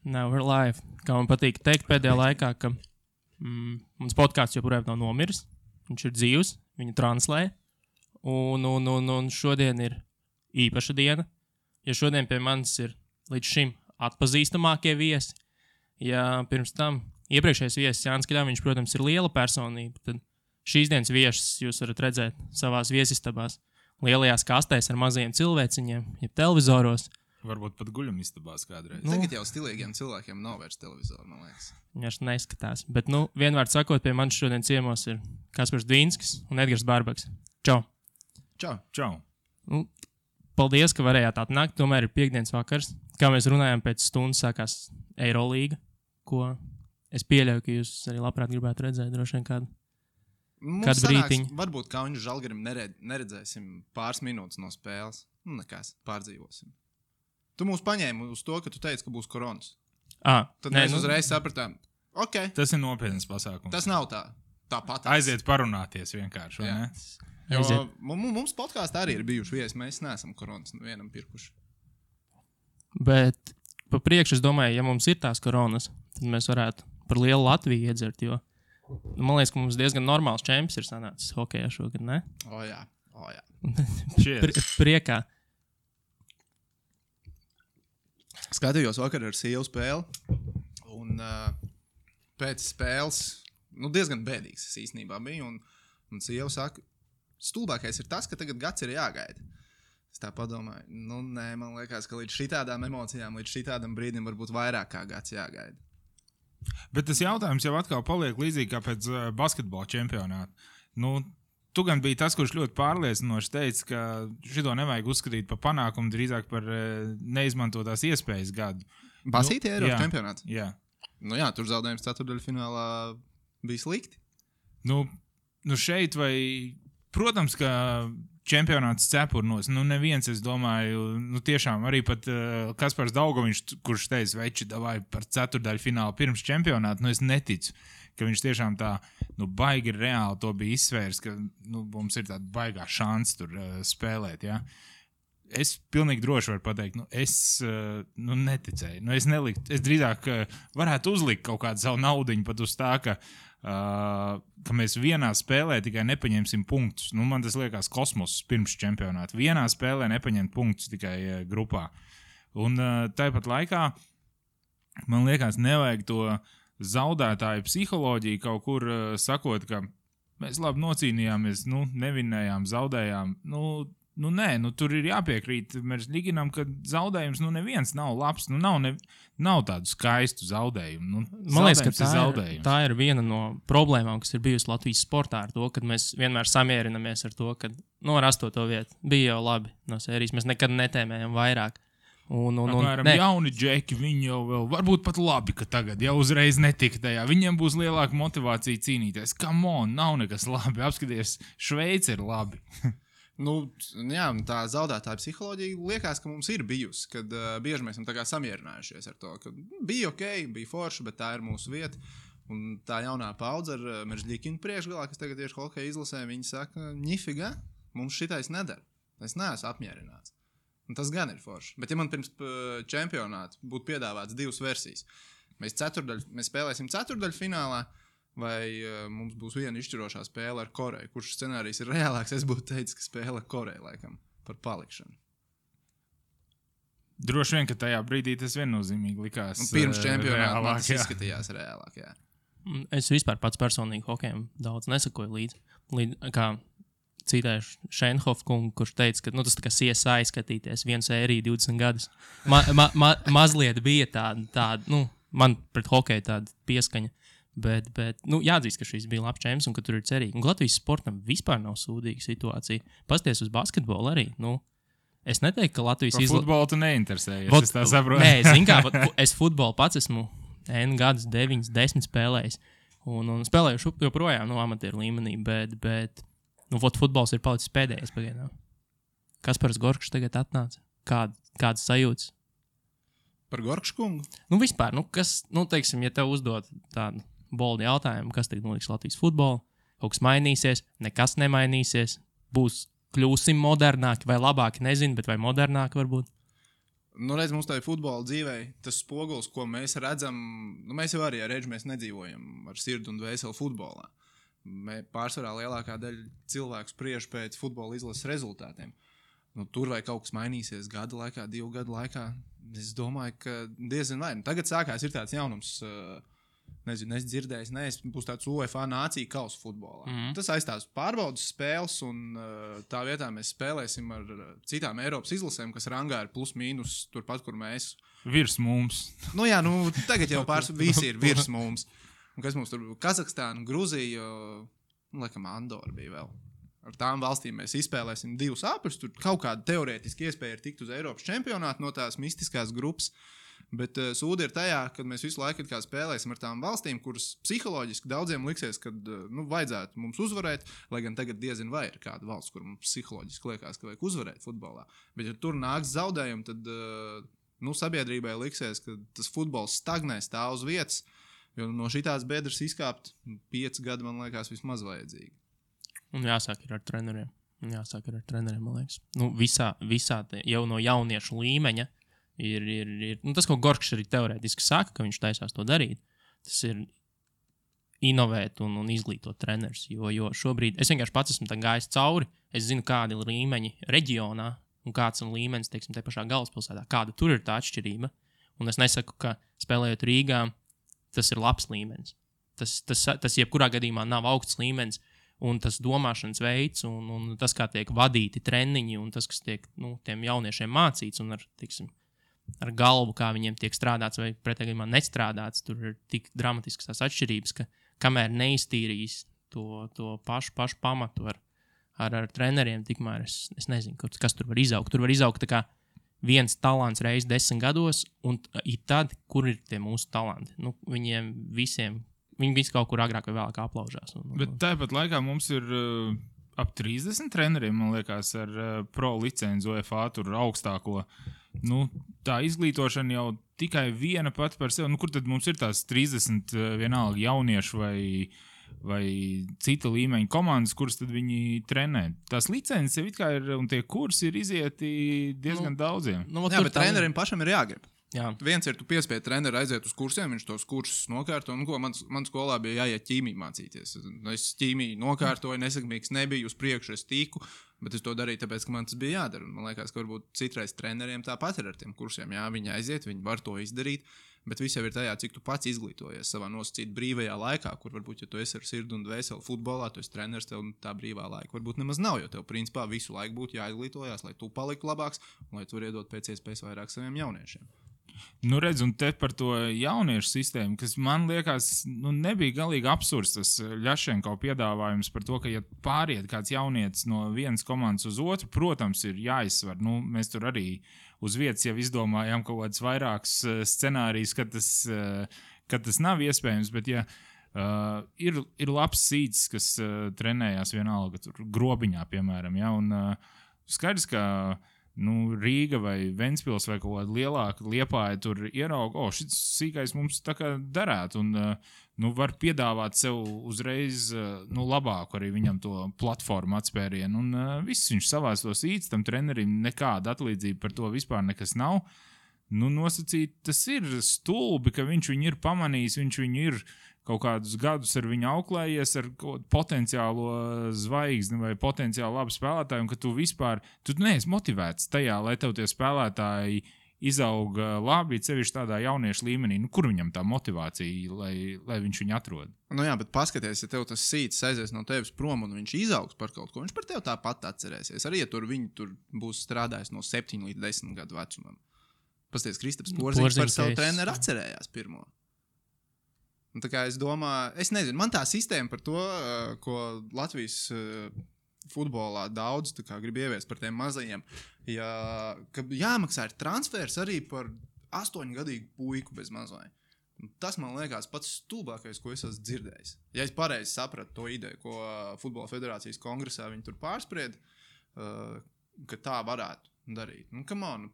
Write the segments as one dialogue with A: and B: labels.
A: Now we're live. Kā man patīk teikt pēdējā laikā, ka mans podcasts joprojām nav nomiris. Viņš ir dzīvs, viņu translē. Un šodien ir īpaša diena. Ja šodien pie manis ir līdz šim atpazīstamākie viesi, ja pirms tam iepriekšējais viesis Jānis Kļaviņš, protams, ir liela personība, tad šīs dienas viesis jūs varat redzēt savās viesistabās, lielajās kastēs ar mazajiem cilvēciņiem, ja televizoros.
B: Varbūt pat guļamistabās kādreiz.
C: Tagad jau stilīgiem cilvēkiem nav vairs televizoru, man liekas.
A: Viņš neskatās. Bet, vienvārds sakot, pie manis šodien ciemos ir Kaspars Dvīnskis un Edgars Bārbaks. Čau!
B: Čau!
A: Paldies, ka varējāt atnākt. Tomēr ir piekdienas vakars. Kā mēs runājām, pēc stundas sākās Eirolīga, ko es pieļauju, ka jūs arī labprāt gribētu redzēt droši vien kādu brītiņu.
C: Varbūt kā viņu Žalgirim neredzēsim pāris minūtes no spēles. Nekas, pārdzīvosim. Tu mūs paņēmi uz to, ka tu teici, ka būs koronas. Tad mēs uzreiz sapratām, ok.
B: Tas ir nopietnas pasākums.
C: Tas nav tāpat.
B: Aiziet parunāties vienkārši, vai ne?
C: Jo mums podkāstā arī ir bijuši viesi, mēs neesam koronas vienam pirkuši.
A: Bet pa priekšu es domāju, ja mums ir tās koronas, tad mēs varētu par lielu Latviju iedzert, jo man liekas, ka mums diezgan normāls čemps ir sanācis hokejā šogad, ne?
C: O jā.
A: Priekā.
C: Skatījos vakar ar sievu spēli, un pēc spēles, diezgan bēdīgs es īstenībā biju, un sieva saka, stulbākais ir tas, ka tagad gads ir jāgaida. Es tā padomāju, nē, man liekas, ka līdz šitādām emocijām, līdz šitādam brīdim varbūt vairāk kā gads jāgaida.
B: Bet tas jautājums jau atkal paliek līdzīgi kā pēc basketbola čempionāta. Tu gan biji tas, kurš ļoti pārliecinoši teica, ka šito nevajag uzskatīt par panākumu, drīzāk par neizmantotās iespējas gadu.
C: Basīti Eiropas čempionāts?
B: Jā.
C: Jā, tur zaudējums ceturtdaļfinālā bija slikti.
B: Šeit vai... Protams, ka čempionāts cepurnos, neviens, es domāju, tiešām arī pat Kaspars Daugoviņš, kurš teica, veči, davai par ceturdaļfinālu pirms čempionātu, es neticu, ka viņš tiešām tā, baigi reāli to bija izsvērs, ka, mums ir tāda baigā šansa tur spēlēt, ja. Es pilnīgi droši varu pateikt, es neticēju, es drīzāk varētu uzlikt kaut kādu savu naudiņu pat uz tā, ka mēs vienā spēlē tikai nepaņemsim punktus. Man tas liekas kosmos pirms čempionāta. Vienā spēlē nepaņemt punktus tikai grupā. Un tāpat laikā man liekas nevajag to zaudētāju psiholoģiju kaut kur sakot, ka mēs labi nocīnījāmies, nevinējām, zaudējām. Nē, tur ir jāpiekrīt Meržļiginam, ka zaudējums neviens nav labs, nav tādu skaistu zaudejumu.
A: Man liekas, ka tā ir viena no problēmām, kas ir bijusi Latvijas sportā ar to, kad mēs vienmēr samierinamies ar to, ka ar 8. vietu bija jau labi no sērijas, mēs nekad netēmējam vairāk.
B: Apmēram jauni džeki, viņi jau vēl varbūt pat labi, ka tagad jau uzreiz netika tajā. Viņiem būs lielāka motivācija cīnīties. Come on, nav nekas labi, apskaties, Šveice ir labi.
C: Tā zaudētāja psiholoģija liekas, ka mums ir bijusi, kad bieži mēs esam tā kā samierinājušies ar to, ka bija ok, bija forši, bet tā ir mūsu vieta. Un tā jaunā paudze ar Meržļikinu priekšgalā, kas tagad tieši hokeja izlasē, viņi saka, nifiga, mums šitais nedara. Es neesmu apmierināts. Un tas gan ir forši. Bet ja man pirms čempionāta būtu piedāvāts 2 versijas, mēs spēlēsim ceturdaļfinālā, vai mums būs viena izšķirošā spēle ar Koreju. Kurš scenārijs ir reālāks? Es būtu teicis, ka spēle ar Koreju, laikam, par palikšanu.
B: Droši vien, ka tajā brīdī tas viennozīmīgi likās
C: pirms čempionāta man tas izskatījās reālāk, jā.
A: Es vispār pats personīgi hokejam daudz nesakoju līdz kā citēšu Šenhof kungu, kurš teica, ka tas tā kā CSI skatīties, vienu sēriju 20 gadus. Mazliet bija tāda, man pret hokeju tāda pieskaņa. Bet jāatzīst, ka šis bija labs čemps un ka tur ir cerīgi. Un Latvijas sportam vispār nav sūdīga situācija. Pasties uz basketbolu arī. Es neteiktu, ka Latvijas
B: futbolu tu neinteresējies, es tā saprotu.
A: Nē, zin kā, es futbolu pats esmu N gadus, 9, 10 spēlējis. Un spēlējuši joprojām amatieru līmenī, bet futbols ir palicis pēdējais pagaidām. Kaspars Gorkšs tagad atnāca. Kādas sajūtas?
C: Par Gorkšu kungu?
A: Vispār, kas, teiksim, ja tev uzdod tādu boldi jautājumu, kas tagad notiks Latvijas futbolu, kaut kas mainīsies, nekas nemainīsies, kļūsim modernāki vai labāki, nezinu, bet vai modernāki varbūt?
C: Nu, redz, mums tā ir futbola dzīvē, tas spogulis, ko mēs redzam, mēs jau arī ar Redži mēs nedzīvojam ar sirdi un dvēseli futbolā. Pārsvarā lielākā daļa cilvēku spriež pēc futbola izlases rezultātiem. Tur vai kaut kas mainīsies gada laikā, 2 gadu laikā, es domāju, ka diezin vai. Tagad sākās ir tāds jaunums, nezinu, es dzirdēju, būs tāds UEFA nācija kausa futbolā. Tas aizstās pārbaudas spēles, un tā vietā mēs spēlēsim ar citām Eiropas izlasēm, kas rangā ir plus mīnus turpat, kur mēs.
B: Virs mums.
C: Tagad jau visi ir virs mums. Un kas mums tur bija? Kazahstāna, Gruzija, laikam Andora bija vēl. Ar tām valstīm mēs izspēlēsim 2 apļus. Tur kaut kāda teorētiski iespēja ir tikt uz Eiropas čempionātu no tās mistiskās grupas. Bet sūdi ir tajā, kad mēs visu laiku spēlēsim ar tām valstīm, kuras psiholoģiski daudziem liksies, ka vajadzētu mums uzvarēt, lai gan tagad diezin vai ir kāda valsts, kur mums psiholoģiski liekas, ka vajag uzvarēt futbolā. Bet ja tur nāks zaudējumi, tad sabiedrībai liksies, ka tas futbols stagnē, stāv uz vietas, jo no šitās bedres izkāpt 5 gadi, man liekas, vismaz vajadzīgi.
A: Un jāsāk ir ar treneriem. Man liekas. Visā jau no jauniešu līmeņa ir tas, ko Gorkšs arī teorētiski saka, ka viņš taisās to darīt. Tas ir inovēt un izglītot trenerus. Jo šobrīd es vienkārši pats esmu gājis cauri. Es zinu, kādi ir līmeņi reģionā un kāds ir līmenis, teiksim, te pašā galvaspilsētā. Kāda tur ir tā atšķirība. Un es nesaku, ka spēlējot Rīgā, tas ir labs līmenis. Tas jebkurā gadījumā nav augsts līmenis. Un tas domāšanas veids, un tas, kā tiek vadīti treniņi, un tas, kas tiek tiem jauniešiem mācīts, un ar galvu, kā viņiem tiek strādāts vai pretējā gadījumā nestrādāts, tur ir tik dramatiskas tās atšķirības, ka kamēr neiztīrīs to pašu pamatu ar treneriem, tikmēr es nezinu, kas tur var izaugt. Tur var izaugt tā kā viens talants reiz 10 gados, un tad, kur ir tie mūsu talanti? Viņiem visiem. Viņi visi kaut kur agrāk vai vēlāk aplaužās.
B: Bet tāpat laikā mums ir ap 30 treneriem, man liekas, ar pro licenci UEFA tur augstāko. Tā izglītošana jau tikai viena pati par sevi. Kur tad mums ir tās 30 vienalga jauniešu vai cita līmeņa komandas, kuras tad viņi trenē? Tās licences jau it kā ir, un tie kursi ir izieti diezgan daudziem.
C: Bet trenerim pašam ir jāgrib.
A: Jā.
C: Viens ir, tu piespied treneru aiziet uz kursiem, viņš tos kursus nokārto, man skolā bija jāiet ķīmiju mācīties. Es ķīmiju nokārtoju, nesakmīgs nebiju, uz priekšu es tiku, bet es to darīju tāpēc, ka man tas bija jādara. Man liekas, ka varbūt citreiz treneriem tāpat ir ar tiem kursiem. Jā, viņi aiziet, viņi var to izdarīt, bet viss jau ir tajā, cik tu pats izglītojies savā nosacīt brīvajā laikā, kur varbūt, ja tu esi ar sirdi un dvēseli futbolā, tu esi treneris, tev tā brīvā laika varbūt nemaz nav, jo tev principā visu laiku būtu jāizglītojās, lai tu paliktu labāks un lai tu vari iedot pēc iespējas vairāk saviem jauniešiem.
B: Redz, un te par to jauniešu sistēmu, kas man liekas, nebija galīgi absurds tas Ļašenko piedāvājums par to, ka, ja pāriet kāds jaunietis no vienas komandas uz otru, protams, ir jāizsver. Mēs tur arī uz vietas jau izdomājām kaut kāds vairākus scenārijus, kad tas nav iespējams, bet ja ir labs sīts, kas trenējās vienalga tur Grobiņā, piemēram, ja, un skaidrs, ka Rīga vai Ventspils vai kaut kāda lielāka Liepāja tur ierauga, šis sīkais mums tā kā darētu, un var piedāvāt sev uzreiz labāku arī viņam to platformu atspērienu, un viss viņš savās to sīts, tam trenerim nekāda atlīdzība par to vispār nekas nav. Nosacīt, tas ir stulbi, ka viņš viņu ir pamanījis, viņš viņu ir kaut kādus gadus ar viņu auklējies ar potenciālo zvaigzni vai potenciāli labu spēlētāju, un ka tu vispār, tu neesi motivēts tajā, lai tev tie spēlētāji izauga labi, sevišķi tādā jauniešu līmenī. Kur viņam tā motivācija, lai viņš viņu atrod?
C: Jā, bet paskaties, ja tev tas sīts aizies no tevis prom un viņš izaugs par kaut ko, viņš par tevi tāpat atcerēsies. Arī, ja viņi tur būs strādājis no 7 līdz 10 gadu vecumam. Pasties, Kristaps Porziņš par savu treneru atcerējās pirmo. Un tā kā es domāju, es nezinu, man tā sistēma par to, ko Latvijas futbolā daudz grib ieviest par tiem mazajiem, ka jāmaksā ir transfers arī par 8-gadīgu puiku bez mazai. Tas man liekas pats stulbākais, ko es esmu dzirdējis. Ja es pareizi sapratu to ideju, ko Futbola federācijas kongresā viņi tur pārspried, ka tā varētu darīt. Come on,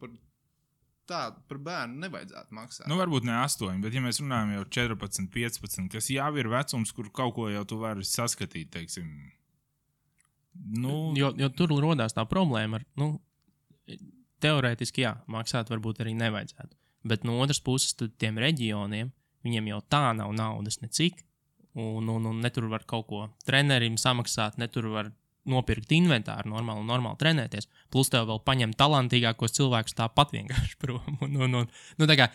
C: par bērnu nevajadzētu maksāt.
B: Varbūt ne 8, bet ja mēs runājam jau 14, 15, kas jau ir vecums, kur kaut ko jau tu vari saskatīt, teiksim.
A: Jo tur rodās tā problēma ar, teorētiski, jā, maksāt varbūt arī nevajadzētu. Bet no otras puses, tad tiem reģioniem, viņiem jau tā nav naudas necik, un ne tur var kaut ko trenerim samaksāt, ne tur var nopirkt inventāru normāli trenēties. Plus tev vēl paņem talantīgākos cilvēkus tāpat vienkārši prom. Tā kā,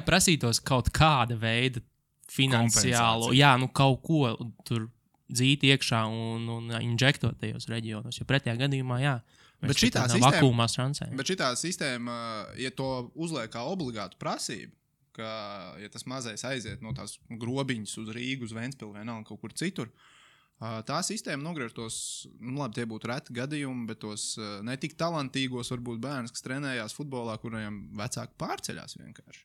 A: prasītos kaut kāda veida finansiālo, kaut ko tur dzīt iekšā un injektot tajos reģionos, jo pretējā gadījumā,
C: bet šitā sistēma, ja to uzliek kā obligātu prasību, ka, ja tas mazais aiziet no tās grobiņas uz Rīgu, uz Ventspili vienalga kaut kur citur, tā sistēma nogriež tos, labi, tie būtu reti gadījumi, bet tos netik talantīgos varbūt bērns, kas trenējās futbolā, kuriem vecāki pārceļās vienkārši.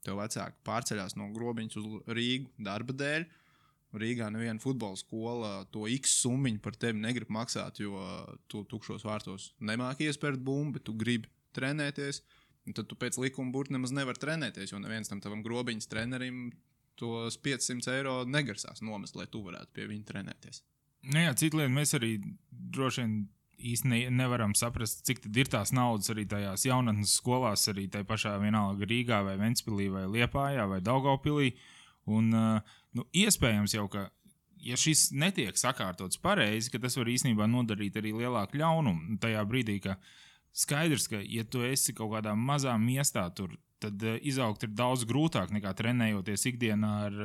C: Tev vecāki pārceļās no grobiņas uz Rīgu darba dēļ. Rīgā neviena futbola skola to X summiņu par tevi negrib maksāt, jo tu tukšos vārtos nemāki iespērt bumbu, bet tu gribi trenēties. Un tad tu pēc likuma burti nemaz nevar trenēties, jo neviens tam tavam grobiņas trenerim tos 500 eiro negarsās nomest, lai tu varētu pie viņa trenēties.
B: Citu lietu mēs arī droši vien īsti nevaram saprast, cik tad ir tās naudas arī tajās jaunatnes skolās, arī tai pašā vienalga Rīgā vai Ventspilī vai Liepājā vai Daugavpilī. Un iespējams jau, ka ja šis netiek sakārtots pareizi, ka tas var īstenībā nodarīt arī lielāku ļaunumu tajā brīdī, ka skaidrs, ka ja tu esi kaut kādā mazā miestā tur, tad izaugt ir daudz grūtāk nekā trenējoties ikdienā ar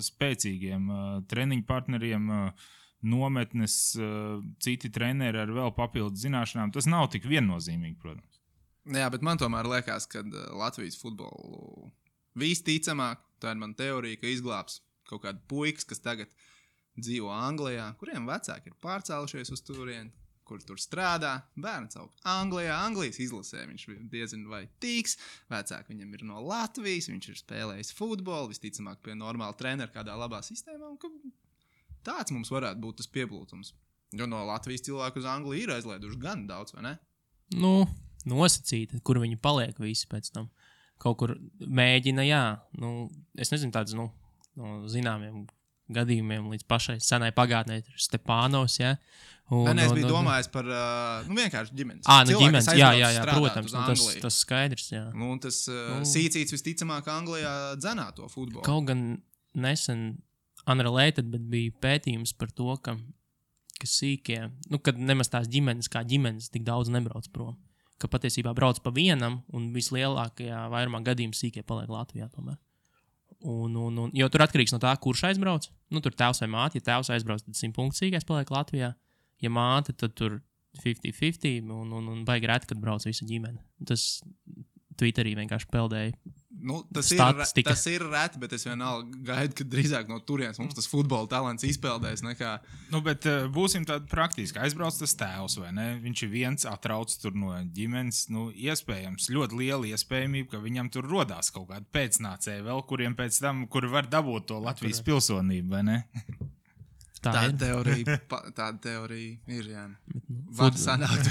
B: spēcīgiem treniņu partneriem, nometnes, citi treneri ar vēl papildus zināšanām. Tas nav tik viennozīmīgi, protams.
C: Jā, bet man tomēr liekas, ka Latvijas futbolu visticamāk, tā ir man teorija, ka izglābs kaut kādu puikas, kas tagad dzīvo Anglijā, kuriem vecāki ir pārcēlušies uz turieni, kur tur strādā, bērns aug Anglijā, Anglijas izlasē, viņš diezin vai tīks, vecāki viņam ir no Latvijas, viņš ir spēlējis futbolu, visticamāk pie normāla trenera kādā labā sistēmā, un ka tāds mums varētu būt tas pieplūtums. Jo no Latvijas cilvēku uz Angliju ir aizlaiduši gan daudz, vai ne?
A: Nosacīti, kur viņi paliek visi pēc tam. Kaut kur mēģina, es nezinu, tāds, no zināmiem gadījumiem līdz pašai senai pagātnē ir Stepānovs,
C: Es biju domājis par vienkārši ģimenes.
A: Ģimenes, jā, protams, tas skaidrs, jā.
C: Tas Sīcīts visticamāk Anglijā dzenā to futbolu.
A: Kaut gan nesen unrelated, bet bija pētījums par to, ka sīkie, kad nemaz tās ģimenes kā ģimenes tik daudz nebrauc prom. Ka patiesībā brauc pa vienam un vislielākajā vairumā gadījumu sīkie paliek Latvijā tomēr. Jo tur atkarīgs no tā, kurš aizbrauc. Tur tēvs vai māte, ja tēvs aizbrauc, tad 100 punktu sīkais paliek Latvijā. Ja māte, tad tur 50-50 un baigi reti, kad brauc visa ģimene. Tas Twitterī vienkārši peldēja.
C: Tas ir reti, bet es vienalga gaidu, ka drīzāk no turienes mums tas futbola talants izpeldēs nekā...
B: Bet būsim tādi praktiski. Aizbrauc tas tēvs, vai ne? Viņš ir viens, atrauc tur no ģimenes. Iespējams, ļoti liela iespējamība, ka viņam tur rodās kaut kādi pēcnācēji vēl, kuriem pēc tam, kuri var dabūt to Latvijas pilsonību, vai ne?
C: Tāda teorija ir, jā. Var sanākt.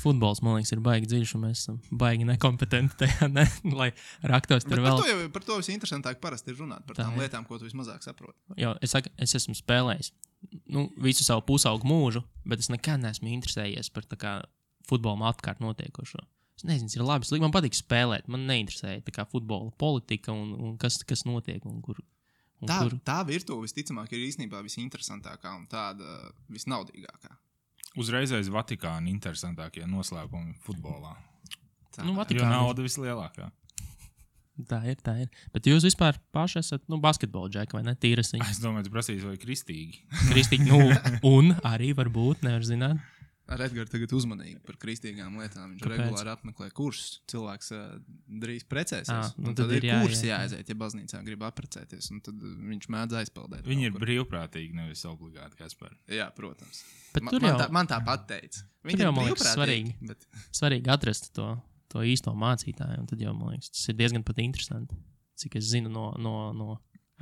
A: Futbols, man liekas, ir baigi dziļš, un mēs esam baigi nekompetenti tajā, lai raktos tur vēl.
C: Par to visinteresantāk parasti ir runāt, par tām lietām, ko tu vismazāk saproti.
A: Jo, es esmu spēlējis visu savu pusaugu mūžu, bet es nekad neesmu interesējies par tā kā futbolam apkārt notiekošo. Es nezinu, ir labi, man patīk spēlēt, man neinteresēja tā kā futbola politika un kas notiek un kur.
C: Tā virtuve visticamāk ir īstenībā visinteresantākā un tāda visnaudīgākā.
B: Uzreiz aiz Vatikāna interesantākie noslēpumi futbolā.
A: Jo
B: nauda vislielākā.
A: Tā ir. Bet jūs vispār paši esat basketbola džeki, vai ne? Tīrasiņi.
B: Es domāju, tu prasīsi, vai kristīgi.
A: Kristīgi, un arī varbūt, nevar zināt.
C: Ar Edgars tagad uzmanīgi par kristīgām lietām. Viņš regulāri apmeklē kursus. Cilvēks drīz precēsies. Tad ir kurs jāaiziet, ja baznīcā grib apprecēties. Un tad viņš mēdz aizpeldēt.
B: Viņi ir brīvprātīgi, nevis obligāti, Kaspar.
C: Jā, protams.
A: Man
C: tāpat teica.
A: Tur jau, man liekas, svarīgi atrast to īsto mācītāju. Un tad jau, man liekas, tas ir diezgan pat interesanti. Cik es zinu no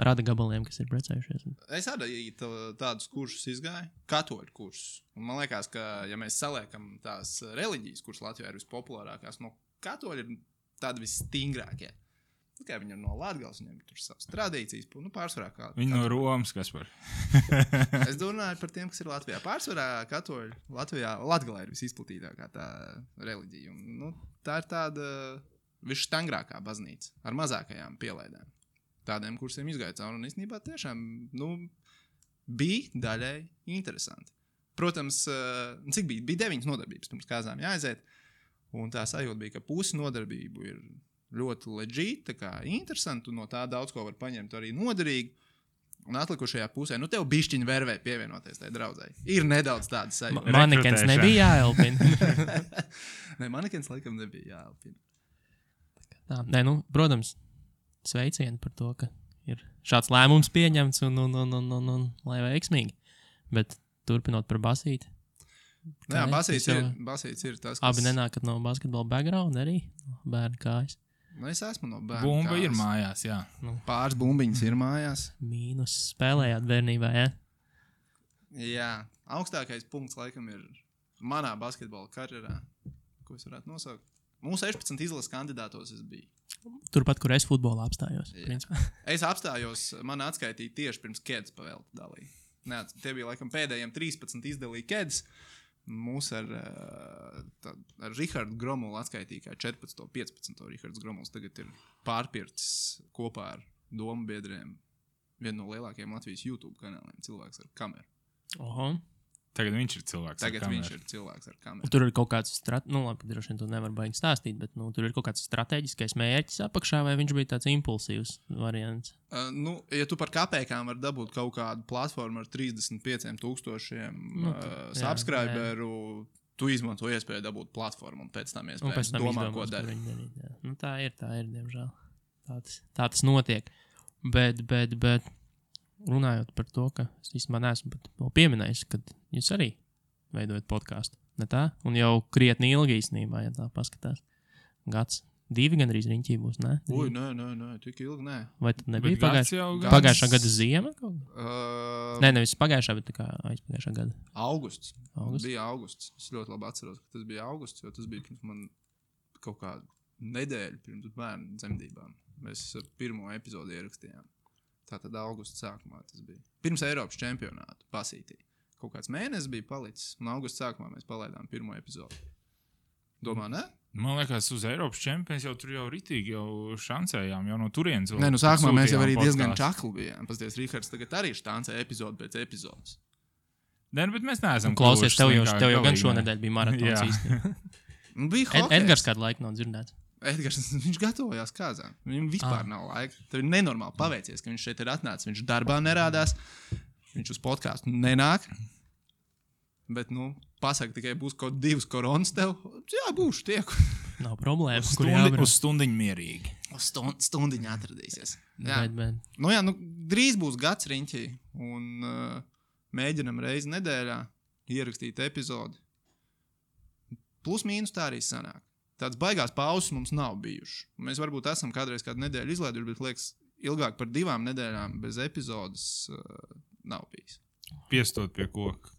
A: rada gabaliem, kas ir precējušies.
C: Es arī tādus kursus izgāju, katoļu kursus. Un man liekas, ka, ja mēs saliekam tās reliģijas, kuras Latvijā ir vispopulārākās, no katoļi ir tādi visstingrākie. Tikai viņi ir no Latgales, viņiem tur savas tradīcijas, pārsvarā kā.
B: Viņi no Romas, kas par.
C: Es domāju par tiem, kas ir Latvijā. Pārsvarā katoļi Latvijā, Latgalē ir visizplatītākā tā reliģija. Un, tā ir tāda visštangrākā baznīca ar mazākajām pielaidēm. Tādiem kursiem izgāja cauri un īstenībā tiešām, bija daļai interesanti. Protams, cik bija? Bija 9 nodarbības pirms kāzām jāaiziet, un tā sajūta bija, ka pusi nodarbību ir ļoti legit, tā kā interesanti, un no tā daudz ko var paņemt arī noderīgi. Un atlikušajā pusē, tev bišķiņi vervē pievienoties tai draudzei. Ir nedaudz tāda sajūta.
A: Manekens nebija jāelpina.
C: Nē, manekens laikam nebija jāelpina.
A: Tā, nē, protams, sveicieni par to, ka ir šāds lēmums pieņemts un lai veiksmīgi. Bet turpinot par basīti.
C: Jā, basīts ir tas, kas...
A: Abi nenākat no basketbola background arī, bērnu kājas.
C: Es esmu no bērnu
B: Bumba
C: kājas.
B: ir mājās, jā.
C: Pāris bumbiņas ir mājās.
A: Mīnus spēlējāt bērnībā, jā?
C: Jā, augstākais punkts laikam ir manā basketbola karjerā, ko es varētu nosaukt. Mūsu 16 izlases kandidātos es biju.
A: Turpat, kur es futbolā apstājos.
C: Es apstājos, man atskaitīja tieši pirms Keds pavēlta dalīja. Tie bija laikam pēdējiem 13 izdalīja Keds. Mūs ar Rihardu Gromulu atskaitīja kā 14. 15. Rihards Gromuls tagad ir pārpircis kopā ar domu biedriem vienu no lielākajiem Latvijas YouTube kanāliem, cilvēks ar kameru.
A: Oho.
B: Tagad viņš ir cilvēks
C: ar kameru.
A: Tur ir kaut kāds, labi, droši vien to nevar baigi stāstīt, bet tur ir kaut kāds strateģiskais mērķis apakšā, vai viņš bija tāds impulsīvs variants?
C: Ja tu par kapēkām var dabūt kaut kādu platformu ar 35,000 subscriberu, tu izmanto iespēju dabūt platformu un pēc tam iespēju domā, ko dara.
A: Tā ir, diemžēl. Tā tas notiek. Bet runājot par to, ka es īstenībā neesmu pat vēl pieminējis, kad jūs arī veidojat podcastu, ne tā? Un jau krietni ilgi īstenībā, ja tā paskatās. Gads, 2 gan arī riņķī būs, ne?
C: Uj, nē, tik ilgi, nē.
A: Vai tad nebija pagājušā gada ziema? Nē, nevis pagājušā, bet tā kā aizpagājušā gada.
C: Augusts. Bija augusts. Es ļoti labi atceros, ka tas bija augusts, jo tas bija pirms man kaut kādu nedēļu pirms bērnu dzemdībām. Mēs pirmo epizodi ierakstījām. Tātad augusta sākumā tas bija. Pirms Eiropas čempionātu basītī. Kaut kāds mēnesis bija palicis, un augusta sākumā mēs palaidām pirmo epizodi. Domā, ne?
B: Man liekas, uz Eiropas čempions jau tur jau ritīgi jau šancējām, jau no turienes.
C: Nē, sākumā mēs jau arī diezgan čakli bijām. Pasties, Rihards tagad arī štancē epizodi pēc epizodes.
B: Nē, bet mēs neesam
A: klausies, tev jau gan šonedēļ bija maratons īstenībā.
C: Bija hokejs.
A: Edgars kādu laiku nav dzirdēts.
C: Edgars, viņš gatavojās kāzām. Viņam vispār nav laika. Tev ir nenormāli paveicies, ka viņš šeit ir atnācis. Viņš darbā nerādās. Viņš uz podcastu nenāk. Bet, pasaka tikai būs kaut 2 koronas tev. Jā, būšu tieku.
A: Nav problēmas.
B: Uz stundiņu mierīgi.
C: Uz stundiņu atradīsies. Jā.
A: Bet.
C: Drīz būs gads riņķī. Un mēģinam reizi nedēļā ierakstīt epizodi. Plus mīnus tā arī sanāk. Tāds baigās pauzes mums nav bijuši. Mēs varbūt esam kādreiz kādu nedēļu izlaiduši, bet liekas, ilgāk par 2 nedēļām bez epizodes nav bijis.
B: Piestot pie koka,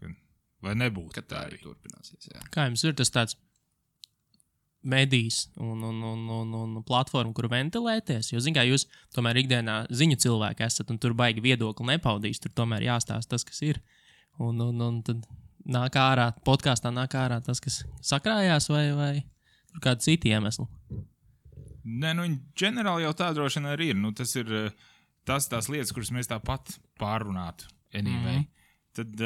B: lai nebūtu.
C: Kad tā arī turpināsies, jā.
A: Kā jums ir tas tāds medijs un platforma, kur ventilēties? Jo, kā jūs tomēr ikdienā ziņu cilvēki esat un tur baigi viedokli nepaudīs, tur tomēr jāstāsta tas, kas ir. Un tad nāk ārā, podkāstā nāk ārā tas, kas sakrājās vai tur kādi citi iemesli?
B: Nē, ģenerāli jau tā droši vien arī ir. Tas ir tās lietas, kuras mēs tāpat pārrunātu. Anyway. Tad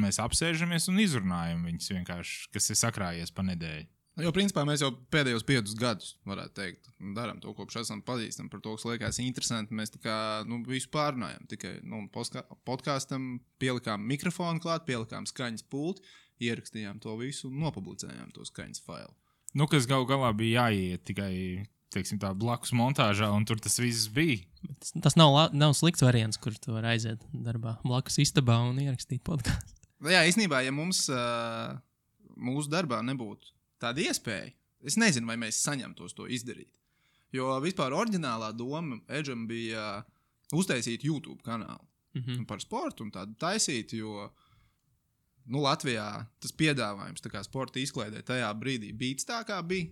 B: mēs apsēžamies un izrunājam viņus vienkārši, kas ir sakrājies pa nedēļu.
C: Jo, principā, mēs jau pēdējos 5 gadus, varētu teikt, darām to, kopš esam pazīstami par to, kas liekas interesanti. Mēs tā kā, visu pārunājam. Tikai, podkāstam pielikām mikrofonu klāt, pielikām skaņas pulti, ierakstījām to visu un nopublicējām to skaņas failu.
B: Kas galā bija jāiet tikai, teiksim tā, blakus montāžā, un tur tas viss bija.
A: Tas nav slikts variants, kur tu vari aiziet darbā blakus istabā un ierakstīt podkāstu.
C: Jā, īstenībā, ja mums mūsu darbā nebūtu tāda iespēja, es nezinu, vai mēs saņemtos to izdarīt. Jo vispār oriģinālā doma Edžam bija uztaisīt YouTube kanālu par sportu un tādu taisīt, jo Latvijā tas piedāvājums tā kā sporta izklaidē tajā brīdī bija tā, kā bija.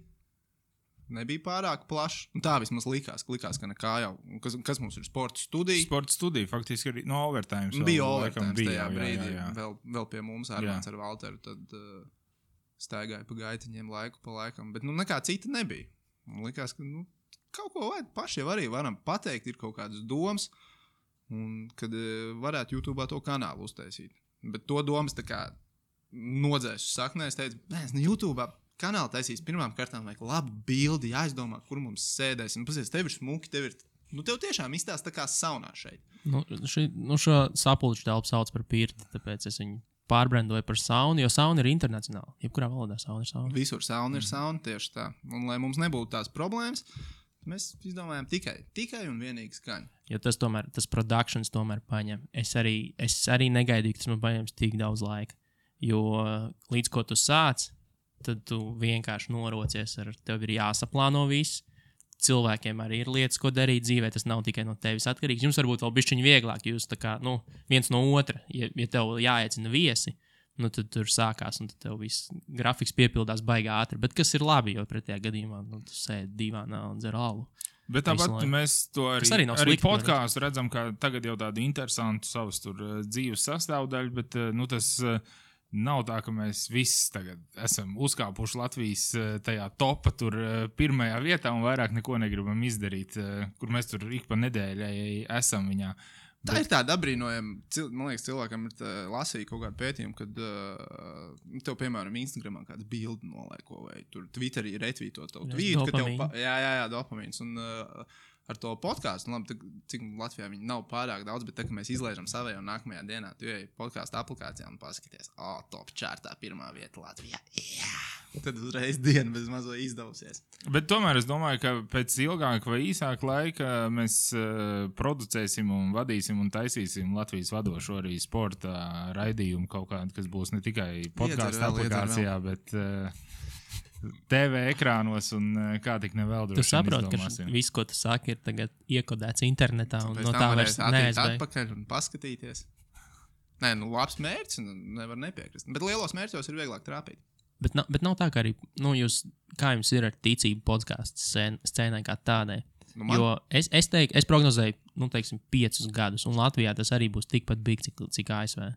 C: nebija pārāk plašs. Tā vismaz likās, ka nekā jau. Kas mums ir sporta studija?
B: Sporta studija faktiski arī no overtime.
C: Bija overtime tajā brīdī.
B: Jā.
C: Vēl pie mums Armāns ar Valteru. Tad staigāja pa gaitiņiem laiku pa laikam. Bet nekā cita nebija. Man likās, ka kaut ko vajag paši jau arī varam pateikt. Ir kaut kādas domas. Un kad varētu YouTube to kanālu uztaisīt. Bet to domas tā kā nodzēs uz saknē. Es teicu, YouTube kanālu taisīs pirmām kārtām vajag labu bildi, jāizdomā, kur mums sēdēsim. Pasies, tev ir smuki, tev tiešām izstāst tā kā saunā šeit.
A: Šo sapulču telpu sauc par pirti, tāpēc es viņu pārbrendoju par saunu, jo sauna ir internacionāla. Jebkurā valodā sauna ir sauna.
C: Visur sauna ir sauna, tieši tā. Un lai mums nebūtu tās problēmas, mēs izdomājām tikai un vienīgi skaņu.
A: Jo tas productions tomēr paņem. Es arī negaidīju, ka tas man paņems tik daudz laika. Jo līdz ko tu sāc, tad tu vienkārši norocies tev ir jāsaplāno viss. Cilvēkiem arī ir lietas, ko darīt dzīvē. Tas nav tikai no tevis atkarīgs. Jums varbūt vēl bišķiņi vieglāk. Jūs tā kā, viens no otra, ja tev jāiecina viesi, tad tur sākās un tad tev viss grafiks piepildās baigā ātri. Bet kas ir labi, jo pretējā gadījumā tu sēdi divānā un dzer alu.
B: Bet tāpat mēs to arī podkāstu redzam, ka tagad jau tādu interesantu savas tur dzīves sastāvdaļu, bet tas nav tā, ka mēs visi tagad esam uzkāpuši Latvijas tajā topa tur pirmajā vietā un vairāk neko negribam izdarīt, kur mēs tur ik pa nedēļai esam viņā.
C: Tā ir tāda apbrīnojama, man liekas, cilvēkam ir lasīja kaut kādu pētījumu, kad tev, piemēram, Instagramā kāds bildi nolaiko vai tur Twitterī retvīto tavu tvītu, ka tev, dopamīns, un ar to podkāstu, labi, cik Latvijā viņi nav pārāk daudz, bet tā, ka mēs izlaižam savai un nākamajā dienā, tu ej podkāstu aplikācijā un paskaties, top čārtā pirmā vieta Latvijā, tad uzreiz diena bez mazo izdevusies.
B: Bet tomēr es domāju, ka pēc ilgāka vai īsāka laika mēs producēsim un vadīsim un taisīsim Latvijas vadošo arī sporta raidījumu kaut kādu, kas būs ne tikai podkāstu aplikācijā, bet TV ekrānos un kā tik nevēl droši.
A: Tu saproti, ka viss, ko tu saki, ir tagad iekodēts internetā un no tā vairs
C: neaizbēg. Atpakaļ un paskatīties. Nē, labs mērķis, nevar nepiekrist. Bet lielos mērķos ir vieglāk trāpīt.
A: Bet nav tā, ka arī, kā jums ir ar ticību podkāstu scēnai kā tādai. Jo es prognozēju, 5 gadus, un Latvijā tas arī būs tikpat big, cik ASV.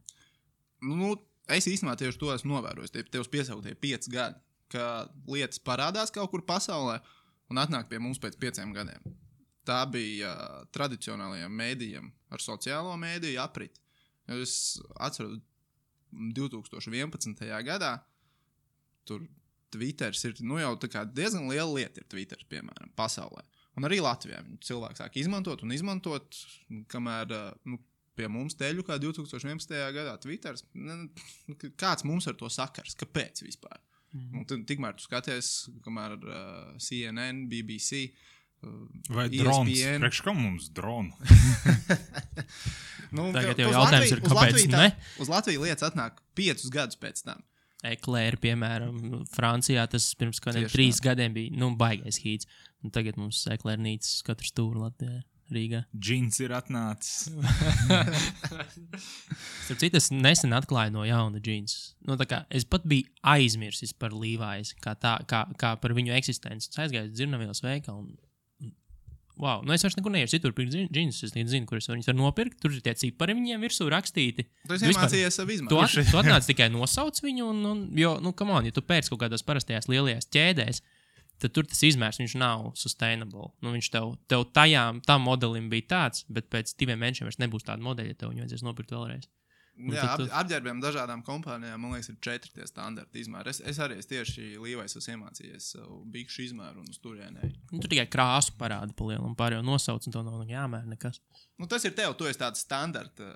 C: Es īstenībā tieši to esmu novērojis. Tev piesauktie 5 gadi. Ka lietas parādās kaut kur pasaulē un atnāk pie mums pēc 5 gadiem. Tā bija tradicionālajiem mēdījiem ar sociālo mēdīju apriti. Es atceros 2011. gadā tur Twitters ir jau tā kā diezgan liela lieta ir Twitters, piemēram, pasaulē. Un arī Latvijā cilvēki sāk izmantot, kamēr pie mums teļu kā 2011. gadā Twitters. Kāds mums ar to sakars? Kāpēc vispār? Tikmēr tu skaties, kamēr CNN, BBC,
B: vai
C: ESPN.
B: Drons? Priekš kam mums dronu?
A: Tagad jau jautājums ir, kāpēc ne?
C: Uz Latviju lietas atnāk 5 gadus pēc tam.
A: Eklēri, piemēram, Francijā tas pirms kādiem 3 gadiem bija, baigais hīts. Un tagad mums eklērnīcas katru stūru Latvijā. Rīgā.
B: Džins ir atnācis.
A: Starp citu, es nesen atklāju no jauna džinsus. Es pat biju aizmirsis par Levi's, kā par viņu eksistenci. Es aizgāju uz dzirnavielas veikalu un wow, es vairs nekur neiešu citur pirkt džinsus. Es nezinu, kur es viņus varu nopirkt. Tur ir tie cipari viņiem virsū rakstīti.
C: Tu esi iemācījies savu izmantot.
A: Tu atnāc tikai nosauc viņu jo, come on, ja tu pērc kaut kādās parastajās lielajās ķēdēs, tad tur tas izmērs, viņš nav sustainable. Viņš tev tam modelim bija tāds, bet pēc 2 mēnešiem vairs nebūs tāda modeļa, ja tev viņu vajadzēs nopirkt vēlreiz.
C: Jā, apģērbiem dažādām kompānijām, man liekas, ir 4 tie standarti izmēri. Es arī tieši Levi's esmu iemācījies savu bikšu izmēru un uz turienei.
A: Tur tikai krāsu parāda pa lielu un pārējo nosauc, un to nav jāmēr nekas.
C: Tas ir tev, tu esi tāds standarta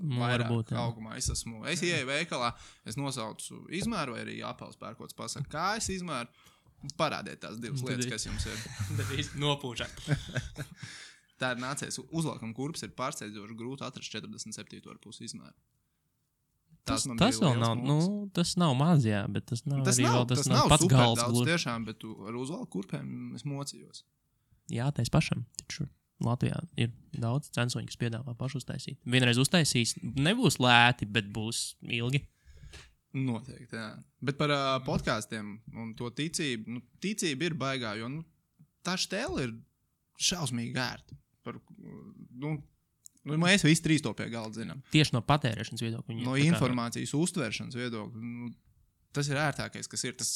A: varbūt,
C: augumā. Es ieeju veikalā, es nosaucu izmēru vai arī apels pērkots pasaka, kā es izmēru. Parādiet tās 2 lietas, kas jums ir.
A: Tad īsti nopūšāt.
C: Tā ir nācies. Uzvalkam kurpes ir pārsteidzoši grūti atrast 47,5 izmēru.
A: Tas vēl nav, tas nav maz, jā, bet tas nav pats gals
C: daudz tiešām, bet ar uzvalku kurpēm es mocījos.
A: Jā, tais pašam. Taču Latvijā ir daudz censoņu, kas piedāvā pašu uztaisīt. Vienreiz uztaisīs, nebūs lēti, bet būs ilgi.
C: Noteikti, jā. Bet par podkāstiem un to ticību, ticība ir baigā, jo tā štēle ir šausmīgi ērta. Mēs visi trīs to pie galda zinām.
A: Tieši no patērēšanas viedokļa.
C: No informācijas uztveršanas viedokļa. Tas ir ērtākais, kas ir. Tas,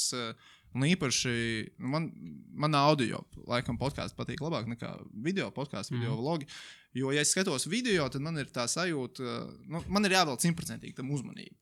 C: un īpaši man audio, laikam, podkāsts patīk labāk nekā video podkāsts, video vlogi. Jo, ja es skatos video, tad man ir tā sajūta, man ir jāvēl 100% tam uzmanību.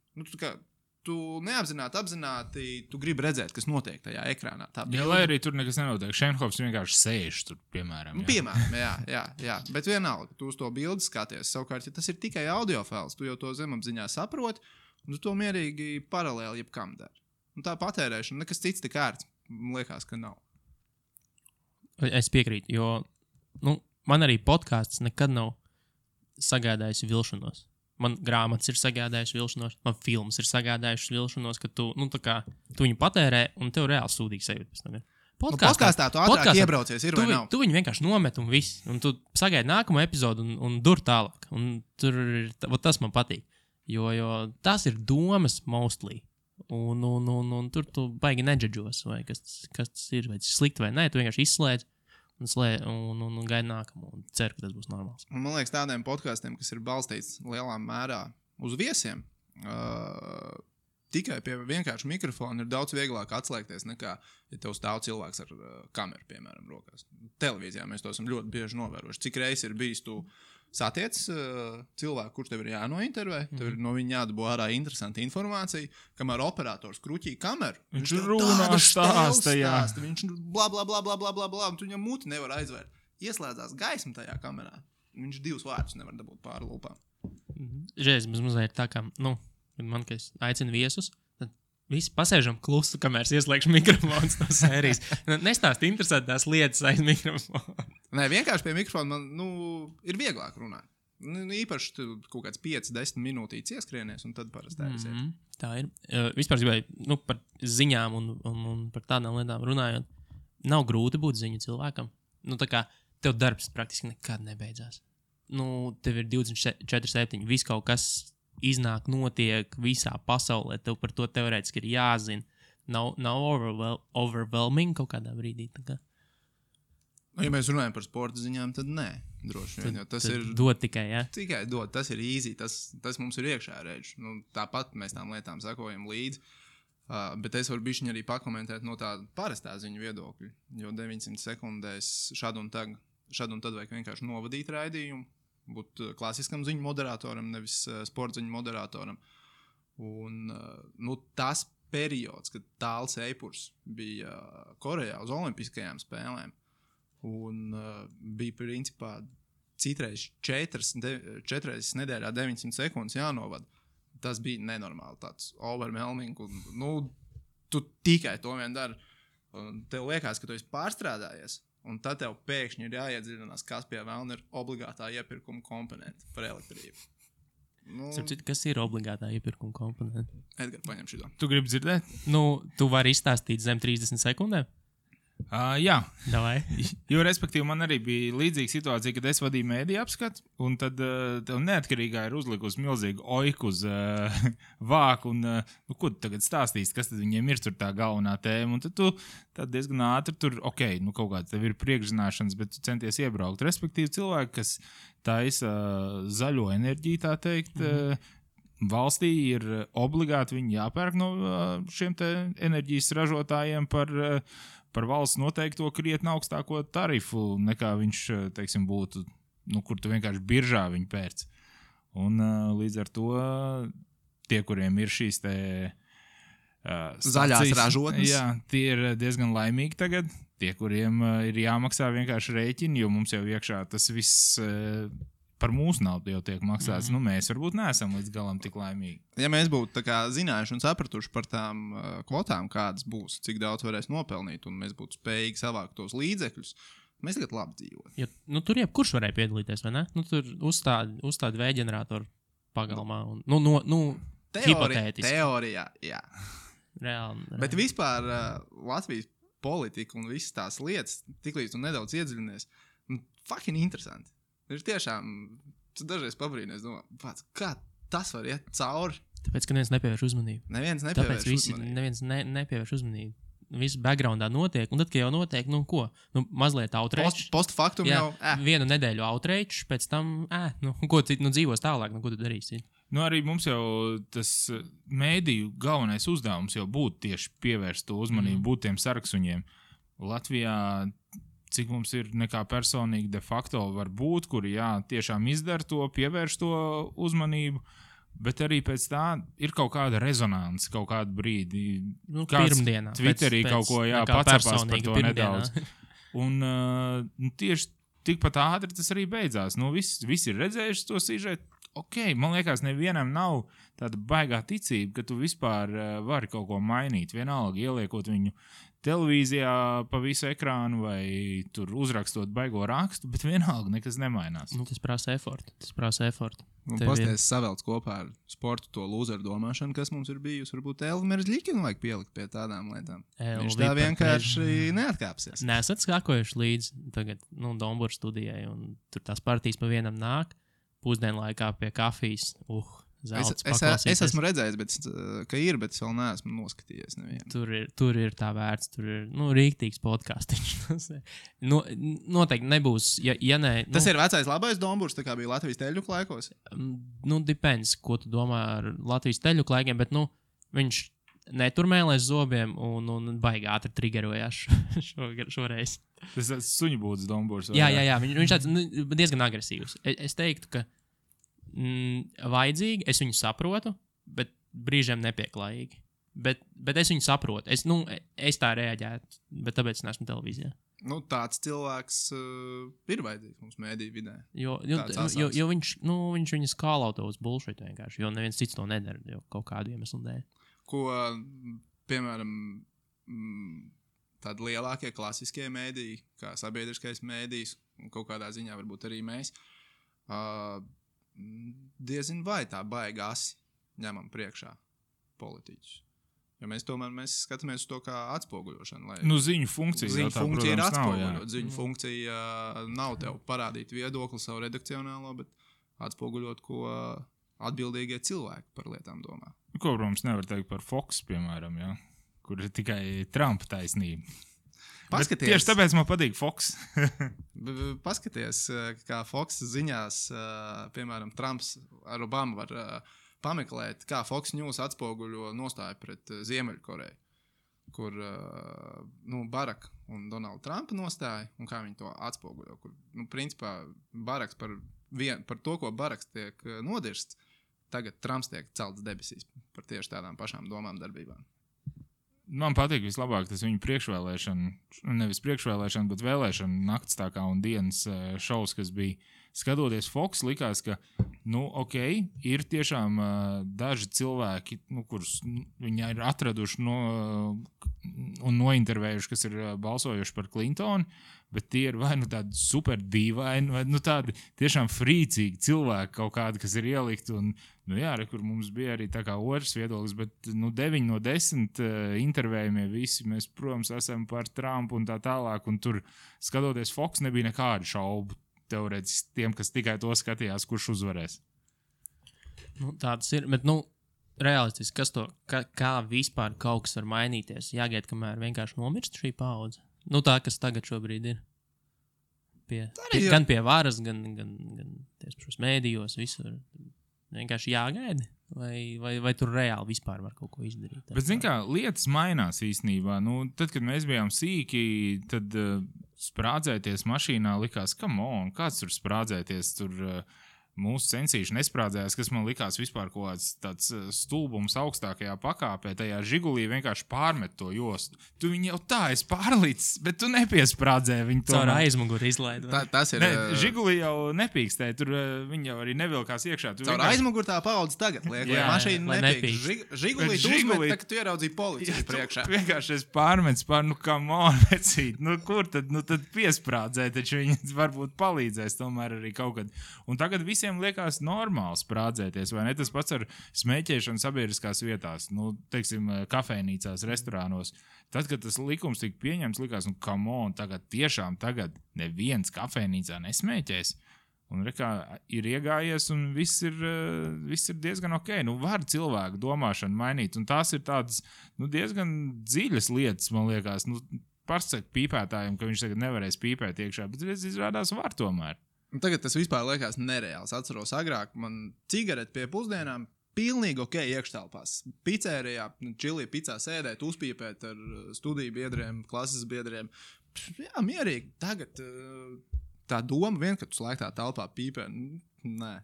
C: Tu apzināti, tu gribi redzēt, kas notiek tajā ekrānā.
B: Jā, lai arī tur nekas nenotiek. Šenhofs vienkārši sēž tur, piemēram.
C: Piemēram, jā. Bet vienalga, tu uz to bildi skaties. Savukārt, ja tas ir tikai audio fails, tu jau to zemapziņā saproti, un tu to mierīgi paralēli jebkam dari. Un tā patērēšana, nekas cits tik ērts, man liekas, ka nav.
A: Es piekrītu, jo man arī podkāsts nekad nav sagādājis vilšanos. Man grāmatas ir sagādājušas vilšanos, man filmas ir sagādājušas vilšanos, ka tu viņu patērē un tev reāli sūdīgi sajūta pēc tam.
C: Podkāstā tu ātrāk iebraucies, ir vai nav?
A: Tu viņu vienkārši nomet un viss, un tu sagaidi nākamo epizodu un dur tālāk. Un tur tas man patīk, jo tas ir domas mostly. Un tur tu baigi nedžadžos, vai kas tas ir, vai tas slikti vai nē, tu vienkārši izslēdz. Un gaida nākamo un ceru, ka tas būs normāls.
C: Un man liekas, tādiem podkāstiem, kas ir balstīts lielā mērā uz viesiem, tikai pie vienkārša mikrofona ir daudz vieglāk atslēgties nekā, ja tev stāv cilvēks ar kameru, piemēram, rokās. Televīzijā mēs to esam ļoti bieži novērojuši. Cik reiz ir bijis tu satiec cilvēku, kurš tev ir jānointervē, tev ir no viņa jādabū ārā interesanta informācija, kamēr operators kruķī kameru.
B: Viņš runā stāsta, jā.
C: Viņš bla, un tu viņam muti nevar aizvērt. Ieslēdzās gaisma tajā kamerā. Viņš 2 vārdus nevar dabūt pāri lūpām.
A: Žēs, mazliet tā kā, man, ka es aicinu viesus, tad visi pasēžam klusu, kamēr es ieslēgšu mikrofons no sērijas. Nestāst interesantās lietas aiz mikrofona.
C: Nē, vienkārši pie mikrofona man, ir vieglāk runāt. Īpaši tu kaut kāds 5-10 minūtītes ieskrienies, un tad parasti aiziet.
A: Tā ir. Vispār gribēju, par ziņām un par tādām lietām runājot, nav grūti būt ziņu cilvēkam. Tā kā tev darbs praktiski nekad nebeidzās. Tev ir 24/7, viss kaut kas iznāk, notiek visā pasaulē, tev par to teorētiski ir jāzina. Nav overwhelming kaut kādā brīdī. Tā kā.
C: Ja mēs runājam par sporta ziņām, tad nē, droši vien. Tas ir
A: dot tikai, jā?
C: Tikai dot, tas ir easy, tas mums ir iekšā redz. Tāpat mēs tām lietām sakojam līdzi. Bet es varu bišķiņ arī pakomentēt no tāda parastā ziņu viedokļa, jo 900 sekundēs šad un tad vajag vienkārši novadīt raidījumu, būt klasiskam ziņu moderatoram, nevis sporta ziņu moderatoram. Un tas periods, kad Tāls Eipurs bija Korejā uz olimpiskajām spēlēm, un bija principā citreiz 4 nedēļā 900 sekundes jānovad. Tas bija nenormāli tāds overwhelming. Tu tikai to vien dari. Tev liekas, ka tu esi pārstrādājies, un tad tev pēkšņi ir jāiedziļinās, kas pie vēlna ir obligātā iepirkuma komponente par elektrību.
A: Kas ir obligātā iepirkuma komponente?
C: Edgar, paņem šito.
B: Tu gribi dzirdēt?
A: Tu vari izstāstīt zem 30 sekundēm?
B: Jā,
A: jo
B: respektīvi man arī bija līdzīga situācija, kad es vadīju mēdīju apskatu, un tad tev neatkarīgā ir uzlikusi milzīgu oiku uz vāku, un ko tu tagad stāstīsi, kas tad viņiem ir tur tā galvenā tēma, un tad tu diezgan ātri tur, kaut kāds tev ir priekšzināšanas, bet tu centies iebraukt. Respektīvi cilvēki, kas taisa zaļo enerģiju, tā teikt, valstī ir obligāti viņi jāpērk no šiem te enerģijas ražotājiem par valsts noteikto krietni augstāko tarifu, nekā viņš, teiksim, būtu, kur tu vienkārši biržā viņu pērc. Un līdz ar to tie, kuriem ir šīs te
C: zaļās ražotnes,
B: jā, tie ir diezgan laimīgi tagad. Tie, kuriem ir jāmaksā vienkārši rēķini, jo mums jau iekšā tas viss par mūsu naudu jau tiek maksāts. Mēs varbūt neesam līdz galam tik laimīgi.
C: Ja mēs būtu zinājuši un sapratuši par tām kvotām, kādas būs, cik daudz varēs nopelnīt, un mēs būtu spējīgi savākt tos līdzekļus, mēs tagad labi dzīvot.
A: Ja, tur jebkurš varēja piedalīties, vai ne? Tur uzstādi vēja ģeneratoru pagalmā. Hipotētiski.
C: Teorijā, jā.
A: Reāli.
C: Bet vispār Latvijas politika un visas tās lietas, tiklīdz tu nedaudz iedziļinies, fucking interesanti. Ir tiešām, tu dažreiz pabrīnies, domā, kā tas var iet cauri,
A: Tāpēc, ka neviens nepievērš uzmanību.
C: Neviens
A: nepievērš uzmanību. Viss backgroundā notiek, un tad, kad jau notiek, nu ko? Nu, mazliet outrage.
C: Postfaktum jau.
A: Vienu nedēļu outrage, pēc tam, ko citu, dzīvos tālāk, ko tu darīsi?
B: Nu, arī mums jau tas mēdīju galvenais uzdevums jau būtu tieši pievērst to uzmanību, būt tiem saraksuņiem. Latvijā, cik mums ir nekā personīgi de facto var būt, kuri, tiešām izdara to, pievērš to uzmanību, bet arī pēc tā ir kaut kāda rezonance, kaut kādu brīdi.
A: Nu, pirmdienā.
B: Twitterī kaut ko, pacepās par to nedaudz. Un tieši tikpat ātri tas arī beidzās. Nu, visi ir redzējuši to sižetu. Ok, man liekas, nevienam nav tāda baigā ticība, ka tu vispār vari kaut ko mainīt. Vienalga ieliekot viņu televīzijā pa visu ekrānu vai tur uzrakstot baigo rakstu, bet vienalga nekas nemainās.
A: Nu, tas prasa efortu.
C: Un pasties savelc kopā ar sportu to lūzeru domāšanu, kas mums ir bijusi. Varbūt Elvis Ļikinu vajag pielikt pie tādām lietām. Viņš tā vienkārši neatkāpsies.
A: Nesat skakojuši līdz tagad, Dombūra studijai, un tur tās partijas pa vienam nāk. Pusdienlaikā pie kafijas.
C: Es esmu redzējis, bet es vēl neesmu noskatījies nevienu.
A: Tur ir tā vērts, tur ir rīktīgs podcastiņš. Noteikti nebūs, ja nē.
C: Tas ir vecais labais Dombūrs, tā kā bija Latvijas teļuku laikos?
A: Depends, ko tu domā ar Latvijas teļuku laikiem, bet viņš neturmēlēs zobiem un baigi ātri triggerojās šoreiz.
B: Tas suņu būtas Dombūrs.
A: Jā, viņš tāds diezgan agresīvs. Es teiktu, ka vajadzīgi, es viņu saprotu, bet brīžiem nepieklājīgi. Bet es viņu saprotu. Es tā reaģētu, bet tāpēc es neesmu televīzijā.
C: Tāds cilvēks ir vajadzīgs mums mēdīju vidē.
A: Jo viņš viņu skālauto uz bullshit vienkārši, jo neviens cits to nedara, jo kaut kādu iemeslu dēļ.
C: Ko, piemēram, tādi lielākie klasiskie mēdīji, kā sabiedriskais mēdījis, un kaut kādā ziņā varbūt arī mēs, diezin vai tā baigi asi ņemam priekšā politiķus. Jo mēs skatāmies uz to kā atspoguļošanu.
B: Ziņu funkcija.
C: Ziņu funkcija ir atspoguļot. Ziņu funkcija nav tev parādīt viedokli savu redakcionālo, bet atspoguļot, ko atbildīgie cilvēki par lietām domā.
B: Ko, protams, nevar teikt par Fox, piemēram, kur ir tikai Trumpa taisnība. Tieši tāpēc man patīk Fox.
C: Paskaties, kā Fox ziņās, piemēram, Trumps ar Obamu var pameklēt, kā Fox News atspoguļo nostāju pret Ziemeļkoreju, kur Baraka un Donalda Trumpa nostāja, un kā viņi to atspoguļo. Kur, principā, Baraks par to, ko Baraks tiek nodirsts, tagad Trumps tiek celts debesīs par tieši tādām pašām domām darbībām.
B: Man patīk vislabāk tas viņu nevis priekšvēlēšana, bet vēlēšana nakts tā kā un dienas šovs, kas bija. Skatoties Fox, likās, ka, ir tiešām daži cilvēki, kurus viņi ir atraduši un nointervējuši, kas ir balsojuši par Clintonu, bet tie ir vai tādi super dīvaini, vai tādi tiešām frīcīgi cilvēki kaut kādi, kas ir ielikt. Un, kur mums bija arī tā kā otrs viedoklis, bet 9 no 10 intervējumie visi, mēs, protams, esam par Trumpu un tā tālāk, un tur skatoties Fox nebija nekādu šaubu teorētiski tiem, kas tikai to skatījās, kurš uzvarēs.
A: Tāds ir, bet, realistiski, kā vispār kaut kas var mainīties? Jāgaid, kamēr vienkārši nomirst šī paudze. Tā, kas tagad šobrīd ir. Gan pie varas, gan tiešos mēdījos, visur. Vienkārši jāgaida? Vai tur reāli vispār var kaut ko izdarīt?
B: Bet, kā, lietas mainās īstenībā. Tad, kad mēs bijām sīki, tad sprādzēties mašīnā likās, kāds tur sprādzēties, tur mūsu censīši nesprādzējās, kas man likās vispār kaut kāds tāds stulbums augstākajā pakāpē, tajā Žigulī vienkārši pārmet to jostu. Tu viņu jau tā esi pārlicis, bet tu nepiesprādzēji viņu to.
A: Caur aizmuguri izlaid.
C: Tas ir.
B: Žigulī jau nepīkstēja, tur viņi jau arī nevilkās iekšā.
C: Caur aizmuguri tā paudze tagad liek, lai mašīna nepīkst. Žigulī tu uzmet, tā, ka tu ieraudzīji policiju priekšā.
B: Vienkārši es pārmets vecīt. Kur tad piesprādzēja, taču viņi varbūt palīdzēs tomēr arī kaut kad. Un tagad visiem liekas normāli sprādzēties, vai ne? Tas pats ar smēķēšanu sabiedriskās vietās, teiksim, kafejnīcās, restorānos. Tad, kad tas likums tika pieņemts, likās, tagad neviens kafejnīcā nesmēķēs. Un rekā ir iegājies, un viss ir diezgan ok. Nu, var cilvēku domāšanu mainīt, un tās ir tādas diezgan dziļas lietas, man liekas. Pasaka pīpētājiem, ka viņš tagad nevarēs pīpēt iekšā, bet izrādās var tomēr.
C: Un tagad tas vispār liekas nereāls. Atceros agrāk, man cigareti pie pusdienām pilnīgi ok iekštelpās. Picērijā, čilī picā sēdēt, uzpīpēt ar studiju biedriem, klases biedriem. Jā, mierīgi. Tagad tā doma vien, ka tu slēgtā telpā pīpē, nē,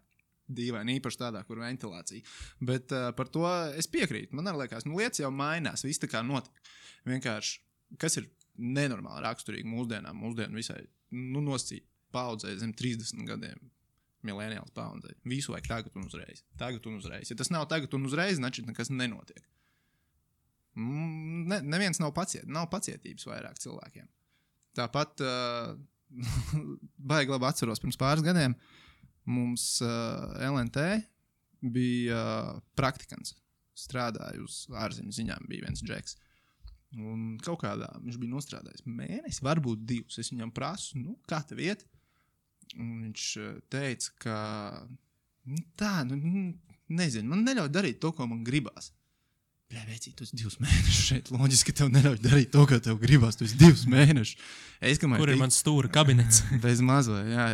C: dīvaini, īpaši tādā, kur ventilācija. Bet par to es piekrītu. Man arī liekas, lietas jau mainās, viss tā kā notiek. Vienkārši, kas ir nenormāli raksturīgi mūsdienām, mūsdienu visai, nosacīt paudzei zem 30 gadiem. Millennials paudzei. Visu vajag tagad un uzreiz. Tagad un uzreiz. Ja tas nav tagad un uzreiz, значит, nekas nenotiek. Neviens nav pacietības vairāk cilvēkiem. Tāpat baigi labi atceros pirms pāris gadiem mums LNT bija praktikants. Strādāja uz ārzemju ziņām, bija viens džeks. Un kaut kādā viņš bija nostrādājis mēnesi, varbūt 2. Es viņam prasu, kā tev iet? Un viņš teica, ka nezinu, man neļauj darīt to, ko man gribās. Bļā, vecī, tu esi 2 mēnešus šeit. Loģiski, ka tev neļauj darīt to, ko tev gribās. Tu esi 2 mēnešus.
A: Kur ir mans stūra kabinets?
C: Bez mazvai, jā.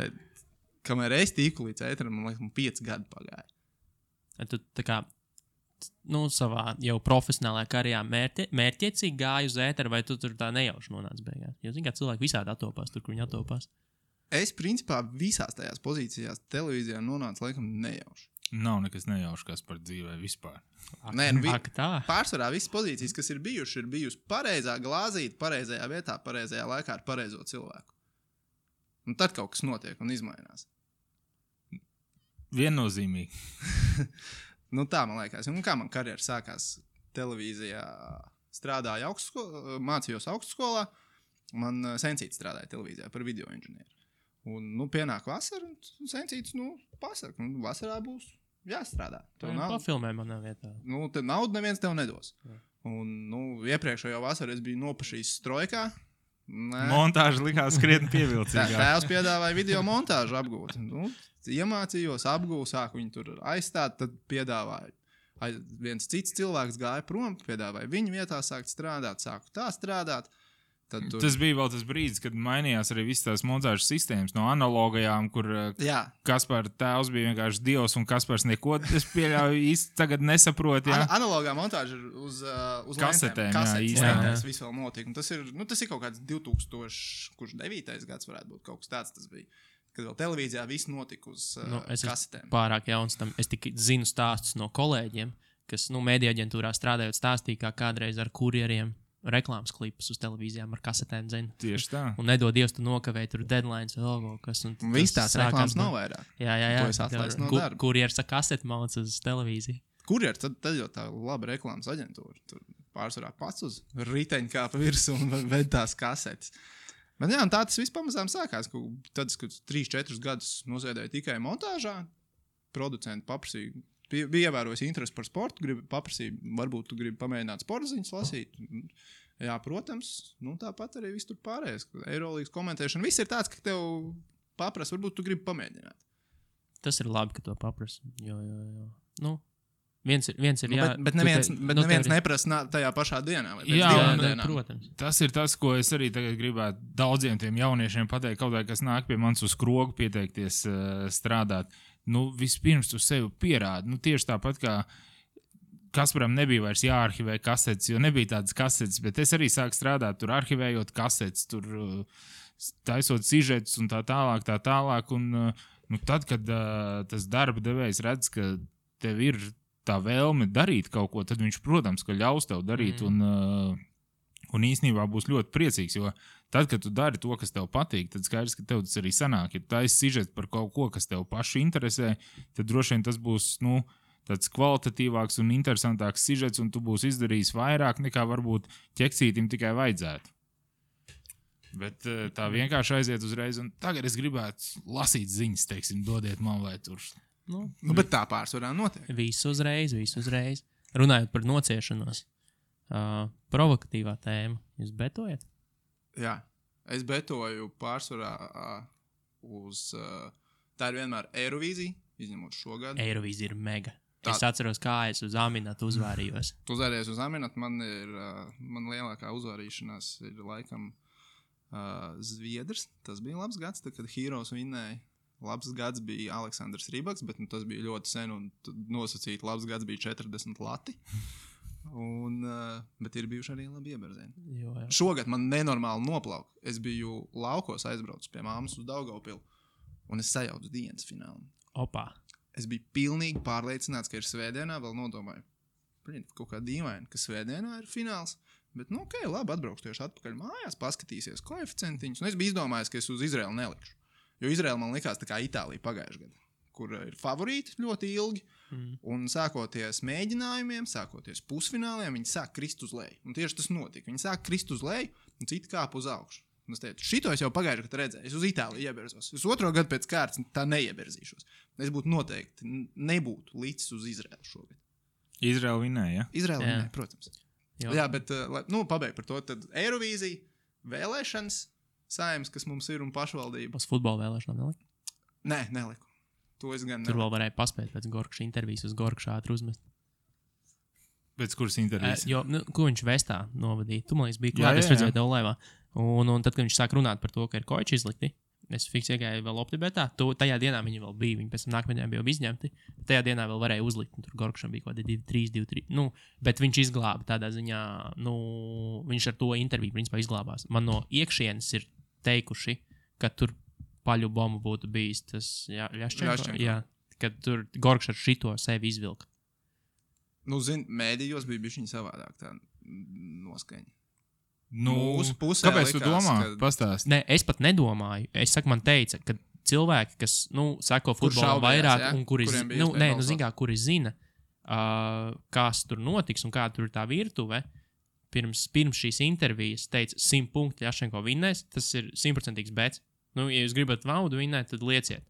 C: Kamēr es tīku līdz ēteram, man liekas, 5 gadi pagāja.
A: Tu tā kā, savā jau profesionālajā karjerā mērķiecīgi gāji uz ēteru, vai tu tur tā nejauši nonāc beigās? Jo, zin kā, cilvēki visādi atopās tur, kur viņi atopās.
C: Es, principā, visās tajās pozīcijās televīzijā nonācu, laikam, nejauši.
B: Nav nekas nejauši, kas par dzīvē vispār.
C: Nē, pārsvarā visas pozīcijas, kas ir bijusi pareizā glāzīta, pareizajā vietā, pareizajā laikā ar pareizo cilvēku. Un tad kaut kas notiek un izmainās.
B: Viennozīmīgi.
C: Tā man liekas. Un kā man karjera sākās televīzijā, strādāju mācījos augstskolā, man sencīts strādāja televīzijā par video inženieru. Un, pienāk vasara, un sencīts, pasaka, vasarā būs jāstrādā.
A: Pafilmē manā vietā.
C: Tad naudu neviens tev nedos. Jā. Un, iepriekšējo vasaru es biju nopašījis strojkā.
B: Montāža likās krietni pievilcīgāk.
C: Tēvs piedāvāja video montāžu apgūt. Iemācījos, apgūvu, sāku viņu tur aizstāt, tad piedāvāju. Viens cits cilvēks gāja prom, piedāvāja viņu vietā sākt strādāt, sāku tā strādāt.
B: Tas bija vēl tas brīdis, kad mainījās arī visas tās montāžas sistēmas no analogajām, kur Kaspar tēvs bija vienkārši dievs un Kaspars neko, es pieļauju, īsti tagad nesaprot.
C: Analogā montāža ir uz
B: kasetēm.
C: Tas viss vēl notiek. Tas ir kaut kāds 2009. gads varētu būt, kaut kas tāds tas bija. Kad vēl televīzijā viss notika uz kasetēm.
A: Es pārāk jauns tam. Es tikai zinu stāstus no kolēģiem, kas mēdija aģentūrā strādājot stāstīja, kā kādreiz ar kurjeriem reklāmas klipus uz televīzijām ar kasetēm zina.
B: Tieši tā.
A: Un nedod Dievs, tu nokavēji tur deadlines vai logo, kas.
C: Viss tās reklāmas nav vairāk.
A: Jā.
C: To es atlaistu no darba.
A: Kurjers ar kaseti māc uz televīziju.
C: Kurjers, tad jau tā laba reklāmas aģentūra. Tur pārsvarā pats uz riteņu kāpa virsū un ved tās kasetes. Bet jā, un tā tas viss pamazām sākās. Tad, kad 3-4 gadus nosēdēju tikai montāžā, producenti paprasīja, bija ievērojis interesi par sportu, paprasīja, varbūt tu gribi pamēģināt sporta ziņas lasīt. Jā, protams, tāpat arī viss tur pārējais. Eirolīgas komentēšana, viss ir tāds, ka tev paprasa, varbūt tu gribi pamēģināt.
A: Tas ir labi, ka to paprasa. Jo. Viens ir jā.
C: Bet neviens neprasa tajā pašā dienā.
A: Protams.
B: Tas ir tas, ko es arī tagad gribētu daudziem tiem jauniešiem pateikt, kaut vai kas nāk pie manis uz krogu pieteikties strādāt. Vispirms tu sevi pierādi. Tieši tāpat kā Kasparam nebija vairs jāarhivē kasetes, jo nebija tādas kasetes, bet es arī sāku strādāt tur arhivējot kasetes, tur taisot sižetus un tā tālāk. Un tad, kad tas darba devējs redz, ka tev ir tā vēlme darīt kaut ko, tad viņš, protams, ka ļaus tev darīt un īstenībā būs ļoti priecīgs, jo tad, kad tu dari to, kas tev patīk, tad skaidrs, ka tev tas arī sanāk. Ja tu taisi sižetu par kaut ko, kas tev pašu interesē, tad droši vien tas būs, tāds kvalitatīvāks un interesantāks sižets, un tu būsi izdarījis vairāk nekā varbūt ķeksītim tikai vajadzētu. Bet tā vienkārši aiziet uzreiz, un tagad es gribētu lasīt ziņas, teiksim, dodiet man vai tur.
C: Bet tā pārsvarā notiek.
A: Visu uzreiz. Runājot par nociešanos, provokatīvā tēma, jūs betojat?
C: Jā, es betoju pārsvarā uz Tā ir vienmēr Eirovīzija, izņemot šogad.
A: Eirovīzija ir mega. Es atceros, kā es uz Aminatu uzvārījos.
C: Tu uzvāries uz Aminatu, man lielākā uzvārīšanās ir laikam Zviedrs. Tas bija labs gads, tad, kad Heroes vinnēja. Labs gads bija Aleksandrs Rībaks, bet tas bija ļoti sen un nosacīti labs gads bija 40 lati. Bet ir bijuši arī labi ieberzieni. Šogad man nenormāli noplauka. Es biju laukos aizbraucis pie māmas uz Daugavpilu un es sajaucu dienas finālu.
A: Opā.
C: Es biju pilnīgi pārliecināts, ka ir svētdienā, vēl nodomāju, kaut kā dīvaini, ka svētdienā ir fināls, bet, labi, atbraukšu tieši atpakaļ mājās, paskatīsies koeficientiņus, un es biju izdomājis, ka es uz Izraelu nelikšu, jo Izraela man likās tā kā Itālija pagājušajā gadā, kur ir favorīti ļoti ilgi, un sākoties mēģinājumiem, sākoties pusfināliem, viņi sāk krist uz leju, un tieši tas notika, viņi sāk krist uz leju, un citi kāp uz augšu. Un es teicu, šito es jau pagājušajā gadā redzēju. Es uz Itāliju ieberzos. Es otro gadu pēc kārtas tā neieberzīšos. Es būtu noteikti nebūtu līdz uz Izraelu šogad.
B: Izraela vinnēja, ja?
C: Izraela vinnēja, protams. Jā, bet, pabeig par to. Tad Eirovīzija, vēlēšanas, saimnes, kas mums ir un pašvaldība.
A: Uz futbola vēlēšanām neliku?
C: Nē, neliku. To es gan
A: Tur vēl varēja paspēt pēc Gorkša intervijas uz Gorkšu ātri uzmest.
B: Pēc kuras intervijas?
A: Ko viņš Vestā novadīja? Tu, man liekas, bija klāt, es redzēju tev laivā. Un tad, kad viņš sāk runāt par to, ka ir koči izlikti, es fiks iegāju vēl optibetā. Tajā dienā viņi vēl bija, viņi pēc tam nākamajā bija izņemti. Tajā dienā vēl varēja uzlikt, un tur Gorkšam bija kaut kādi 2-3. Bet viņš izglāba tādā ziņā, viņš ar to interviju principā izglābās. Man no iekšienes ir teikuši, ka tur paļu bombu būtu bijis tas Ļaščenko. Jā, kad tur Gorkš ar šito sevi izvilka.
C: Mēdījos bija bišķiņ savādāk tā noskaņa.
B: Mūsu pusē kāpēc tu domā? Pastāst.
A: Nē, es pat nedomāju. Es saku, man teica, ka cilvēki, kas, sako futbolam vairāk, un kuri zina, kas tur notiks un kāda tur ir tā virtuve, pirms šīs intervijas teica 100 punkti Ļaščenko vinnēs, tas ir 100% bets. Ja jūs gribat vaudu vinnēt, tad lieciet.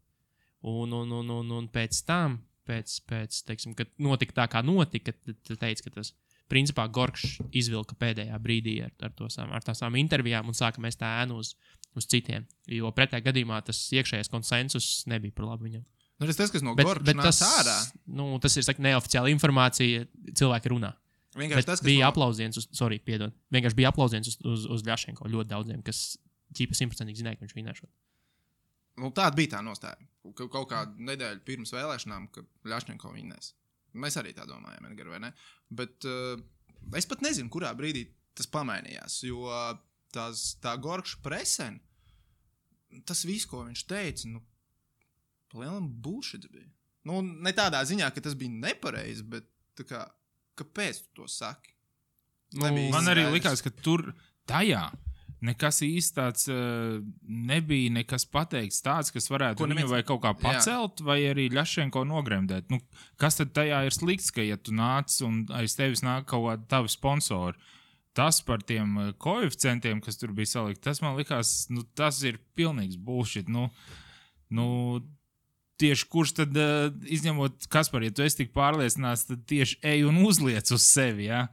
A: Un pēc tam, teiksim, kad notika tā, kā notika, tad teica, ka tas principā Gorkšs izvilka pēdējā brīdī ar tām intervijām un sāka mest ēnu uz citiem. Jo pretējā gadījumā tas iekšējais konsensus nebija par labu viņam.
C: Tas, kas no Gorkša nāca ārā.
A: Tas ir neoficiāla informācija, cilvēki runā. Bija aplausiens uz Ļaščenko ļoti daudziem, kas ķipa 100% zināja, ka viņš vinnēšot.
C: Tāda bija tā nostāja. Kaut kādu nedēļu pirms vēlēšanām, kad Ļaščenko vinnēs. Mēs arī tā domājam, Edgar, vai ne? Bet es pat nezinu, kurā brīdī tas pamainījās, jo tā Gorkša presen, tas viss, ko viņš teica, palielam bullshit bija. Ne tādā ziņā, ka tas bija nepareizi, bet tā kā, kāpēc tu to saki?
B: Man arī likās, ka tur tajā nekas īsti tāds nebija nekas pateikts tāds, kas varētu viņu vai kaut kā pacelt, vai arī Ļaščenko nogremdēt. Kas tad tajā ir slikts, ka ja tu nāc un aiz tevis nāk kaut kādi tavi sponsori, tas par tiem koeficientiem, kas tur bija salikt, tas man likās, tas ir pilnīgs bullshit. Tieši kurš tad, izņemot Kaspar, ja tu esi tik pārliecināts, tad tieši ej un uzliec uz sevi, ja?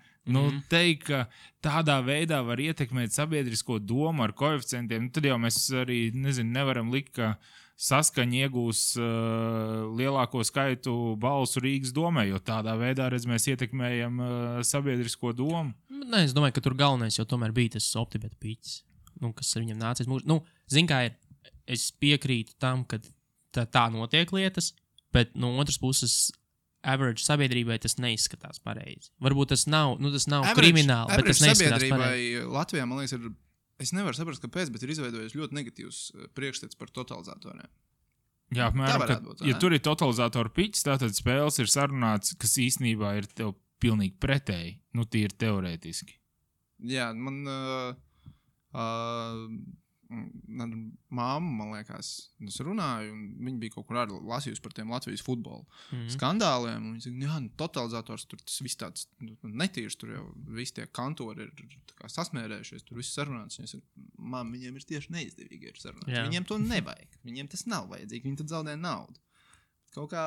B: Teikt, ka tādā veidā var ietekmēt sabiedrisko domu ar koeficientiem, tad jau mēs arī, nevaram likt, ka Saskaņa iegūs lielāko skaitu balsu Rīgas domē, jo tādā veidā, mēs ietekmējam sabiedrisko domu.
A: Nē, es domāju, ka tur galvenais jau tomēr bija tas optibeta pīķis, kas ar viņam nācies mūžu. Zin kā ir, es piekrītu tam, ka tā notiek lietas, bet no otras puses average sabiedrībai tas neizskatās pareizi. Varbūt tas nav krimināli, bet tas neizskatās pareizi.
C: Latvijā, man liekas, es nevaru saprast, kāpēc, bet ir izveidojis ļoti negatīvs priekšstats par totalizatoriem.
B: Jā, apmēram, ja tur ir totalizatoru piķis, tātad spēles ir sarunāts, kas īstenībā ir tev pilnīgi pretēji, tīri teorētiski.
C: Jā, man māma, man liekas, es runāju, un viņa bija kaut kur arī lasījusi par tiem Latvijas futbola skandāliem, un viņa saka, totalizators, tur tas viss tāds netīrs, tur jau visi tie kantori ir sasmērējušies, tur viss sarunāts, un viņa saka, māma, viņiem ir tieši neizdevīgi ir sarunāts, viņiem to nevajag, viņiem tas nav vajadzīgi, viņi tad zaudē naudu. Kaut kā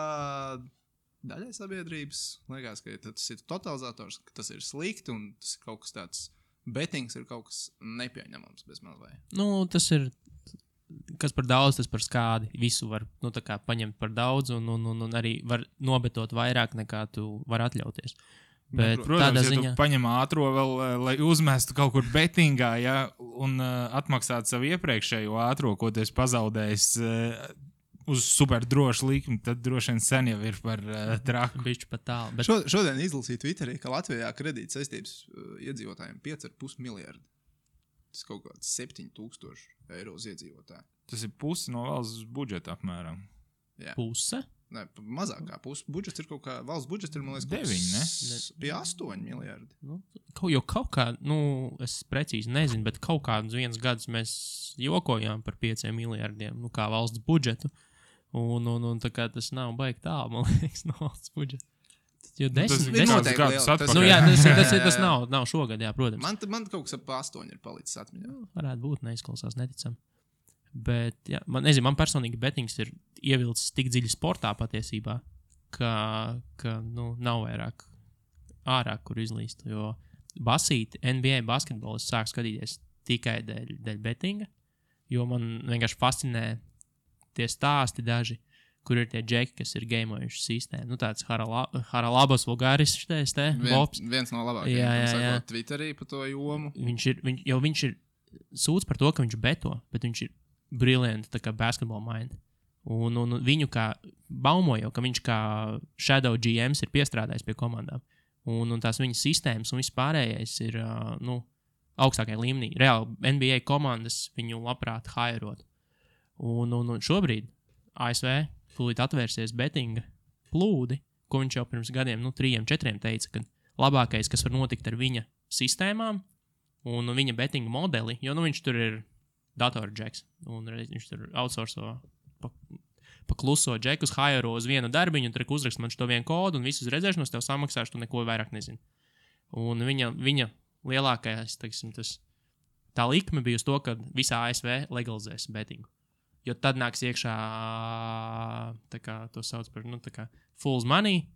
C: daļai sabiedrības liekas, ka tas ir totalizators, ka tas ir slikti, un tas ir kaut kas tāds, betings ir kaut kas nepieņemams bez mazvai.
A: Tas ir kas par daudz, tas par skādi. Visu var tā kā paņemt par daudz un arī var nobetot vairāk nekā tu vari atļauties. Bet
B: protams,
A: tādā
B: ja
A: ziņā
B: tu paņem ātro vēl, lai uzmestu kaut kur betingā, ja, un atmaksātu savu iepriekšējo ātro, ko tu esi pazaudējis uz super drošu likmi, tad droši vien sen jau ir par traku.
A: bišķi pat tālu. Bet
C: Šodien izlasīju Twitterī, ka Latvijā kredīta saistības iedzīvotājiem 5,5 miljardi. Tas kaut kāds 7,000 eiro uz iedzīvotāju.
B: Tas ir pusi no valsts budžeta apmēram.
C: Jā.
A: puse?
C: Nē, mazāk kā pusi. Budžets ir kaut kā, valsts budžets ir, man liekas,
B: 9, ne?
C: Pie 8 miljardi.
A: Kaut kā, es precīzi nezinu, bet kaut kādus viens gadus mēs jokojām par 5 miljardiem, kā valsts budžetu. Un tā kā tas nav baigi tālu, man liekas, no valsts budžeta. Jo
B: Tas
A: desmit,
B: ir
C: noteikti
B: gadus
C: liela- tas-
B: atpakaļ.
A: jā, tas nav šogad, jā, protams.
C: Man kaut kas ap 8 ir palicis atmiņā.
A: Varētu būt, neizklausās neticam. Bet, jā, man personīgi betings ir ievilcis tik dziļi sportā patiesībā, ka nav vairāk ārā, kur izlīst. Jo basīti, NBA basketbolu es sāku skatīties tikai dēļ betinga, jo man vienkārši fascinē tie stāsti daži, kur ir tie džeki, kas ir gameojuši sistēmu. Tāds Haralabos Vulgāris, Bobs.
C: Viens no labākajiem.
A: Jā.
C: Sakot, Twitterī par to jomu.
A: Viņš ir sūdz par to, ka viņš beto, bet viņš ir brilliant, tā kā basketball mind. Un viņu kā baumoja, ka viņš kā Shadow GMs ir piestrādājis pie komandām. Un tās viņa sistēmas un viss pārējais ir augstākajā līmenī. Reāli NBA komandas viņu labprāt hairot. Un šobrīd ASV tūlīt atvērsies betinga plūdi, ko viņš jau pirms gadiem, 3-4 teica, ka labākais, kas var notikt ar viņa sistēmām un viņa betinga modeli, jo viņš tur ir datorģeks, un viņš tur outsourco pa kluso džekus, hairo uz vienu darbiņu, un tur uzrakst man šo vienu kodu, un visus redzēšanos tev samaksāšu, tu neko vairāk nezini. Un viņa lielākais, teiksim, tā likme bija uz to, ka visā ASV legalizēs betingu. Jo tad nāks iekšā, tā kā to sauc par, tā kā fool's money,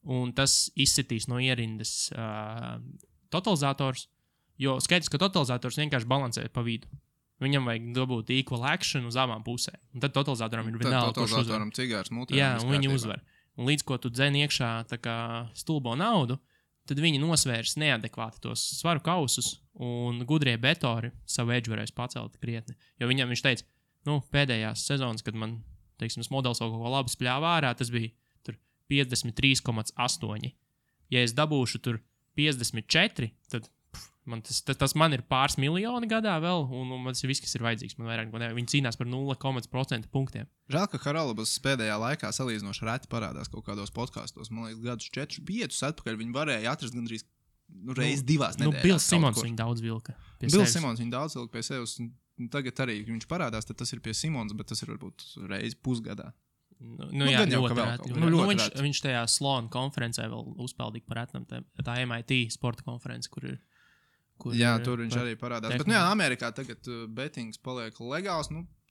A: un tas izsitīs no ierindas totalizators, jo skaidrs, ka totalizators vienkārši balansē pa vidu. Viņam vajag dabūt equal action uz abām pusēm. Un tad totalizatoram ir vienalga, kurš uzvar.
C: Totalizatoram cigārs mutē.
A: Jā, un viņi uzvar. Un līdz ko tu dzen iekšā tā kā stulbo naudu, tad viņi nosvērs neadekvāti tos svaru kausus, un gudrie betori savu edžu varēs pacelt krietni. Jo viņš teica, pēdējās sezonas, kad man, teiksim, modelis kaut ko labi spļāvā ārā, tas bija tur 53,8. Ja es dabūšu tur 54, tad tas man ir pāris miljoni gadā vēl, un man tas ir viss, kas ir vajadzīgs. Man vairāk, viņi cīnās par 0,% punktiem.
C: Žēl, ka Haralabas pēdējā laikā salīdzinoši reti parādās kaut kādos podkastos. Man liekas, gadus 4-5 atpakaļ viņi varēja atrast gandrīz reiz divās nedēļās.
A: Bils Simons viņu daudz vilka pie sevis.
C: Bils Simons viņu daudz vilka pie sevis. Tagad arī viņš parādās, tad tas ir pie Simons, bet tas ir varbūt reiz pusgadā.
A: Jā,
C: gan jau, ka
A: ļoti
C: vēl
A: reti.
C: kaut kā. Ļoti reti.
A: Viņš tajā Sloan konferencē vēl uzpeldīja par etnam, tā MIT sporta konference, kur ir.
C: Jā, tur viņš arī parādās. Bet, Amerikā tagad betings paliek legāls.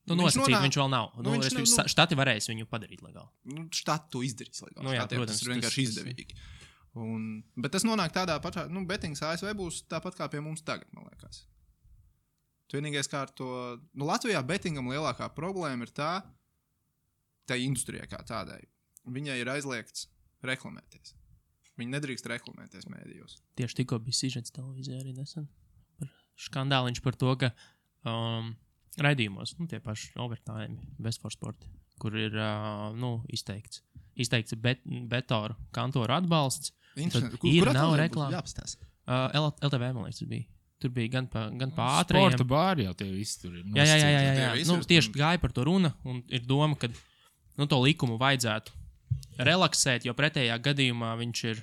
A: Nosacīt viņš vēl nav. Štati varēs viņu padarīt legāli.
C: Štati to izdarīs legāli.
A: Jā, protams.
C: Tas ir vienkārši izdevīgi. Bet tas nonāk tādā pašā, betings ASV būs tāpat kā pie mums tagad, man liekas. Vienīgais kā ar to, Latvijā betingam lielākā problēma ir tā industrijā kā tādai. Viņai ir aizliegts reklamēties. Viņi nedrīkst reklamēties mēdījos.
A: Tieši tikko bija sižets televīzijā arī nesen. Skandāliņš par to, ka raidījumos, tie paši overtime, Best for Sport, kur ir izteikts betoru kantoru atbalsts. Ir nav reklāma. LTV, man liekas, tas bija. Tur bija gan pa ātrajiem.
B: Sporta bāri jau tie visi tur ir.
A: Jā. Tieši gāja par to runa, un ir doma, ka to likumu vajadzētu relaksēt, jo pretējā gadījumā viņš ir,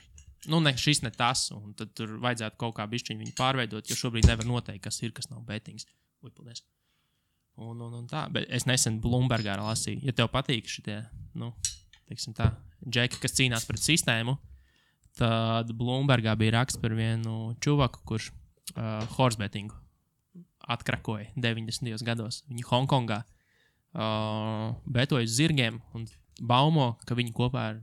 A: šis ne tas, un tad tur vajadzētu kaut kā bišķiņu viņu pārveidot, jo šobrīd nevar noteikt, kas ir, kas nav betings. Paldies. Un tā, bet es nesen Bloombergā lasīju, ja tev patīk šitie, teiksim tā, džeki, kas cīnās pret sistēmu, tad Bloombergā bija raksts par vienu čuvaku, kurš horse bettingu atkrakoja 90. gados. Viņi Hongkongā betoja uz zirgiem un baumo, ka viņi kopā ar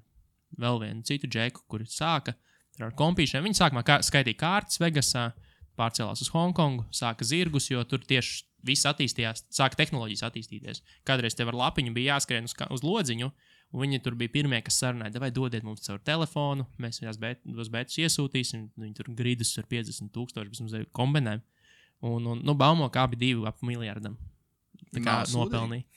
A: vēl vienu citu džeku, kuri sāka ar kompīšiem. Viņi sākumā skaitīja kārtas Vegasā, pārcēlās uz Hongkongu, sāka zirgus, jo tur tieši viss attīstījās, sāka tehnoloģijas attīstīties. Kādreiz tev ar lapiņu bija jāskrien uz lodziņu, un viņi tur bija pirmie, kas sarunāja, vai dodiet mums caur telefonu, mēs viņās bētus iesūtīsim, viņi tur gridus ar 50,000, bez mums kombinēm. Un baumo, kā bija 2,5 miljardam. Tā kā nopelnīja.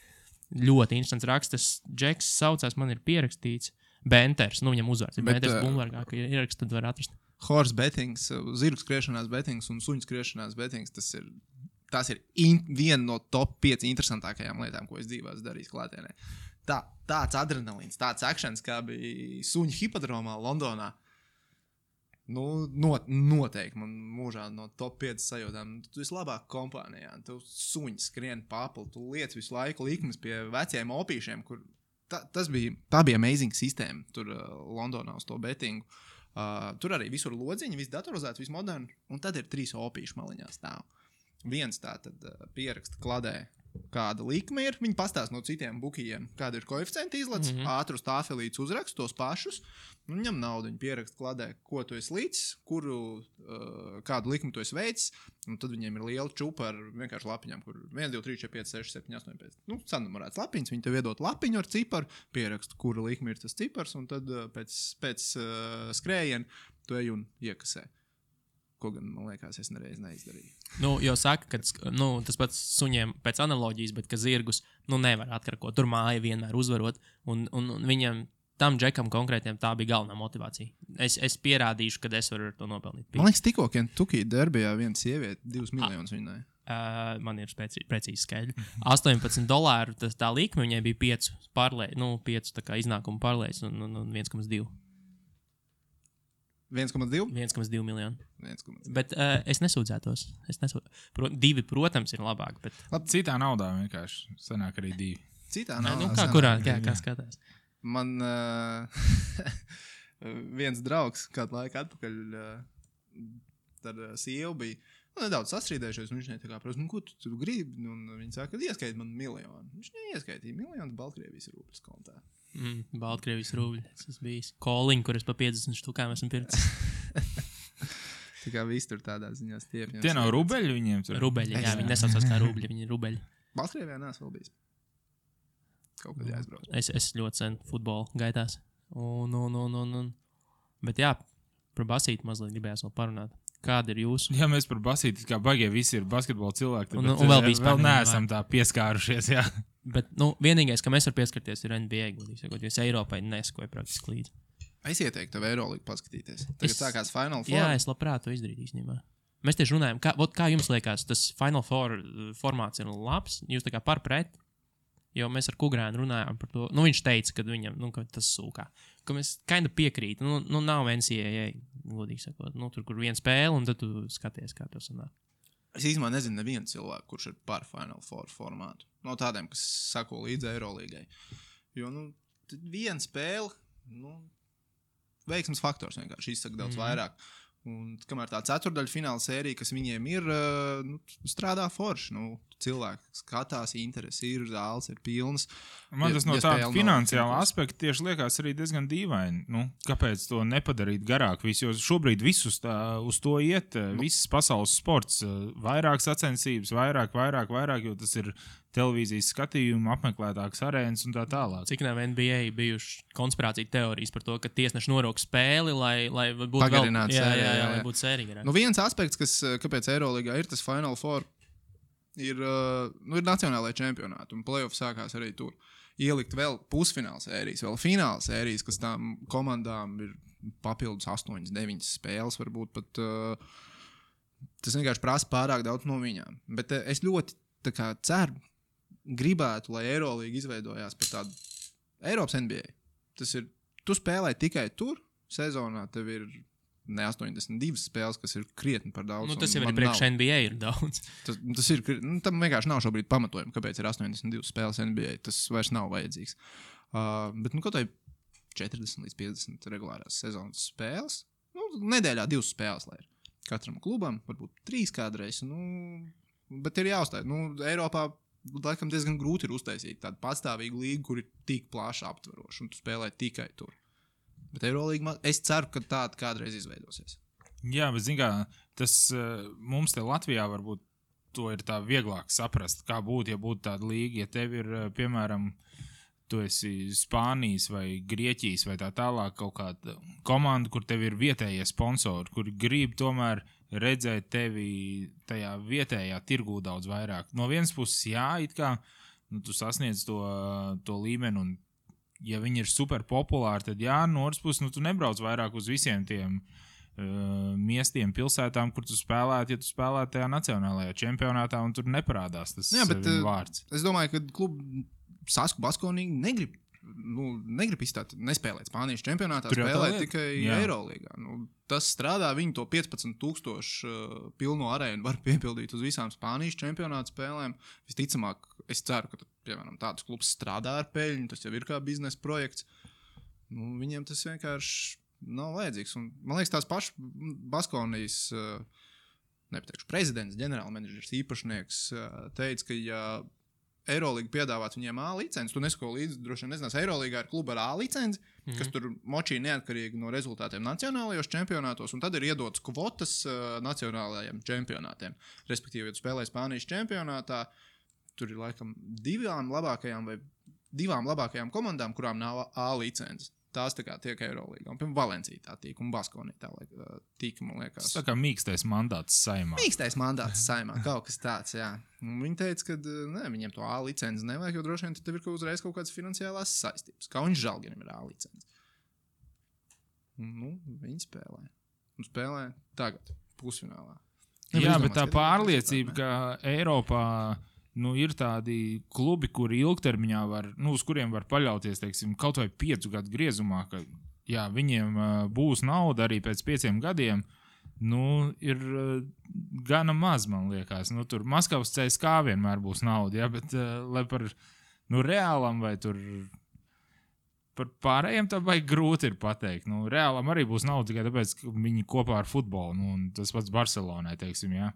A: Ļoti interesants raksts. Tas Džeks saucās, man ir pierakstīts. Benters, viņam uzvārds ir Benters Bloombergā, ka ierakst, tad var atrast.
C: Horse bettings, zirgu skriešanās bettings un suņu skriešanās bettings, tas ir viena no top 5 interesantākajām lietām, ko es dzīvē esmu darījis klātienē. Tāds adrenalīns, tāds akšens, kā bija suņu hipodromā Londonā. Noteikti man mūžā no top 5 sajūtām. Tu esi labāk kompānijā, tu suņi skrien papli, tu liec visu laiku likmes pie veciem opīšiem, kur tā bija amazing sistēma tur Londonā uz to bettingu. Tur arī visur lodziņi, viss datorizēts, viss moderni, un tad ir 3 opīšu maliņā stāv. Viens tā tad pieraksta kladē, kāda likme ir, viņi pastāst no citiem bukijiem, kāda ir koeficienti izlec, ātrus tāfelītus uzrakst tos pašus, un ņem naudu, viņi pieraksta kladē, ko tu esi līdz, kādu likmi tu esi veicis, un tad viņiem ir liela čupa ar vienkārši lapiņām, kur 1, 2, 3, 4, 5, 6, 7, 8, 5. Sanumurēts lapiņas, viņi tev iedot lapiņu ar ciparu, pieraksta, kura likme ir tas cipars, un tad pēc skrējiena tu ej un iekasē. Ko gan, man liekas, es nereiz neizdarīju.
A: Jau saka, ka tas pats suņiem pēc analoģijas, bet ka zirgus nevar atkarkot. Tur māja vienmēr uzvarot, un viņam, tam Džekam konkrētiem, tā bija galvenā motivācija. Es pierādīšu, ka es varu ar to nopelnīt.
C: Man liekas, tikko Kentucky derbijā viena sieviete 2 miljonus viņai.
A: Man ir precīzi skaidri. $18, tā likme viņai bija 5 tā kā iznākumu pārlēs un 1,2.
C: 1,2?
A: 1,2 miljonu.
C: 1,2.
A: Bet es nesūdzētos. 2, protams, ir labāk. Bet...
B: Citā naudā vienkārši sanāk arī 2.
C: Citā naudā?
A: Kā skatās?
C: Man viens draugs kādu laiku atpakaļ ar sievu bija nedaudz sastrīdējušies, un viņš tā kā prasa, ko tu gribi? Un viņi saka, ka ieskaiti man 1 miljonu. Viņš neieskaitīja 1 miljonu Baltkrievijas rūpes kontā.
A: Baltkrievijas rūbļi. Tas bijis koliņi, kur es pa 50 štukām esmu pircis.
C: Tā kā viss tur tādā ziņā stiepņos.
B: Tie nav rubeļi viņiem tur?
A: Rubeļi, jā, viņi nesaucās kā rūbļi, viņi ir rubeļi.
C: Baltkrievijā neesmu vēl bijis. Kaut kad jāizbrauc.
A: Es ļoti sen futbolu gaitās. Bet jā, par basīti mazliet gribējās vēl parunāt. Kāda ir jūsu?
B: Jā, mēs par basīti, kā bagie visi ir basketbola cilvēki,
A: un vēl
B: neesam tā pieskārušies, jā.
A: Bet, vienīgais, ka mēs var pieskarties, ir NBA, jo es Eiropai neskoju praktiski līdzi.
C: Es ieteiktu tev Eirolīgu paskatīties. Tagad sākās Final Four.
A: Jā, es labprāt to izdarītu īstenībā. Mēs tieši runājam, kā jums liekas, tas Final Four formāts ir labs? Jūs tā kā par pret? Jo mēs ar Kugrēnu runājām par to. Viņš teica, ka viņam, ka tas sūkā. Ka mēs kinda piekrīt. Nav NCAA, godīgi sakot. Tur, kur viena spēle, un tad tu skaties, kā tas sanāk.
C: Es īstenībā nezinu nevienu cilvēku, kurš ir par Final Four formātu. No tādiem, kas sako līdzi Eirolīgai. Jo, viena spēle, veiksmes faktors vienkārši izsaka daudz vairāk. Un kamēr tā ceturdaļa fināla sērija, kas viņiem ir, strādā forši. Cilvēki skatās, interesi ir, zāles ir pilnas.
B: Man tas no tāda finansiāla aspekta tieši liekas arī diezgan dīvaini. Kāpēc to nepadarīt garāk? Jo šobrīd visus uz to iet, visas pasaules sports, vairāk sacensības, vairāk, jo tas ir televīzijas skatījuma, apmeklētāks arēnas un tā tālāk.
A: Cik nav NBA bijuši konspirācija teorijas par to, ka tiesneši norok spēli, lai būtu
C: pagarināts
A: vēl, lai būtu sērija.
C: Viens aspekts, kāpēc Eirolīgā ir tas Final Four, ir nacionālajā čempionāti, un playoff sākās arī tur. Ielikt vēl pusfināla sērijas, vēl fināla sērijas, kas tām komandām ir papildus 8, 9 spēles, varbūt pat tas vienkārši prasa pārāk daudz no viņām. Bet es ļoti ceru, gribētu, lai Eirolīga izveidojās par tādu Eiropas NBA. Tas ir, tu spēlē tikai tur, sezonā tev ir ne 82 spēles, kas ir krietni par daudz.
A: Tas jau arī priekš NBA ir daudz.
C: Tas ir, tam vienkārši nav šobrīd pamatojumi, kāpēc ir 82 spēles NBA. Tas vairs nav vajadzīgs. Bet kaut vai 40 līdz 50 regulārās sezonas spēles, nedēļā 2 spēles, lai ir katram klubam, varbūt 3 kādreiz, bet ir jāuzstāj. Eiropā laikam diezgan grūti ir uztaisīt tādu pastāvīgu līgu, kur ir tik plaši aptveroši, un tu spēlē tikai tur. Bet Eirolīga, es ceru, ka tāda kādreiz izveidosies.
B: Jā, bet zin kā, tas mums te Latvijā varbūt to ir tā vieglāk saprast, kā būtu, ja būtu tāda līga, ja tev ir, piemēram, tu esi Spānijas vai Grieķijas vai tā tālāk kaut kāda komanda, kur tev ir vietējie sponsori, kuri grib tomēr redzēt tevi tajā vietējā tirgū daudz vairāk. No vienas puses, jā, it kā tu sasniedz to līmeni, un ja viņi ir super populāri, tad jā, no otras puses, tu nebrauc vairāk uz visiem tiem miestiem, pilsētām, kur tu spēlētu, ja tu spēlētu tajā nacionālajā čempionātā, un tur neparādās tas vārds.
C: Es domāju, ka klubu Sasku Baskonīgi negrib izstāt, nespēlēt Spānijas čempionātā, spēlēt tikai Eirolīgā. Tas strādā, viņi to 15,000 pilno arēnu var piepildīt uz visām Spānijas čempionāta spēlēm. Visticamāk, es ceru, ka, piemēram, tāds klubs strādā ar peļņu, tas jau ir kā biznesa projekts. Viņiem tas vienkārši nav vajadzīgs. Un, man liekas, tās pašas Baskonijas, nepateikšu, prezidents, ģenerālmenedžers, īpašnieks teica, ka ja Eirolīga piedāvāt viņiem A licenci. Tu nesako līdzi, droši vien nezinās, Eirolīgā ir kluba ar A licenci, kas tur močī neatkarīgi no rezultātiem nacionālajos čempionātos, un tad ir iedotas kvotas nacionālajiem čempionātiem. Respektīvi, ja tu spēlē Spānijas čempionātā, tur ir laikam divām labākajām komandām, kurām nav A licenci. Tās tā kā tiek Eirolīgā. Un, piemēram, Valencija tā tīk, un Baskonija tā tīk, man liekas.
B: Tas tā kā mīkstais mandāts saimā.
C: Mīkstais mandāts saimā, kaut kas tāds, jā. Un viņi teica, ka viņiem to A licenci nevajag, jo droši vien tev ir uzreiz kaut kādas finansiālās saistības. Kā viņš Žalgirim ir A licenci. Viņi spēlē. Un spēlē tagad, pusfinālā.
B: Jā, bet tā pārliecība, ka Eiropā ir tādi klubi, kuri ilgtermiņā uz kuriem var paļauties, teiksim, kaut vai 5 gadu griezumā, ka jā, viņiem būs nauda arī pēc 5 gadiem, ir gana maz, man liekas. Tur Maskavas CSKA vienmēr būs nauda, jā, bet lai par Reālam vai tur par pārējiem tā baigi grūti ir pateikt. Reālam arī būs nauda tikai tāpēc, ka viņi kopā ar futbolu, un tas pats Barcelonai, teiksim, jā.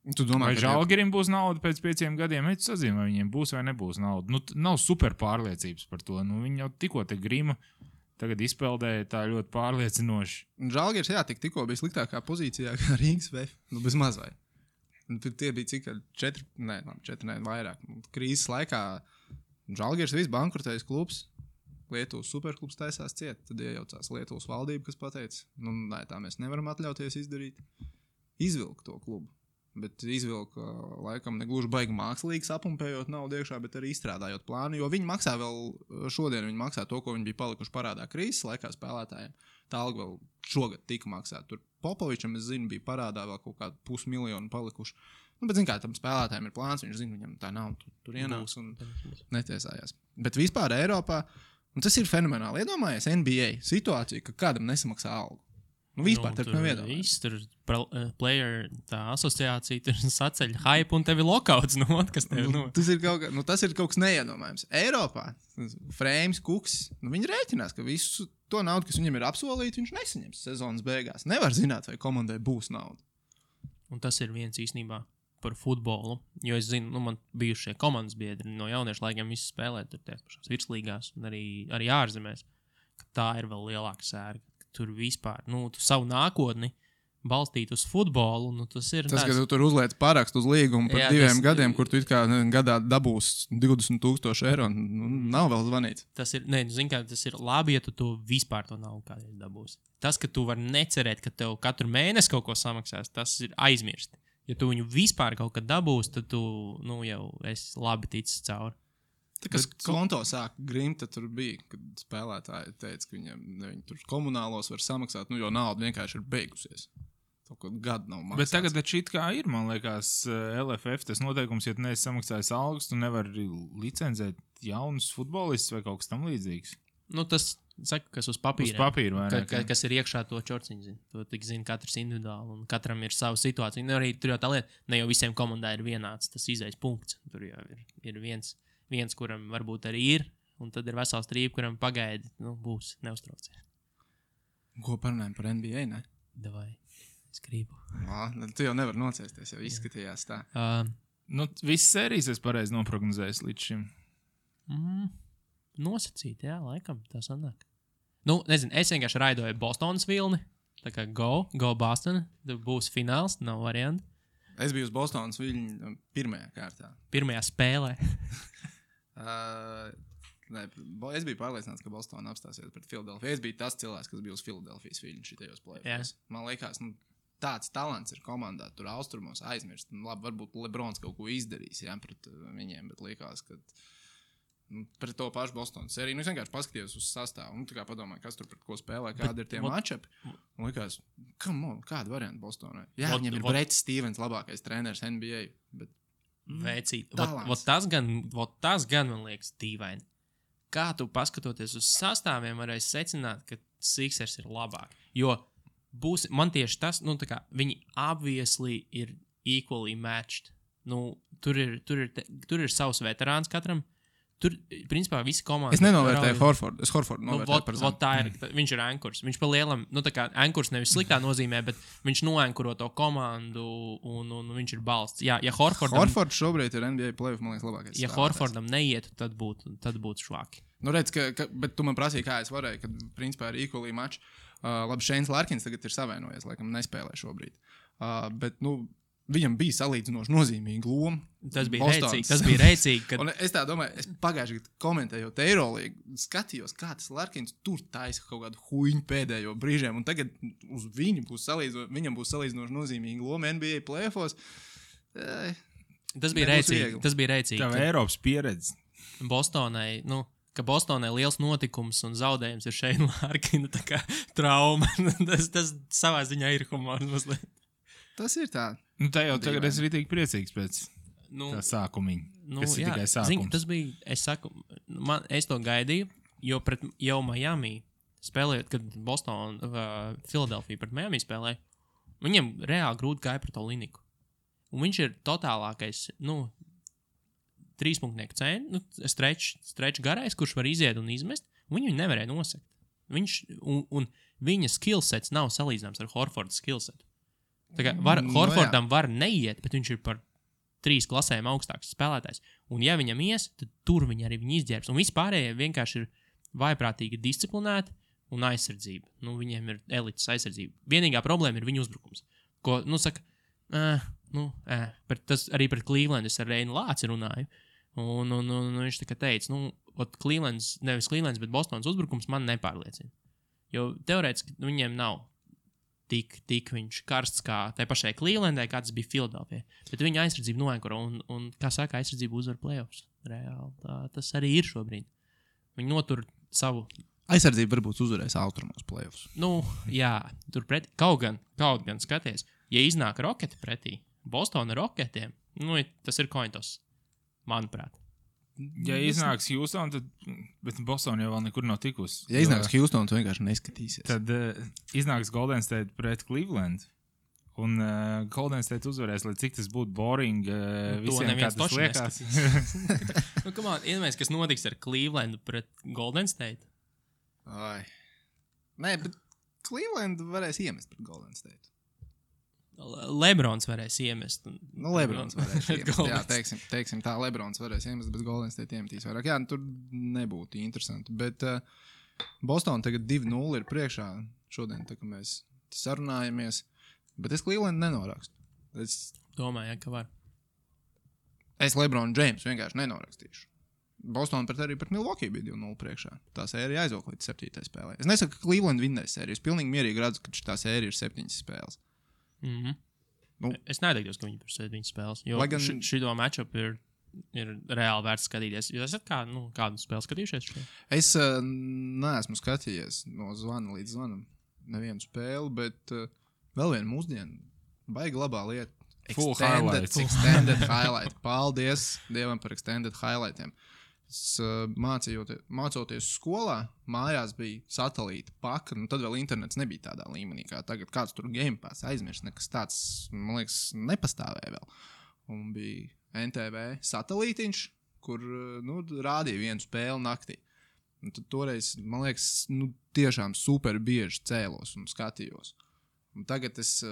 B: Vai Žalgirim būs nauda pēc 5 gadiem? Tu sazini, vai viņiem būs vai nebūs nauda. Nav super pārliecības par to. Viņi jau tikko te Grima tagad izpeldēja tā ļoti pārliecinoši.
C: Žalgiris, jā, tikko bija sliktākā pozīcijā kā Rīgas VF. Bez mazvai. Tie bija cik 4, vairāk. Krīzes laikā Žalgiris viss bankrotējis klubs. Lietuvas superklubs taisās ciet. Tad iejaucās Lietuvas valdība, kas pateica, tā mēs nevaram atļauties izdarīt. Izvilkt to klubu. Bet izvilka laikam negluži baigi mākslīgi sapumpējot naudu iekšā, bet arī izstrādājot plānu, jo viņi maksā šodien viņi maksā to, ko viņi bija palikuši parādā krīzes laikā spēlētājiem. Tā alga vēl šogad tika maksāta. Tur Popovičam, es zinu, bija parādā vēl kaut kādu 500 000 palikuši. Bet zin kā, tam spēlētājiem ir plāns, viņš zina, viņam tā nav, tur ienāks un netiesājās. Bet vispār Eiropā, un tas ir fenomenāli, iedomājies NBA situāciju, ka kādam nesamaksā algu. Vispār tur nav iedomājis.
A: Tur player tā asociācija tur saceļ hype un tevi lokauts. Kas tev,
C: tas ir kaut kas neiedomājams. Eiropā Frēms, Kuks, viņi rēķinās, ka visu to naudu, kas viņam ir apsolīta, viņš nesaņems sezonas beigās. Nevar zināt, vai komandai būs nauda.
A: Un tas ir viens īstenībā par futbolu. Jo es zinu, man bijušie komandas biedri no jauniešu laikiem visi spēlē tur tie pašās virslīgās un arī ārzemēs. Tā ir vēl lielāka sērga. Tur vispār, tu savu nākotni balstīt uz futbolu, tas ir...
C: Tas, ka tu tur uzliec parakstu uz līgumu par 2 gadiem, kur tu it kā gadā dabūs 20,000 eiro, nav vēl zvanīts.
A: Tas ir, tas ir labi, ja tu to vispār to naudu kādreiz dabūsi. Tas, ka tu vari necerēt, ka tev katru mēnesi kaut ko samaksās, tas ir aizmirsti. Ja tu viņu vispār kaut kad dabūsi, tad tu, jau esi labi ticis cauri.
C: Kas konto sāk grimt, tad tur bija, kad spēlētāji teica, ka viņi tur komunālos var samaksāt, jo nauda vienkārši ir beigusies. Kaut gadu nav maksāts.
B: Bet tagad šit kā ir, man liekas, LFF, tas noteikums, ja tu neesi samaksājis algas, tu nevari licenzēt jaunus futbolistus vai kaut kas tam līdzīgs.
A: Tas saka, kas uz papīra.
B: Uz papīra, vai ne?
A: Kas ir iekšā to čorciņu zina. To tik zina katrs individuāli, un katram ir sava situācija. Arī tur jau tā lieta, ne jau visiem komandai ir vienāds tas izejas punkts. Tur jau ir viens, kuram varbūt arī ir, un tad ir vesels trība, kuram pagaidi, būs, neuztraucies.
C: Ko parunājam par NBA, ne?
A: Davai, es gribu.
C: Tu jau nevar nocēsties, jau izskatījās tā.
B: Visas sērijas es pareizi noprognozējis līdz šim.
A: Nosacīt, jā, laikam, tā sanāk. Nezinu, es vienkārši raidoju Bostonas vilni, tā kā go Boston, būs fināls, nav varianti.
C: Es biju uz Bostonas viļņu pirmajā kārtā.
A: Pirmajā spēlē.
C: Es biju pārliecināts, ka Bostona apstāsies pret Filadelfiju. Es biju tas cilvēks, kas bija uz Filadelfijas viļņu šitajos play-offs. Man liekas, tāds talants ir komandā, tur austrumos aizmirst. Labi, varbūt Lebrons kaut ko izdarīs pret viņiem, bet liekas, ka pret to pašu Bostonas sēriju. Es vienkārši paskatījos uz sastāvu. Tā kā padomāju, kas tur pret ko spēlē, kādi ir tie matchupi. Un likās, kāda varianta Bostonai? Jā, viņiem ir Brets Stevens, labākais treneris NBA. Bet
A: Veicīt. Tas gan man liekas dīvaini. Kā tu paskatoties uz sastāviem varēsi secināt, ka Sixers ir labāk. Jo man tieši tas, viņi obviously ir equally matched. Tur ir savs veterāns katram. Tur, principā, visi komandas...
C: Es nenovērtēju Horfordu. Es Horfordu novērtēju par zemu.
A: Viņš ir ankurs. Viņš pa lielam, ankurs nevis sliktā nozīmē, bet viņš noankuro to komandu un viņš ir balsts. Ja
C: Horfords šobrīd ir NBA playoff, man liekas, labākais.
A: Ja Horfordam neietu, tad būtu švāki.
C: Redz, bet tu man prasīji, kā es varēju, kad, principā, ir equally match. Labi, Šeins Larkins tagad ir savainojies, laikam nespēlē šobrīd. Bet, viņam bija salīdzinoši nozīmīga loma.
A: Tas bija rēcīgi. Kad...
C: Es tā domāju, es pagājuši gadu komentējot Eirolīgu, skatījos, kā tas Larkins tur taisa kaut kādu huņu pēdējo brīžiem, un tagad uz viņam būs salīdzinoši nozīmīga loma NBA playoffos.
A: Tas bija rēcīgi.
B: Tā Eiropas pieredze.
A: Bostonai, ka Bostonai liels notikums un zaudējums ir Šeina Larkina trauma. tas savā ziņā ir humors mazliet.
C: Tas ir tā.
B: Tā jau tagad es arī tik priecīgs pēc tā sākumiņa. Tas ir tikai sākums.
A: Tas bija, es to gaidīju, jo pret jau Miami spēlējot, kad Filadelfija pret Miami spēlēja, viņiem reāli grūti gāja pret Oliniku. Un viņš ir totālākais, trīspunktnieku cēni, strečs garais, kurš var iziet un izmest, un viņu nevarēja nosekt. Un viņa skillsets nav salīdzināms ar Horforda skillsetu. Horfordam var neiet, bet viņš ir par 3 klasēm augstāks spēlētājs. Un ja viņam ies, tad tur viņi arī izģērbs. Un vispārējie vienkārši ir vaiprātīgi disciplinēti un aizsardzība. Viņiem ir elites aizsardzība. Vienīgā problēma ir viņu uzbrukums. Ko, tas arī pret Cleveland es ar Reinu Lāci runāju. Un viņš teica, Clevelands, nevis Clevelands, bet Bostonas uzbrukums man nepārliecina. Jo teorētiski viņiem nav tik viņš karsts kā tai pašai Clevelandai, kā tas bija Filadelfijai. Bet viņa aizsardzība noenkuro un kā saka, aizsardzība uzvar playoffs. Reāli. Tas arī ir šobrīd. Viņi notur savu...
C: Aizsardzība varbūt uzvarēs austrumos playoffs.
A: Jā, tur pretī. Kaut gan skaties, ja iznāk Roketi pretī, Bostona Roketiem, tas ir cointos, manuprāt.
B: Ja iznāks Houston, tad... Bet Boston jau vēl nekur nav tikusi.
C: Ja iznāks Houston, tu vienkārši neskatīsies.
B: Tad iznāks Golden State pret Cleveland. Un Golden State uzvarēs, lai cik tas būtu boring visiem, kā tas liekas.
A: Iedomājies, kas notiks ar Clevelandu pret Golden State?
C: Nē, bet Cleveland varēs iemest pret Golden State.
A: Lebrons varēs iemest.
C: Lebrons varēs iemest. Jā, teiksim tā, Lebrons varēs iemest, bet Golden State iemetīs vairāk. Jā, tur nebūtu interesanti. Bet Boston tagad 2-0 ir priekšā šodien, tā kā mēs sarunājamies. Bet es Cleveland nenorakstu.
A: Domāju, ka var.
C: Es Lebronu Jamesu vienkārši nenorakstīšu. Boston arī pret Milwaukee bija 2-0 priekšā. Tā sērija aizvilk līdz 7. spēlē. Es nesaku, ka Cleveland vinnēs sēriju. Es pilnīgi mierīgi redzu, ka tā sērija ir 7 spēles.
A: Es neteiktos, ka viņi par 7 spēles, jo šito matchup ir reāli vērts skatīties. Jūs esat kādu spēli skatījušies?
C: Es neesmu skatījies no zvana līdz zvanam nevienu spēli, bet vēl vienu mūsdienu baigi labā lieta. Extended highlight. Paldies Dievam par extended highlightiem. Mācoties skolā, mājās bija satelīta paka, tad vēl internets nebija tādā līmenī, kā tagad kāds tur Game Pass aizmirst, nekas tāds, man liekas, nepastāvēja vēl. Un bija NTV satelītiņš, kur rādīja vienu spēli naktī. Un tad toreiz, man liekas, tiešām super bieži cēlos un skatījos. Un tagad es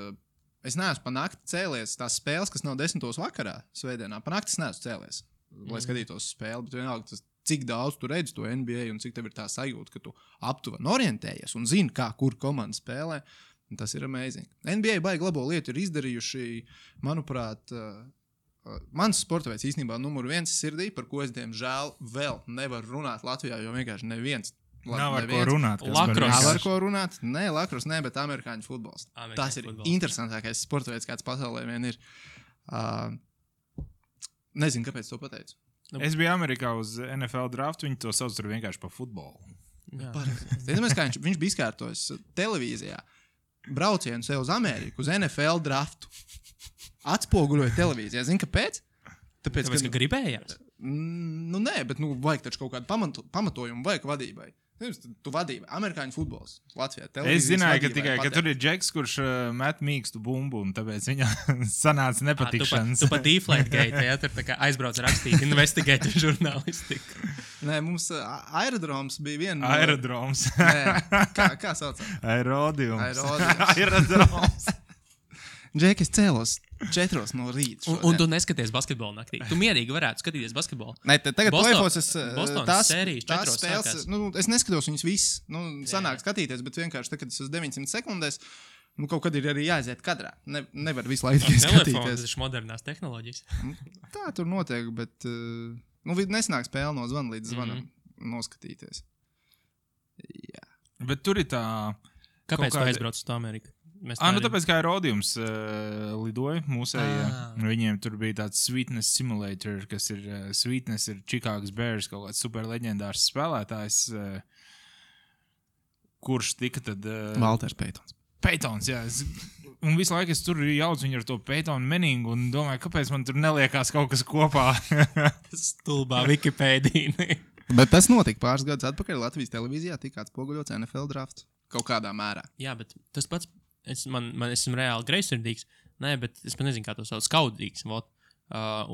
C: neesmu pa nakti cēlies tās spēles, kas nav 10. vakarā svētdienā. Pa nakti es neesmu cēlies, lai skatītos spēli, bet vienalga cik daudz tu redzi to NBA un cik tev ir tā sajūta, ka tu aptuveni orientējies un zini, kur komanda spēlē. Un tas ir amazing. NBA baigi labo lietu ir izdarījuši, manuprāt, mans sporta veids īstenībā numur 1 sirdī, par ko es, diemžēl, vēl nevaru runāt Latvijā, jo vienkārši neviens.
B: Nav ar ko runāt.
A: Lakros.
C: Nav ar ko runāt. Nē, lakros, ne, bet amerikāņu futbols. Tas ir interesantākais sporta veids, kāds pasaulē vien ir. Nezinu, kāpēc to pateicu.
B: Es biju Amerikā uz NFL draftu, viņi to sauc tur vienkārši par futbolu.
C: Zinām, kā viņš bija izkārtojis televīzijā. Braucienu sev uz Ameriku, uz NFL draftu. Atspoguļoja televīzijā. Zini, kāpēc?
A: Tāpēc, ka gribējās?
C: Nu, nē, bet vajag taču kaut kādu pamatojumu, vajag vadībai. Tu vadība, amerikāņu futbols Latvijā.
B: Es zināju, ka tur ir džeks, kurš met mīkstu bumbu, un tāpēc viņa sanāca nepatikšanas.
A: Tu pat Deflategate, ja tur tā kā aizbrauc rakstīt investigēt žurnālistiku.
C: Nē, mums aerodroms bija viena.
B: Aerodroms.
C: Nē, kā saucam?
B: Aerodiums.
C: Aerodroms. Džeki, es cēlos 4 no rīta.
A: Un tu neskaties basketbolu naktī. Tu mierīgi varētu skatīties basketbolu.
C: Nē, tagad play-offs
A: tās sērijas 4
C: spēles. Es neskatos viņus visus. Sanāk skatīties, bet vienkārši tagad es uz 900 sekundēs. Kaut kad ir arī jāaiziet kadrā. Nevar visu laiku tikai skatīties.
A: Tas ir modernās tehnoloģijas.
C: Tā tur notiek, bet nesanāk spēle no zvana līdz zvanam noskatīties. Jā.
B: Bet tur ir tā...
A: Kāpēc tu aizbrauc uz to Ameriku?
B: Tāpēc kā Aerodījums lidoja mūsējā. Viņiem tur bija tāds Sweetness Simulator, kas ir Sweetness ir Chicago's Bears, kaut kāds super leģendārs spēlētājs, kurš tika tad...
C: Valters Peitons.
B: Peitons, jā. Un visu laiku es tur jaucu viņu ar to Peitonu meningu un domāju, kāpēc man tur neliekās kaut kas kopā.
A: Stulbā Wikipēdija.
C: Bet tas notika pāris gadus atpakaļ Latvijas televīzijā, tika atspoguļots NFL drafts kaut kādā mērā.
A: Jā, bet tas pats... Man esmu reāli greizsirdīgs. Nē, bet es pat nezinu, kā to sauc. Skaudīgs.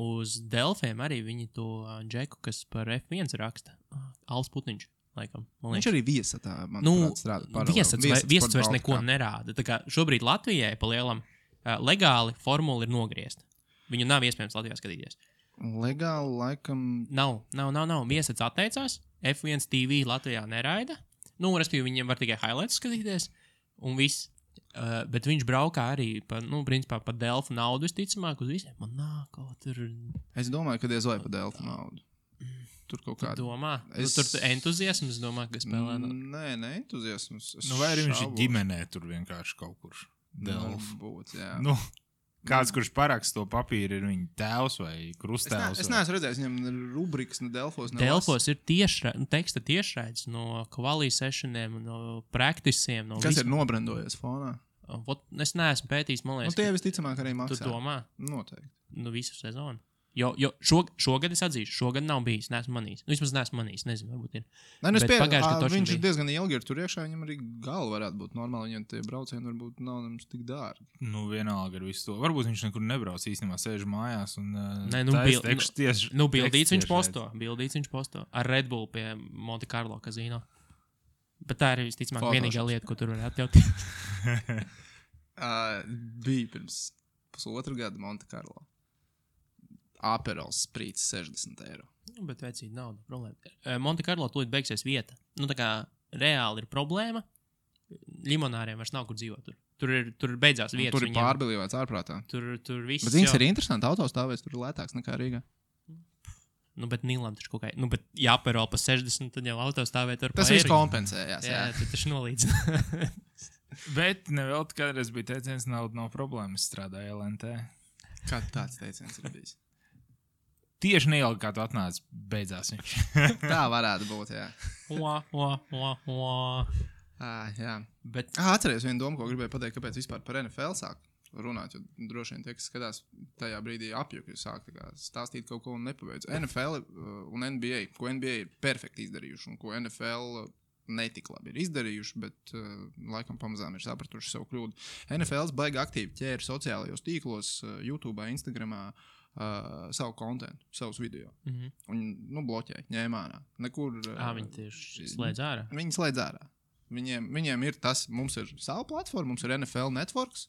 A: Uz Delfiem arī viņi to džeku, kas par F1 raksta. Alps Putniņš, laikam.
C: Viņš arī viesatā, manuprāt, strādā paralēli.
A: Viesats vairs neko nerāda. Tā kā šobrīd Latvijai pa lielam legāli formula ir nogriezta. Viņu nav iespējams Latvijā skatīties.
C: Legāli, laikam...
A: Nav. Viesats atteicās. F1 TV Latvijā neraida. Respektīvi, viņiem var tikai highlights skatīties. Un viss. Bet viņš braukā arī principā par Delfu naudu, visticamāk, uz visiem. Man nāk kaut tur...
C: Es domāju, ka diez vai par Delfu naudu. Tur kaut kāda...
A: Tu domā? Tur entuziasms, domā, ka spēlē?
C: Nē, entuziasms.
B: Vai arī viņš ir ģimenē tur vienkārši kaut kur Delfu?
C: Būt, jā.
B: Kāds, kurš parakst to papīru, ir viņa tēvs vai krusttēvs?
C: Es neesmu redzējis, viņam rubrikas no Delfos.
A: Delfos ir teksta tiešraides no quali sessioniem, no praktisiem.
C: Kas ir nobrendojies fonā?
A: Es neesmu pētījis, man liekas.
C: Tie visticamāk arī maksā.
A: Tu domā?
C: Noteikti.
A: Visu sezonu. Jo šogad es atzīšu, šogad nav bijis, neesmu manījis. Vismaz neesmu manījis, nezinu, varbūt ir.
C: Viņš ir diezgan ilgi ir tur iekšā, viņam arī galva varētu būt normāli, viņam tie braucieni varbūt nav nemaz tik dārgi.
B: Vienalga ar visu to. Varbūt viņš nekur nebrauc īstenībā, sēž mājās un
A: bildīts viņš posto. Ar Red Bull pie Monte Carlo kazino. Bet tā ir visticamāk vienīgā lieta, ko tur var atļauties.
C: Bija pirms 1,5 gada Monte Carlo. Aperols sprīts 60 €.
A: Bet vecīt nauda, problēma. Monte Carlo tūlīt beigsies vieta. Tā kā reāli ir problēma. Limonāriem vairs nav kur dzīvot. Tur beidzās vietas.
C: Tur ir pārbilīvēts ārprātā.
A: Tur viss.
C: Bet zins ir interesanti, autostāvēs tur ir lētāks nekā Rīgā.
A: Bet Nīlam taču kaut kā, bet ja Aperol pa 60, tad jau autostāvēt ar
C: tas viss kompensējās.
A: Jā, tu taču nolīdzina.
B: Bet nevēl kādreiz bija teiciens, nauda nav problēmas, strādāja LNT.
C: Kā tāds teiciens ir bijis?
B: Tieši neilgi, kā tu atnāc, beidzās viņš.
C: Tā varētu būt, jā. Jā.
A: Bet...
C: Atceries vienu domu, ko gribēju pateikt, kāpēc vispār par NFL sāk runāt, jo droši vien tie, kas skatās tajā brīdī apjuki, sāk stāstīt kaut ko un nepabeidz. NFL un NBA, ko NBA ir perfekti izdarījuši un ko NFL netik labi ir izdarījuši, bet laikam pamazām ir sapratuši savu kļūdu. NFLs baigi aktīvi ķēra sociālajos tīklos, YouTube, Instagramā, savu kontentu, savus video. Un, bloķēja, ņēma ārā. Nekur...
A: Viņi tieši slēdz ārā?
C: Viņi slēdz ārā. Viņiem ir tas, mums ir savu platformu, mums ir NFL Networks,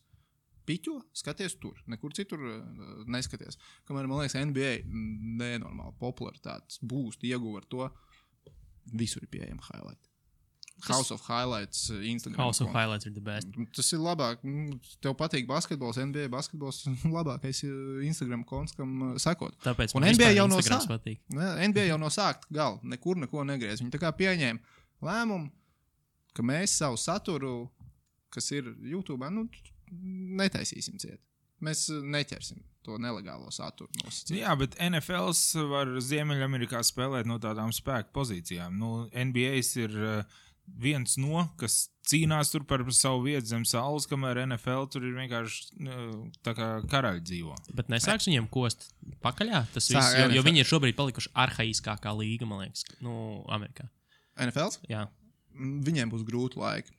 C: piķo, skaties tur, nekur citur neskaties. Kamēr, man liekas, NBA nenormāli popularitātes būst, ieguva ar to, visur ir pieejama highlight. House of Highlights Instagram.
A: House of Highlights ir the best.
C: Tas ir labāk. Tev patīk basketbols, NBA basketbols. Labākais Instagram konts, kam sekot.
A: Tāpēc
C: un
A: man
C: NBA jau
A: Instagrams patīk.
C: NBA jau no sākta gala nekur neko negriez. Viņi tā kā pieņēma lēmumu, ka mēs savu saturu, kas ir YouTube, netaisīsim ciet. Mēs neķersim to nelegālo saturu nosacīt.
B: Jā, bet NFLs var Ziemeļamerikā spēlēt no tādām spēku pozīcijām. NBA's ir viens no, kas cīnās tur par savu vietu zem saules, kamēr NFL tur ir vienkārši tā kā karaļi dzīvo.
A: Bet nesāks viņiem kost pakaļā? Tas viss, jo viņi ir šobrīd palikuši arhaiskākā līga, man liekas, Amerikā.
C: NFLs?
A: Jā.
C: Viņiem būs grūti laiki.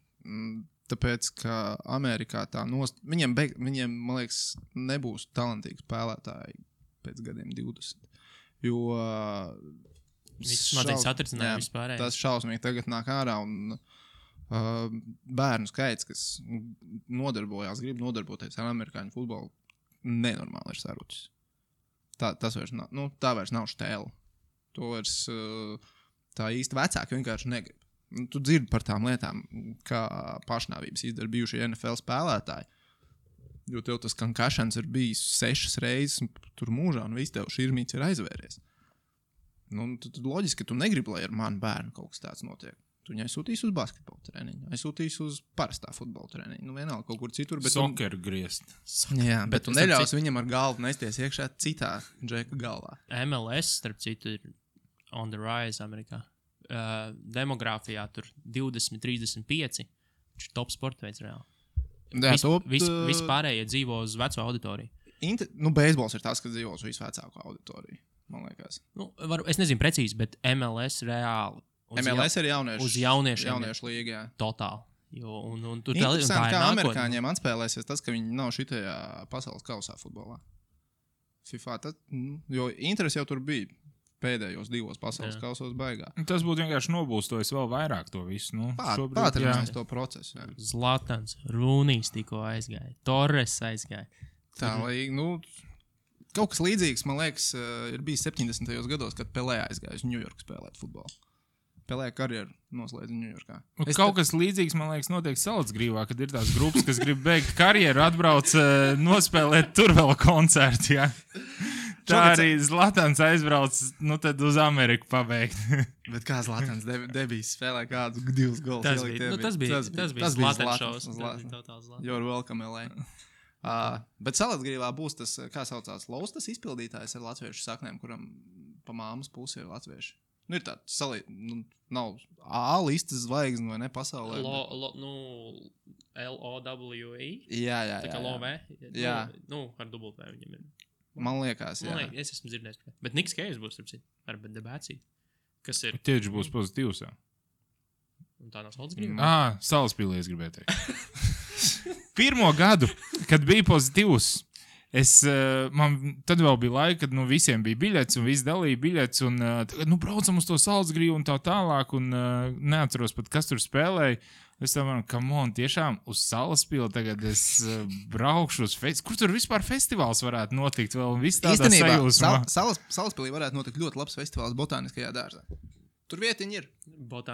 C: Tāpēc, ka Amerikā viņiem, man liekas, nebūs talantīgi spēlētāji pēc gadiem 20. Jo tas šausmīgi tagad nāk ārā un bērnu skaits, kas grib nodarboties ar amerikāņu futbolu, nenormāli ir sarucis. Tas vairs nav, tā vairs nav štēla. To vairs tā īsti vecāki vienkārši negrib. Tu dzirdi par tām lietām, kā pašnāvības izdara bijušie NFL spēlētāji. Jo tev tas concussions ir bijis 6 reizes tur mūžā, un viss tev širmīts ir aizvēries. Tad loģiski, ka tu negribi, lai ar manu bērnu kaut kas tāds notiek. Tu viņu aizsūtīs uz basketbola treniņu, aizsūtīs uz parastā futbola treniņu. Vienalga kaut kur citur.
B: Soccer griezt.
C: Jā, bet tu neļaus viņam ar galvu nesties iekšā citā džeka galvā.
A: MLS, starp citu, ir on the rise Amerikā. Demogrāfijā tur 20, 35. Viņš ir top sporta veids reāli. Visi pārējie dzīvo uz veco auditoriju.
C: Beisbols ir tas, kas dzīvo uz visvecāko auditoriju, man liekas.
A: Es nezinu precīzi, bet MLS reāli.
C: MLS ir
A: uz jauniešiem.
C: Jauniešu līgā.
A: Totāli.
C: Interesanti, kā amerikāņiem atspēlēsies tas, ka viņi nav šitajā pasaules kausā futbolā. FIFA, jo interesi jau tur bija. Pēdējos 2 pasaules kausos baigā.
B: Tas būtu vienkārši nobūstojis vēl vairāk to visu.
C: Pātrinājis to procesu. Jā.
A: Zlatans, Rūnijs tikko aizgāja, Torres aizgāja.
C: Tā, kaut kas līdzīgs, man liekas, ir bijis 70. gados, kad Pelē aizgāja uz Ņujorku spēlēt futbolu. Pelē karjeru noslēdza Ņujorkā.
B: Kas līdzīgs, man liekas, notiek Salacgrīvā, kad ir tās grupas, kas grib beigt karjeru, atbrauc nospēlēt tur vēl koncertu, jā. Tā arī Zlatans aizbrauc, tad uz Ameriku pabeigt.
C: Bet kā Zlatans debijas spēlē kādu 2 golus?
A: Tas bija Zlatans šovs.
C: You're welcome, LA. Bet Salacgrīvā būs tas, kā saucās, Laustas izpildītājs ar latviešu saknēm, kuram pa māmas pusi ir latvieši. Ir tāds nav A listas zvaigzne vai ne pasaulē.
A: L-O-W-E?
C: Jā.
A: Tā kā Love?
C: Jā.
A: Ar dubultē viņam ir.
C: Man liekas, jā.
A: Es esmu dzirdējis. Bet Niks Kejs būs, ar debāciju. Kas ir?
B: Tieši būs pozitīvs, jā.
A: Un tā nav Salacgrīva?
B: Salaspīlī es gribēju teikt. Pirmo gadu, kad bija pozitīvs, man tad vēl bija laika, kad visiem bija biļets un visi dalīja biļets un tagad, braucam uz to Salacgrīvu un tā tālāk un neatceros pat, kas tur spēlēja. Es domāju, tiešām uz Salaspili tagad es braukšu uz festivālu. Kur tur vispār festivāls varētu notikt vēl un viss tādā sajūsmā?
C: Salaspilī varētu notikt ļoti labs festivāls botāniskajā dārzā. Tur vietiņi ir.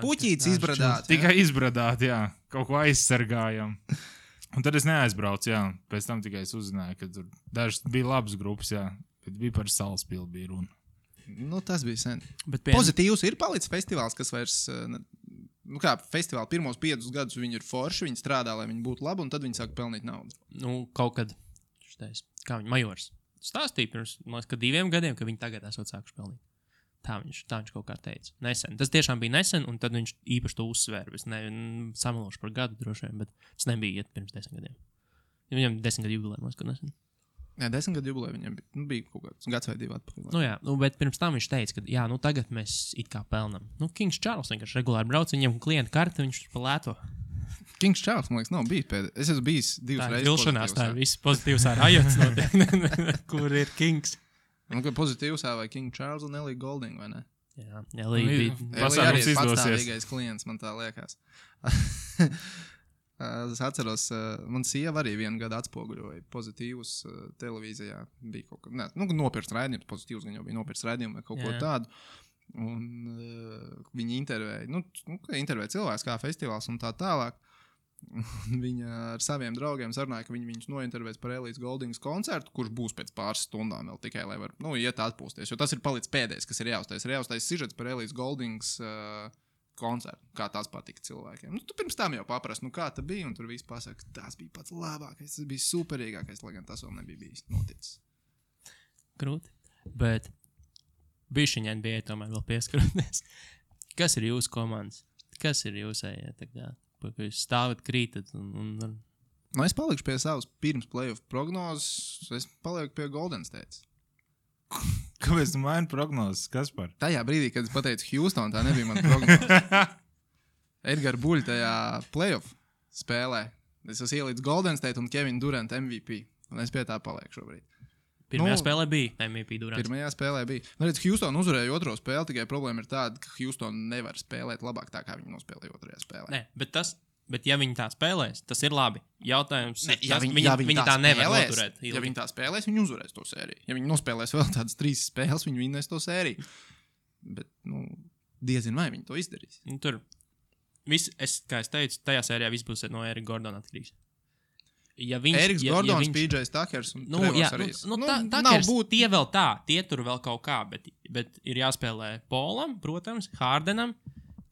C: Puķītis izbradāt.
B: Tikai izbradāt, jā. Kaut ko aizsargājam. Un tad es neaizbraucu, jā. Pēc tam tikai es uzzināju, ka tur dažas bija labas grupas, jā. Bet bija par Salaspili bija runa.
C: Tas bija sen. Pozitīvs ir palicis festivāls, kas vairs... kā festivāli pirmos 5 gadus viņi ir forši, viņi strādā, lai viņi būtu labi, un tad viņi sāk pelnīt naudu.
A: Kaut kad, kā viņi Majors stāstīja pirms, man liekas, ka 2 gadiem, ka viņi tagad esot sākuši pelnīt. Tā viņš kaut kā teica. Nesen. Tas tiešām bija nesen, un tad viņš īpaši to uzsvēra. Es samalošu par gadu droši vien, bet tas nebija iet pirms 10 gadiem. Viņam 10 gadu jubilē, man liekas, ka nesen.
C: Jā, 10 gadu jubilē viņam bija kaut kāds gads vai 2 atpakaļ.
A: Jā, bet pirms tam viņš teica, ka tagad mēs it kā pelnam. Kings Charles vienkārši regulāri brauc, viņam klienta karti, viņš pa lēto.
C: Kings Charles, man liekas, nav bijis pēdējais. Es esmu bijis 2 reizes.
A: Vilšanās, tā ir viss pozitīvs ar Ajots notiek. Kur ir Kings?
C: Ka pozitīvs vai King Charles un Ellie Golding, vai ne?
A: Jā, Ellie
B: pasākums
C: izdosies.
B: Patstāvīgais
C: klients, man tā liekas. Es atceros, man sieva arī 1 gadu atspoguļoja pozitīvus televīzijā. Bija kaut kā, nopirkt raidījumus, pozitīvus gan jau bija nopirkt raidījumu vai kaut ko tādu. Un viņi intervēja cilvēks kā festivāls un tā tālāk. Un viņa ar saviem draugiem sarunāja, ka viņi viņus nointervēs par Elītes Goldings koncertu, kurš būs pēc pāris stundām vēl tikai, lai var, iet atpūsties. Jo tas ir palicis pēdējais, kas ir jāuztais. Ir jāuztais sižets par Elītes Goldings koncertu, kā tas patika cilvēkiem. Tu pirms tam jau paprast, kā tas bija, un tur viss pasaka, tas bija pats labākais, tas bija superīgākais, lai gan tas vēl nebija bijis noticis.
A: Grūti. Bet bišķiņai bija tomēr vēl pieskaroties. Kas ir jūsu komandas? Kas ir jūsējie tagad? Ka jūs stāvat, krītat un...
C: Es palikšu pie savas pirms playoff prognozes. Es palieku pie Golden State.
B: Kāpēc tu maini prognozes? Kas par?
C: Tajā brīdī, kad es pateicu Houston, tā nebija mana prognoze. Edgars Buļs tajā playoff spēlē. Es esmu ielīdz Golden State un Kevin Durant MVP. Un es pie tā palieku šobrīd.
A: Pirmajā spēlē bija MVP Durants.
C: Pirmajā spēlē bija. Houston uzvarēja otro spēli, tikai problēma ir tāda, ka Houston nevar spēlēt labāk tā, kā viņi nospēlēja otrajā spēlē.
A: Nē, bet ja viņi tā spēlēs, tas ir labi. Jautājums ir, viņi tā
C: spēlēs,
A: nevar noturēt.
C: Ja viņi tā spēlēs, viņi uzvarēs to sēriju. Ja viņi nospēlēs vēl tādas 3 spēles, viņi vinnēs to sēriju. Bet, diezin vai viņi to izdarīs.
A: Tur kā es teicu, tajā sērijā viss būs no Erika Gordona atkarīgs.
C: Eriks Gordons, PJs Takers un Trevors arī.
A: Takers, tie vēl tā, tie tur vēl kaut kā, bet ir jāspēlē Polam, protams, Hardenam,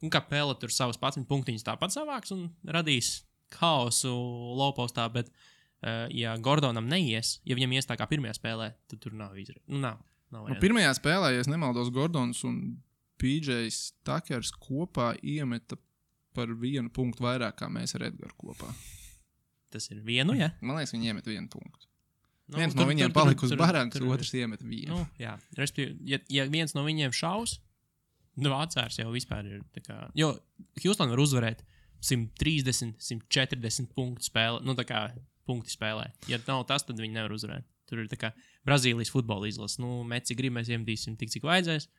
A: un kā Pele tur savas 11 punktiņas tāpat savāks un radīs haosu lowpostā, bet ja Gordonam neies, ja viņam ies tā kā pirmajā spēlē, tad tur nav izredzes. Nav
C: pirmajā spēlē, ja es nemaldos, Gordons un PJs Takers kopā iemeta par 1 punktu vairāk, kā mēs ar Edgaru kopā.
A: Tas ir vienu, ja?
C: Man liekas, viņi iemet 1 punktu. Viens no viņiem palika uz barankas, otrs iemet 1.
A: Jā, ja viens no viņiem šaus, Vācārs jau vispār ir tā kā... Jo Houston var uzvarēt 130, 140 punktu spēlē, tā kā punkti spēlē. Ja nav tas, tad viņi nevar uzvarēt. Tur ir tā kā Brazīlijas futbola izlase. Meci grib, mēs iemetīsim tik, cik vajadzēs.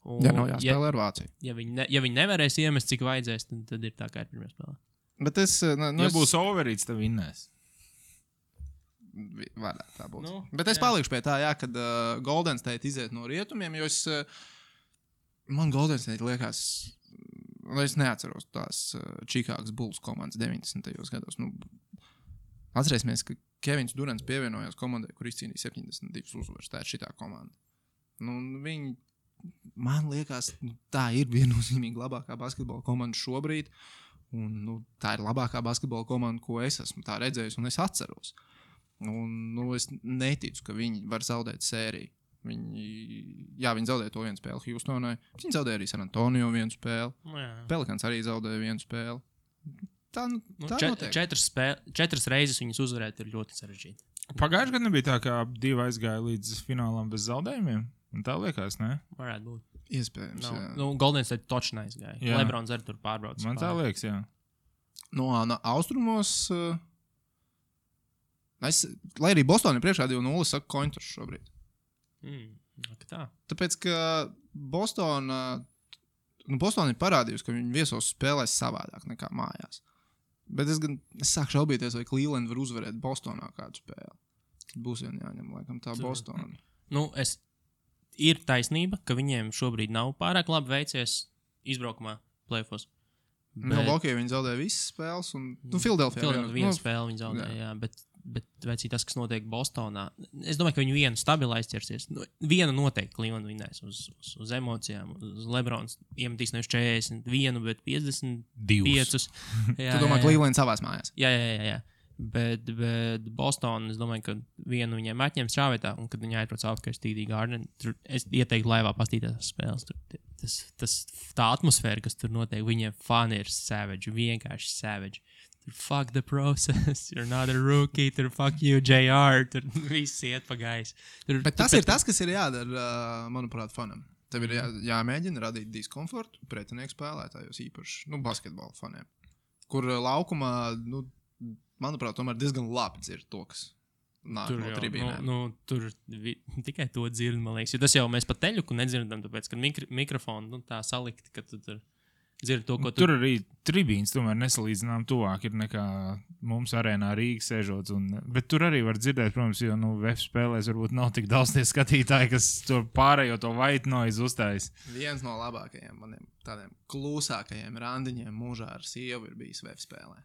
C: Nav jāspēlē ar Vāciju.
A: Ja viņi nevarēs iemest, cik vajadzēs, tad ir tā kā ir pirmajā spēlē.
C: Bet
B: ja būs overīts, tad vinnēs.
C: Varētu tā būt. Bet es palikšu pie tā, kad Golden State iziet no rietumiem, jo man Golden State liekas, es neatceros tās Chicago Bulls komandas 90. gados. Atcerēsimies, ka Kevins Durants pievienojās komandai, kur izcīnīja 72 uzvaras. Tā ir šitā komanda. Viņi, man liekas, tā ir viennozīmīgi labākā basketbola komanda šobrīd. Un, tā ir labākā basketbola komanda, ko es esmu tā redzējis un es atceros. Un, es neticu, ka viņi var zaudēt sēriju. Viņi zaudēja to 1 spēli Houstonai. Viņi zaudēja arī San Antonio 1 spēli. Pelicans arī zaudēja 1 spēli. Tā notiek.
A: 4 reizes viņus uzvarēt ir ļoti sarežģīti.
B: Pagājušajā gadā nebija tā, kā 2 aizgāja līdz finālam bez zaudējumiem. Un tā liekas, ne?
A: Varētu būt.
C: Iespējams, jā.
A: Golden State točnā aizgāja. Lebrons arī tur pārbrauc.
B: Man tā liekas, jā.
C: No austrumos... lai arī Bostonai priekšā 2-0 saka kointurs šobrīd.
A: Tā.
C: Tāpēc, ka Boston ir parādījusi, ka viņi viesos spēlēs savādāk nekā mājās. Bet es sāku šaubīties, vai Cleveland var uzvarēt Bostonā kādu spēli. Būs vien jāņem, laikam, tā Bostona.
A: Ir taisnība, ka viņiem šobrīd nav pārāk labi veicies izbraukumā playoffs.
C: Milwaukee viņi zaudēja visas spēles, un Philadelphia
A: vienu spēli viņi zaudēja, jā, bet vecī tas, kas notiek Bostonā, es domāju, ka viņi vienu stabilu aizķersies. Vienu noteikti Cleveland vinnēs uz emocijām, uz Lebrons iemetīs nevis 41, bet 52.
C: Tu domā, Cleveland savās mājās?
A: Jā. Bet Boston, es domāju, ka vienu viņiem atņems šāvietā, un kad viņi aizbrauc apkārt TD Garden, tur es ieteiktu laivā pastīties spēles. Tā atmosfēra, kas tur notiek, viņiem fani ir savage, vienkārši savage. Tur fuck the process, you're not a rookie, tur fuck you, JR, tur viss iet pa gaisu.
C: Bet tas ir tas, kas ir jādara, manuprāt, fanam. Tev ir jāmēģina radīt diskomfortu pretinieku spēlētājos īpaši, basketbola faniem, kur laukumā, manuprāt, tomēr diezgan labi dzird to, kas nāk no tribīnēm.
A: Tur tikai to dzird, man liekas. Jo tas jau mēs pa teļuku nedzirdam, tāpēc, ka mikrofonu tā salikti, ka tu tur dzird to, ko
B: Tur arī tribīns tomēr nesalīdzinām tuvāk ir nekā mums arēnā Rīgas sēžot. Bet tur arī var dzirdēt, protams, jo VF spēlēs varbūt nav tik daudz tie skatītāji, kas to pārējo to white noise uzstājas.
C: Viens no labākajiem maniem tādiem klusākajiem randiņiem mūžā ar sievu ir bijis VF spēlē.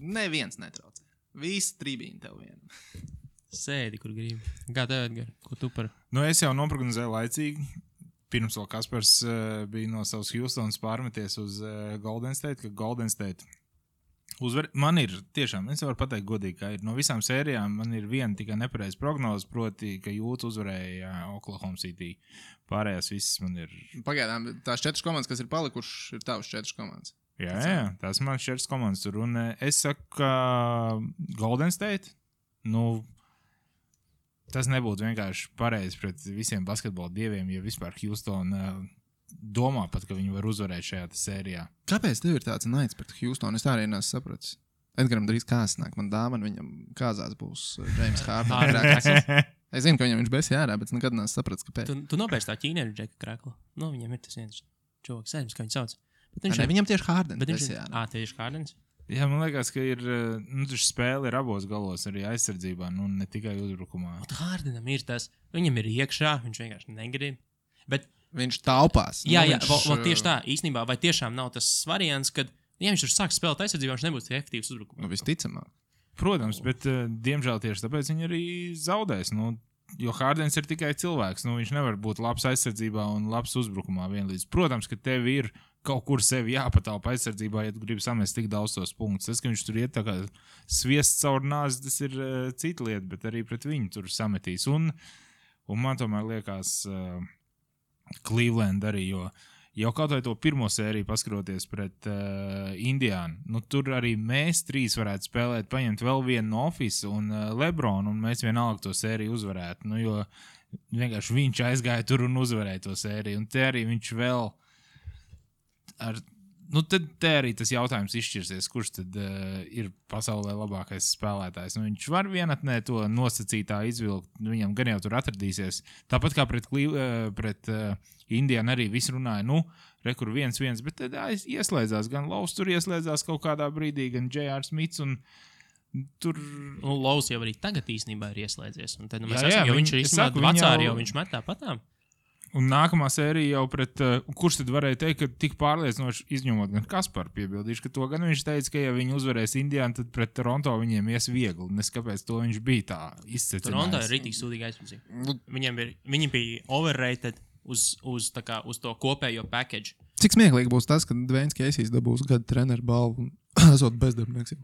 C: Neviens netraucē. Visi tribīni tev vien.
A: sēdi, kur gribi. Kā tev, Edgar? Ko tu par?
B: Es jau noprognozēju laicīgi. Pirms vēl Kaspars bija no savas Houstonas pārmeties uz Golden State, ka Golden State uzvar. Man ir tiešām, es varu pateikt godīgi, ka ir no visām sērijām man ir viena tikai nepareiza prognoze, proti, ka Jūtas uzvarēja Oklahoma City. Pārējās visas man ir...
C: Pagaidām, tās 4 komandas, kas ir palikušas, ir tavas 4 komandas.
B: Jā, tās man 4 komandas tur. Un es saku, ka Golden State, tas nebūtu vienkārši pareizi pret visiem basketbola dieviem, ja vispār Houston domā pat, ka viņi var uzvarēt šajā sērijā.
C: Kāpēc tev ir tāds naids pret Houstonu? Es tā arī neesmu sapratis. Edgaram drīz kāzas nāk. Man dāvana viņam kāzās būs James Harden. Es zinu, ka viņam viņš besi jārā, bet nekad neesmu sapratis, kāpēc.
A: Tu nopērci tā ķīnieru Džeka Kraklu. Viņam ir tas viens čovaks, aizmirst, kā viņu sauc.
C: Viņam tieši Hardens
A: besi jārā. Tieši Hardens?
B: Jā, man liekas, ka ir, spēle ir abos galos, arī aizsardzībā, ne tikai uzbrukumā.
A: Hardenam ir tas, viņam ir iekšā, viņš vienkārši negrib. Bet
C: viņš taupās.
A: Jā, tieši tā, īstenībā, vai tiešām nav tas variants, kad, ja viņš tur sāk spēlēt aizsardzībā, viņš nebūs efektīvs uzbrukumā.
C: Visticamāk.
B: Protams, bet, diemžēl tieši tāpēc viņi arī zaudēs, jo Hardens ir tikai cilvēks, viņš nevar būt labs aizsardzībā un labs uzbrukumā vienlīdz. Protams, ka tev ir kaut kur sevi jāpatalpa aizsardzībā, ja tu gribi samest tik daudz tos punktus. Tas, ka viņš tur iet tā kā sviests caur nāzi, tas ir cita lieta, bet arī pret viņu tur sametīs. Un man tomēr liekas Cleveland arī, jo jau kaut vai to pirmo sēriju paskroties pret Indiānu, tur arī mēs 3 varētu spēlēt, paņemt vēl vienu no Office un LeBron, un mēs vienalga to sēriju uzvarētu. Jo vienkārši viņš aizgāja tur un uzvarēja to sēriju, un te arī viņš vēl tad te arī tas jautājums izšķirsies, kurš tad ir pasaulē labākais spēlētājs. Viņš var vienatnē to nosacītā izvilkt, viņam gan jau tur atradīsies. Tāpat kā pret Indiānu arī viss runāja, rekur 1-1, bet tad ieslēdzās, gan Lovs tur ieslēdzās kaut kādā brīdī, gan J.R. Smits un tur...
A: Lovs jau arī tagad īstenībā ir ieslēdzies, un tad mēs esam, jo viņš ir īstenībā vecāri, jo viņš met tāpatām.
B: Un nākamā sērija jau pret, kurš tad varēja teikt, ka tik pārliecinoši izņemot gan Kasparu piebildīšu, ka to gan viņš teica, ka ja viņi uzvarēs Indiānu, tad pret Toronto viņiem ies viegli. Neskapēc to viņš bija tā izcecinājis.
A: Toronto ir rītīgi sūdīgi aizpildīt. Viņi bija overrated uz to kopējo package.
C: Cik smieklīgi būs tas, ka Dwayne Casey's dabūs gada treneru balvu un esot bezdarbnieks?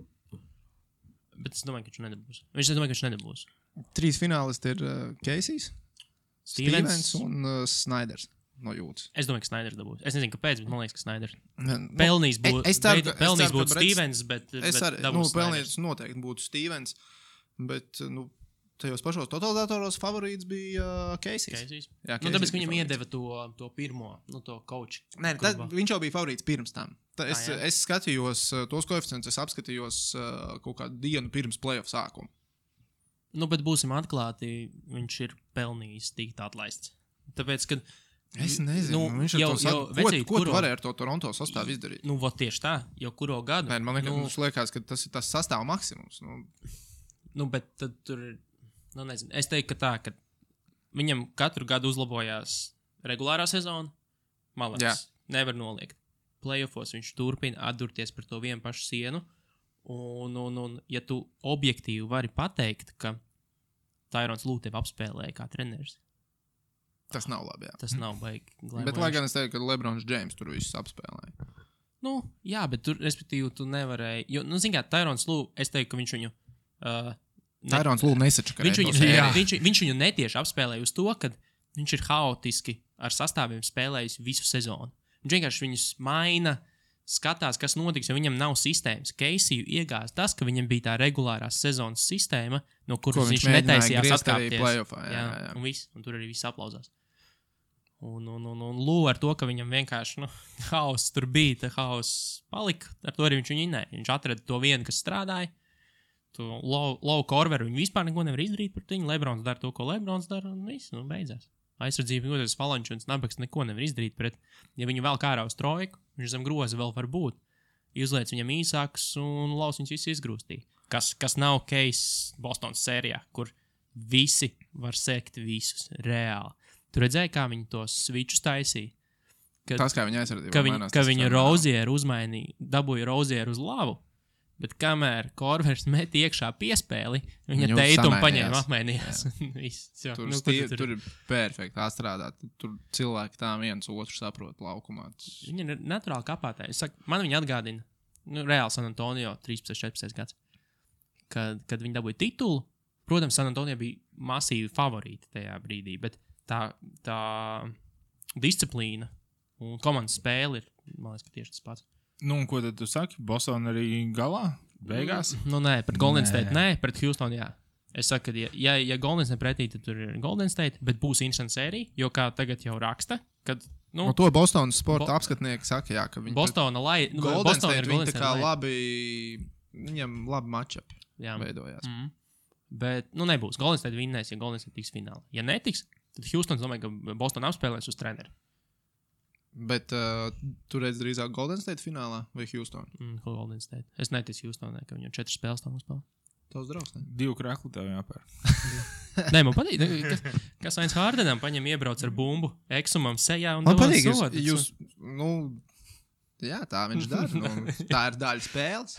A: Bet es domāju, ka viņš nedabūs. 3
C: finālisti ir Casey's, Stevens un Snyders no Jūtas.
A: Es domāju, ka Snyders dabūs. Es nezinu, kāpēc, bet man liekas, ka Snyders pelnīs būtu Stevens, bet
C: pelnīs noteikti būtu Stevens, bet tajos pašos totalizatoros favorīts bija Casey's. Jā,
A: tāpēc, ka viņam iedeva to pirmo, to coach.
C: Nē, viņš jau bija favorīts pirms tam. Es skatījos tos koeficientus, es apskatījos kaut kādu dienu pirms playoff sākuma.
A: Bet būsim atklāti, viņš ir pelnījis tikt atlaists. Tāpēc, kad...
C: Es nezinu, viņš ko tu varēja ar to Toronto sastāvu izdarīt?
A: Tieši tā, jau kuro gadu.
C: Nē, man liekas, ka tas ir tas sastāvu maksimums.
A: Bet tad tur ir, nezinu, es teiktu, ka tā, ka viņam katru gadu uzlabojās regulārā sezona, malāks, nevar noliegt. Playoffos viņš turpina atdurties par to vienu pašu sienu. Un ja tu objektīvi vari pateikt, ka Tyrons Lue tevi apspēlēja kā treneris.
C: Tas nav labi, jā.
A: Tas nav baigi.
C: Bet lai gan es teiktu, ka LeBrons James tur visus apspēlēja.
A: Jā, bet tur, respektīvi, tu nevarēji. Jo, zin kā, Tyrons Lue, es teiktu, ka viņš viņu...
C: Tyrons Lue nesačakarēja.
A: Viņš viņu netieši apspēlēja uz to, ka viņš ir haotiski ar sastāviem spēlējis visu sezonu. Viņš vienkārši viņus maina, skatās, kas notiks, jo viņam nav sistēmas. Casey iegāz tas, ka viņam bija tā regulārās sezonas sistēma, no kuras viņš netaisījās atkāpties. Jā. Un tur arī viss aplauzās. Un Lue ar to, ka viņam vienkārši haoss tur bija, haoss palika, ar to arī viņš viņu inēja. Viņš atrada to vienu, kas strādāja. Low Corveru viņu vispār neko nevar izdarīt par viņu. Lebrons dara to, ko Lebrons dara, un viss, beidzās. aizsardzība, tas Valančuns, Nabaks neko nevar izdarīt pret. Ja viņu vēl kā ārā uz trojku, viņš zem groza vēl var būt. Izliec viņam īsāks un laus viņus visus izgrūstī. Kas nav case Bostonas sērijā, kur visi var sekt visus reāli. Tu redzēji, kā viņi tos switchus taisīja?
C: Tas, kā viņa aizsardzība.
A: Ka viņa Rozieru uzmainīja, dabūja Rozieru uz lavu, bet kamēr Korvers met iekšā piespēli, viņa teitumu paņēma apmainījās.
C: Tur ir perfekti atstrādāt. Tur cilvēki tā viens otru saprot laukumā.
A: Viņa ir naturāli kapātāji. Man viņa atgādina, reāli San Antonio 13-14 gads, kad viņi dabūja titulu. Protams, San Antonio bija masīvi favorīti tajā brīdī, bet tā disciplīna un komandas spēle ir, man liekas, ka tieši tas pats.
B: Nu, un ko tad tu saki? Boston arī galā? Beigās?
A: Nē, pret Golden State nē, pret Houston jā. Es saku, ka ja Golden State pretī, tad tur ir Golden State, bet būs interesanta sērija, jo kā tagad jau raksta, kad...
C: No to Bostonas sporta apskatnieki saka, jā, ka viņi...
A: Golden
C: State viņi tā kā labi... Viņam labi matchup veidojās.
A: Bet, nebūs. Golden State vinnēs, ja Golden State tiks finālā. Ja netiks, tad Houston, domāju, ka Boston apspēlēs uz treneri.
C: Bet tu redz drīzāk Golden State finālā vai Houston?
A: Golden State. Es neticu Houstonai, ka viņam 4 spēles tam uzspēlē.
C: Tavs draugs, ne?
B: 2 krekli tev jāpēr.
A: Nē, man patīk, kas Ains Hardenam paņem iebrauc ar bumbu eksumam sejā un
C: man
A: dod
C: patīk,
A: sodu.
C: Jā, tā viņš dara. Tā ir daļa spēles.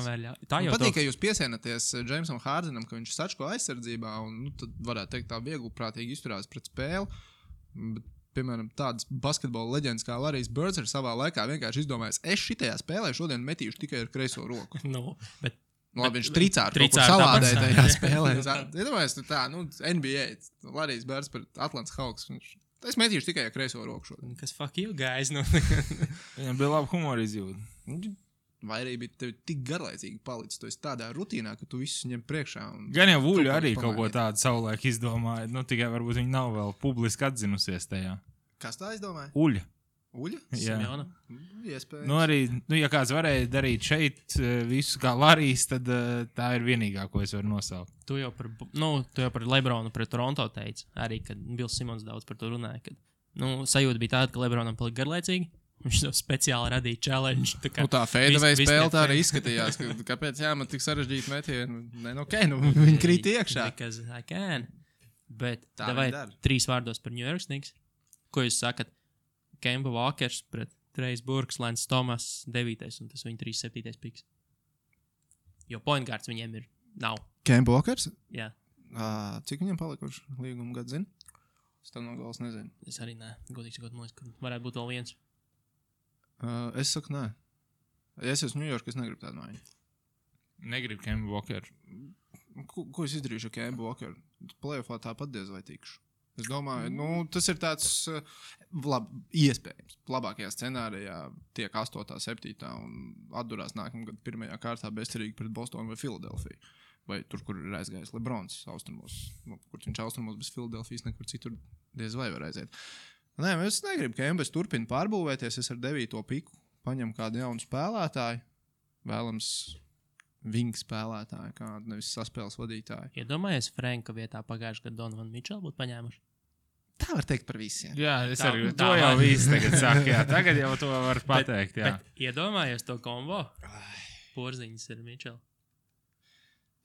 C: Man patīk, ka jūs piesienaties Jamesam Hardenam, ka viņš sačko aizsardzībā un tad varētu teikt tā viegli prātīgi izturās pret spēli. Bet, piemēram, tādas basketbola leģendas kā Larrys Birds ir savā laikā vienkārši izdomājis, es šitajā spēlē šodien metīšu tikai ar kreiso roku. Labi, viņš tricāri kaut kur salādēja tajā spēlē. Iedomājies, NBA, Larrys Birds pret Atlants Hawks. Es metīšu tikai ar kreiso roku šodien.
A: Kas fuck you guys?
B: Viņam bija labi humora izjūta.
C: Vai arī bija tevi tik garlaicīgi palicis, tu esi tādā rutīnā, ka tu visus ņem priekšā.
B: Gan jau Vuļu arī kaut ko tādu savulaik izdomāja, tikai varbūt viņi nav vēl publiski atzinusies tajā.
C: Kas tā izdomāja?
B: Uļa?
C: Jā.
B: Iespējams. Arī, ja kāds varēja darīt šeit visu kā Larrys, tad tā ir vienīgā, ko es varu nosaukt.
A: Tu jau par Lebronu pret Toronto teici, arī, kad Bills Simons daudz par to runāja, kad, sajūta bija tāda, ka Lebronam palika garlaicīgi. Viņš to speciāli radīja challenge.
C: Tā fadeaway spēle tā arī izskatījās. Kāpēc man tik sarežģīti metieni? Viņi krīt iekšā.
A: Because I can. Bet vai 3 vārdos par New York Knicks? Ko jūs sakat? Kemba Walkers pret Trejs Burks, Lance Thomas 9. un tas viņa 3-7. piks. Jo point guards viņiem nav.
C: Kemba Walkers?
A: Jā.
C: Cik viņam palikuši līguma gadu zini? Es tam no galas nezinu.
A: Es arī nē. Godīgi sakot, man liekas, ka varētu būt vēl viens.
C: Es saku, nē. Ja es esmu New York, es negribu tādu maiņu.
B: Negribu Kemba Walkeru.
C: Ko es izdarīšu ar Kemba Walkeru? Playoffā tāpat diez vai tikšu. Es domāju, tas ir tāds iespējams. Labākajā scenārijā tiek 8. 7. un atdurās nākamgad 1. kārtā bezcerīgi pret Bostonu vai Filadelfiju. Vai tur, kur ir aizgājis Lebrons austrumos. Kur viņš austrumos bez Filadelfijas nekur citur diez vai var aiziet. Nē, es negribu, ka Embes turpina pārbūvēties. Es ar 9. piku paņemu kādu jaunu spēlētāju. Vēlams vingu spēlētāju, kādu nevis saspēles vadītāju.
A: Iedomājies, Franka vietā pagājušajā gadā Donovan Mitchell būtu paņēmuši?
C: Tā var teikt par visiem.
B: Jā, es arī to jau visu tagad saku. Jā, tagad jau to var pateikt.
A: Bet iedomājies to kombo? Porziņas ar Mitchell.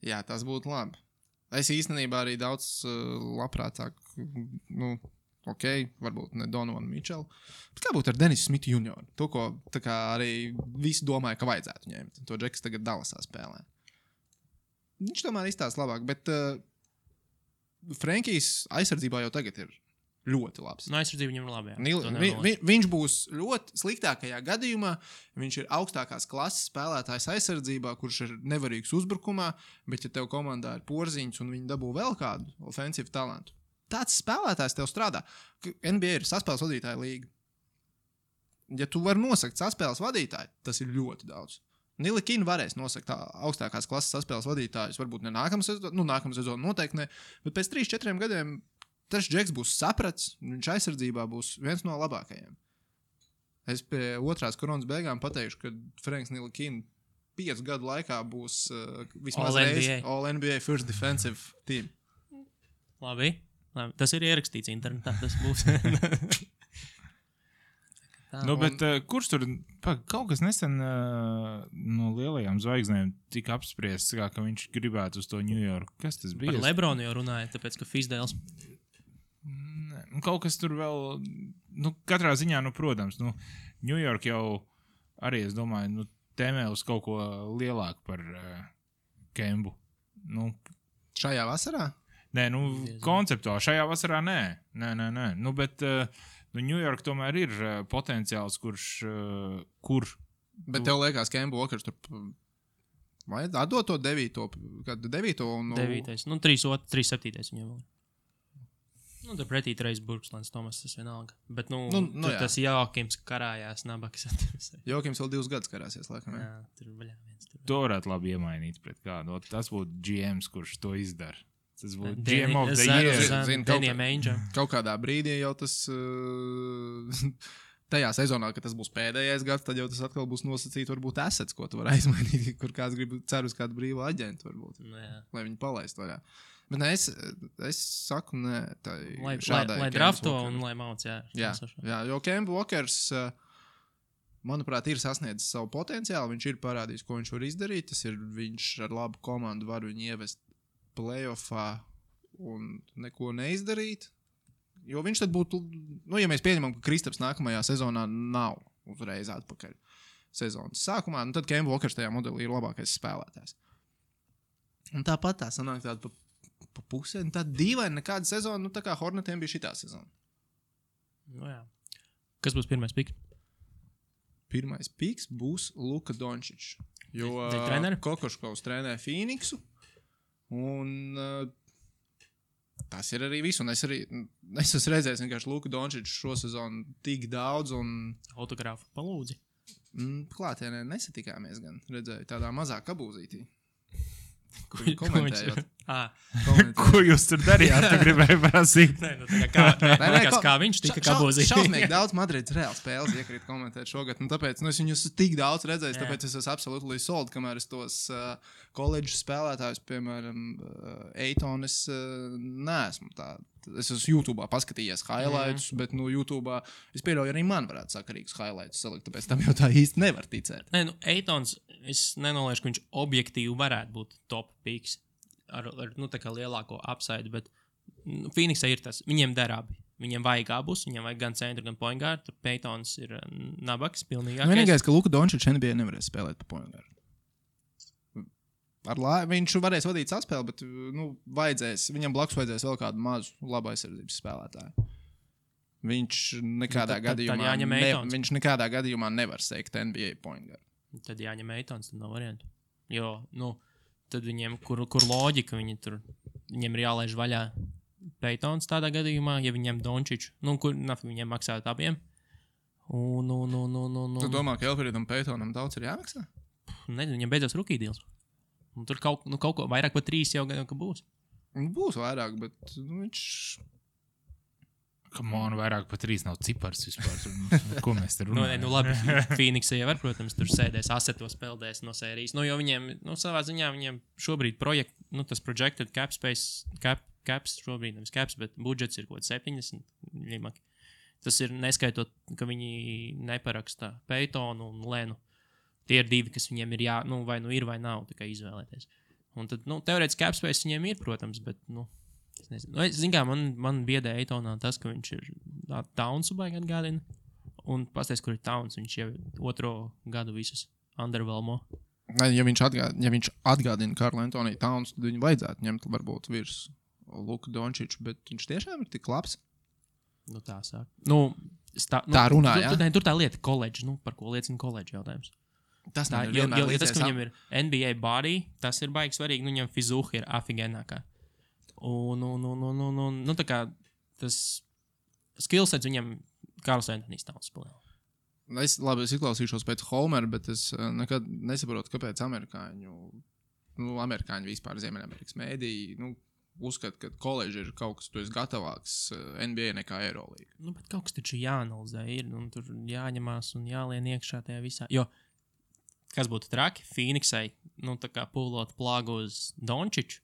C: Jā, tas būtu labi. Es īstenībā arī daudz labprātāk, varbūt ne Donovan Mitchell, bet kā būtu ar Denisu Smithu Jr. To, ko tā kā arī visi domāja, ka vajadzētu ņemt. To Džeks tagad Dallasā spēlē. Viņš tomēr izstāsta labāk, bet Frankijs aizsardzībā jau tagad ir ļoti labs.
A: Aizsardzība viņam ir labi.
C: Viņš būs ļoti sliktākajā gadījumā. Viņš ir augstākās klases spēlētājs aizsardzībā, kurš ir nevarīgs uzbrukumā, bet ja tev komandā ir Porziņš un viņi dabū vēl kādu ofensīvu talantu, tāds spēlētājs tev strādā. NBA ir saspēles vadītāja līga. Ja tu vari nosakt saspēles vadītāju, tas ir ļoti daudz. Nilikina varēs nosakt augstākās klases saspēles vadītājus, varbūt ne nākamā sezona noteikti ne, bet pēc 3-4 gadiem tas Džeks būs saprats, viņš aizsardzībā būs viens no labākajiem. Es pie otrās koronas beigām pateikšu, ka Franks Nilikina 5 gadu laikā būs vismaz reiz All NBA First Defensive Team.
A: Labi. Tas ir ierakstīts internetā, tas būs. Tā,
B: Bet kurš tur kaut kas nesen no lielajām zvaigznēm tika apspriests, ka viņš gribētu uz to Ņujorku? Kas tas bija?
A: Par Lebronu jau runāja, tāpēc, ka Fizdēls.
B: Kaut kas tur vēl, katrā ziņā, protams, Ņujorka jau arī, es domāju, tēmē uz kaut ko lielāku par Kembu.
C: Šajā vasarā?
B: Nē, konceptuāli šajā vasarā nē. Bet Ņujorka tomēr ir potenciāls, kur...
C: Bet tev liekas, Kemba Walkers tur vai atdot to 9. un...
A: 9. 3.7. viņam vēl. Tur pretī Trejs Burkslēns, Tomas, tas vienalga. Bet, tas Jokims karājās nabaks.
C: Jokims vēl 2 gadus karāsies, laikam.
A: Jā, tur vaļā viens.
B: To varētu labi iemainīt pret kādu. Tas būtu GMs, kurš to izdara. Tas būtu GM of the year.
C: Kaut kādā brīdī jau tas... tajā sezonā, kad tas būs pēdējais gads, tad jau tas atkal būs nosacīts, varbūt assets, ko tu vari aizmainīt, kur kāds grib cer uz kādu brīvu aģentu, varbūt. Lai viņi palaist vaļā. Bet ne, es saku, nē, šādai...
A: Lai drafto un lai mauc, jā.
C: Jā, jo Kemba Walkers, manuprāt, ir sasniedzis savu potenciālu, viņš ir parādījis, ko viņš var izdarīt, viņš ar labu komandu var viņu ievest playoffā un neko neizdarīt. Jo viņš tad būtu, ja mēs pieņemam, ka Kristaps nākamajā sezonā nav uzreiz atpakaļ sezonas sākumā, tad Kemba Walkers tajā modelī ir labākais spēlētājs. Un tāpat tā sanāk tāda pa pusē, un tāda dīvaina nekāda sezona, tā kā Hornetiem bija šitā sezona.
A: Jā. Kas būs pirmais piks?
C: Pirmais piks būs Luka Dončičs, jo Kokoškovs trenē Phoenixu, un... tas ir arī viss, un es esmu redzējis vienkārši Luku Dončiču šo sezonu tik daudz, un...
A: Autogrāfu palūdzi.
C: Klātienē nesatikāmies gan, redzēju tādā mazā kabūzītī. Komentējot.
B: Ko jūs tur darījāt? Tu gribēji prasīt?
A: Kā viņš tika kabūzītī.
C: Šausmīgi daudz Madrids Reāls spēles iekrīt komentēt šogad, un tāpēc es viņus tik daudz redzējis, tāpēc es esmu absolūti sold, kamēr es tos koledžu spēlētājus, piemēram, Eitonu, es neesmu tā. Es esmu YouTube'ā paskatījies highlights, bet YouTube'ā es pieļauju arī man varētu sakarīgus highlights salikt, tāpēc tam jau tā īsti nevar ticēt.
A: Nē, Eitons, es nenoliešu, ka viņš objektīvi varētu būt top picks ar tā kā lielāko upside, bet Phoenixā ir tas, viņiem der abi. Viņiem vajag abus, viņiem vajag gan centru, gan point guard, tur Peytons ir nabaks, pilnīgākais.
C: Vienīgais, ka Luka Dončičs NBA nevarēs spēlēt pa point guard. Viņš varēs vadīt saspēli, bet viņam blakus vajadzēs vēl kādu mazu labu aizsardzības spēlētāju. Viņš nekādā gadījumā nevar seikt NBA point guard.
A: Tad jāņem Eitons, tad nav variantu. Jo, tad viņiem, kur loģika, viņiem ir jālaiž vaļā Peytons tādā gadījumā, ja viņiem Dončiču, kur viņiem maksāt abiem.
C: Tu domā, ka Elfridam Peytonam daudz ir jāmaksā?
A: Nezinu, viņam beidzās rookie deals. Un tur kaut ko vairāk par 3 jau gan būs.
C: Būs vairāk, bet viņš...
B: Vairāk par 3 nav cipars vispār. Ko mēs te runājam?
A: Labi, Phoenixā jau var, protams, tur sēdēs asetos, peldēs no sērijas. Jo viņiem, savā ziņā viņiem šobrīd tas projected cap space, caps šobrīd, nevis caps, bet budžets ir kaut 70 limaki. Tas ir neskaitot, ka viņi neparaksta Peytonu un Lenu. Tie ir 2, kas viņiem ir vai ir vai nav, tā kā izvēlēties. Un tad, teorētiski cap space viņiem ir, protams, bet, es nezinu. Zin kā, man biedē Eitonā tas, ka viņš ir Townsu baigi atgādina. Un pasties, kur ir Towns, viņš jau 2. gadu visus underwhelmo.
C: Ja viņš atgādina Karlu Antoniju Towns, tad viņu vajadzētu ņemt varbūt virs Luka Dončiču, bet viņš tiešām ir tik labs.
A: Tā sāk.
C: Tā runā, jā?
A: Tur tā lieta koledži, par ko liecina koledži jautājums.
C: Tas
A: tas, ka viņam ir NBA body, tas ir baigi svarīgi, viņam fizuha ir afigenākā. Un tā kā tas skillsets viņam Karls Antonijs Towns spēlē.
C: Es izklausīšos pēc Homera, bet es nekad nesaprotu, kāpēc amerikāņi vispār Ziemeļamerikas mēdīji, uzskata, ka koledži ir kaut kas, tu esi gatavāks NBA nekā Eirolīga.
A: Bet kaut kas taču jāanalizē ir, un tur jāņemās un jālien iekšā tajā visā. Jo, kas būtu traki, Phoenixai, tā kā pūlot plāgu uz Dončiču,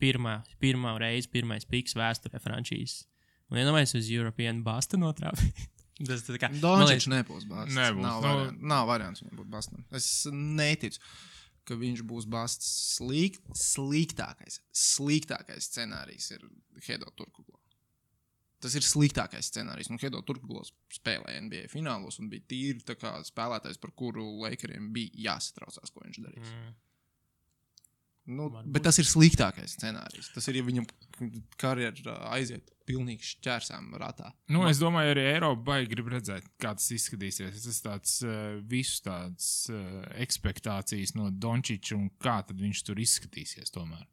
A: pirmā reize, pirmais piks vēsturē frančīzes. Un iedomājies uz European Basta notrāpīt. Tas tā kā...
C: Dončičs nebūs Basts.
B: Nebūs.
C: Nav variants viņam būt Bastam. Es neticu, ka viņš būs Basts. Sliktākais scenārijs ir Hedo Turkoglu. Tas ir sliktākais scenārijs. Un Hedo Turkoglu spēlēja NBA finālos un bija tīri tā kā spēlētājs, par kuru Lakeriem bija jāsatraucās, ko viņš darīs. Bet tas ir sliktākais scenārijs. Tas ir, ja viņam karjera aiziet pilnīgi šķērsām ratā.
B: Es domāju, arī Eiropa baigi grib redzēt, kā tas izskatīsies. Tas tāds visus tādas ekspektācijas no Dončiča un kā tad viņš tur izskatīsies tomēr.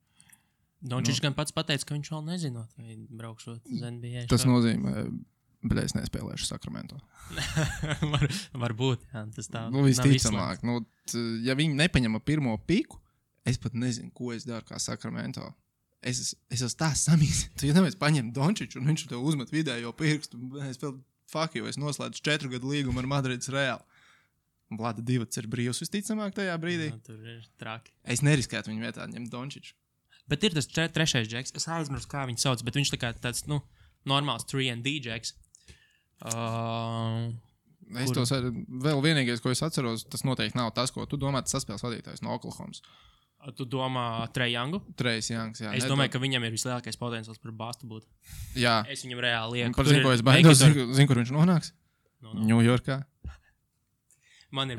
A: Dončičs gan pats pateica, ka viņš vēl nezinot, vai braukšot uz NBA.
C: Tas nozīmē, bet es nespēlēšu Sakramento.
A: Varbūt, jā, tas tā.
C: Visticamāk. Ja viņi nepaņem pirmo piku, es pat nezinu, ko es daru kā Sakramento. Es esmu tā samīgs. Tu jau nevies paņem Dončiču un viņš tev uzmet vidējo pirkstu. Es vēl es noslēdzu 4 gadu līgumu ar Madrides Reāli. Un Vlada Divacs ir brīvs visticamāk tajā brīdī.
A: Tur ir traki.
C: Es neriskētu viņu vietā ņemt Dončiču.
A: Bet ir tas trešais džeks. Es aizmirsu, kā viņu sauc, bet viņš tā kā tāds, normāls 3&D džeks.
C: Vēl vienīgais, ko es atceros, tas noteikti nav tas, ko tu domā, tas saspēles vadītājs no Oklahomas.
A: Tu domā Trae Youngu?
C: Trae Youngs, jā.
A: Es domāju, ka viņam ir vislielākais potenciāls par Bastu būt.
C: Jā.
A: Es viņam reāli lieku.
C: Par zinu, ko es baidos. Zinu, kur viņš nonāks? Ņujorkā. Man ir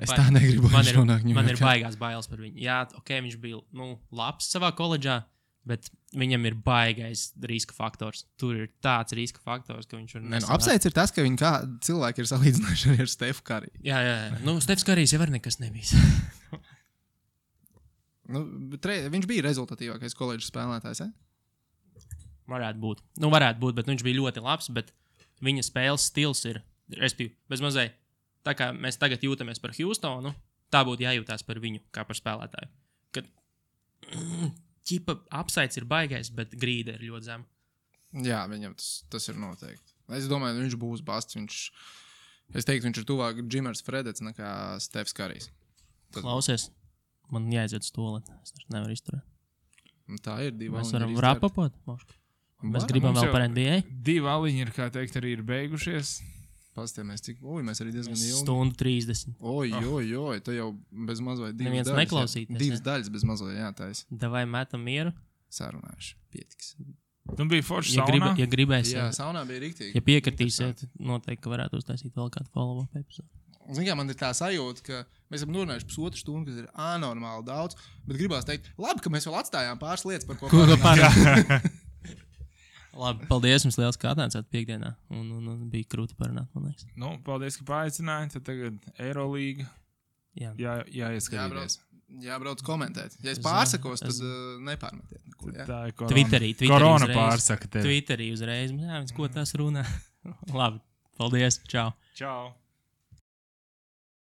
A: baigās bailes par viņu. Jā, viņš bija labs savā koledžā, bet viņam ir baigais riska faktors. Tur ir tāds riska faktors, ka viņš var
C: apsveic ir tas, ka viņi kā cilvēki ir salīdzinājuši ar Stefu Kariju.
A: Jā. Stefs Karijs jau var nekas nebijis.
C: Viņš bija rezultatīvākais koledžas spēlētājs,
A: Varētu būt, bet viņš bija ļoti labs, bet viņa spēles stils ir, respektīvi, bez mazliet, tā kā mēs tagad jūtamies par Houstonu, tā būtu jājūtās par viņu, kā par spēlētāju. Kad ķipa apsaids ir baigais, bet grīda ir ļoti zema. Jā,
C: viņam tas ir noteikti. Es domāju, viņš būs Basts, es teiktu, viņš ir tuvāk Džimers Fredets nekā Stefs Karijs.
A: Klausies. Man jāiziet uz toaleti. Es nevaru izturēt.
C: Tā ir 2
A: Mēs varam rapapot. Mēs gribam vēl par NBA.
B: 2 aliņi ir, kā teikt, arī ir beigušies.
C: Pastāmies, mēs arī diezgan ilgi.
A: Stundu 30.
C: Oj, tu jau bez mazliet 2
A: neviens
C: daļas.
A: Neklausīties.
C: 2 daļas bez mazliet, jā, tais.
A: Davai metam mieru.
C: Sarunājuši. Pietiks.
B: Tu biji forši saunā?
A: Ja gribēsiet.
C: Jā, saunā bija riktīgi.
A: Ja piekritīsiet, noteikti, ka varētu uztaisīt vēl kādu follow-up epizodu.
C: Man ir tā sajūta, ka mēs esam runājuši 1,5 stundu, kas ir anormāli daudz, bet gribās teikt, labi, ka mēs vēl atstājām pāris lietas, par ko parunāt.
A: Labi, paldies jums liels, ka atnācāt piekdienā, un bija krūti parunāt, man liekas.
B: Paldies, ka paaicināji, tad tagad Eirolīga jāieskatījās.
C: Jābrauc komentēt. Ja es pārsakos, tad nepārmetiet neko.
B: Tā ir
A: Twitterī
B: korona
A: uzreiz.
B: Pārsaka tevi.
A: Twitterī uzreiz. Jā, ko tas runā. Labi, paldies, čau.
B: Čau.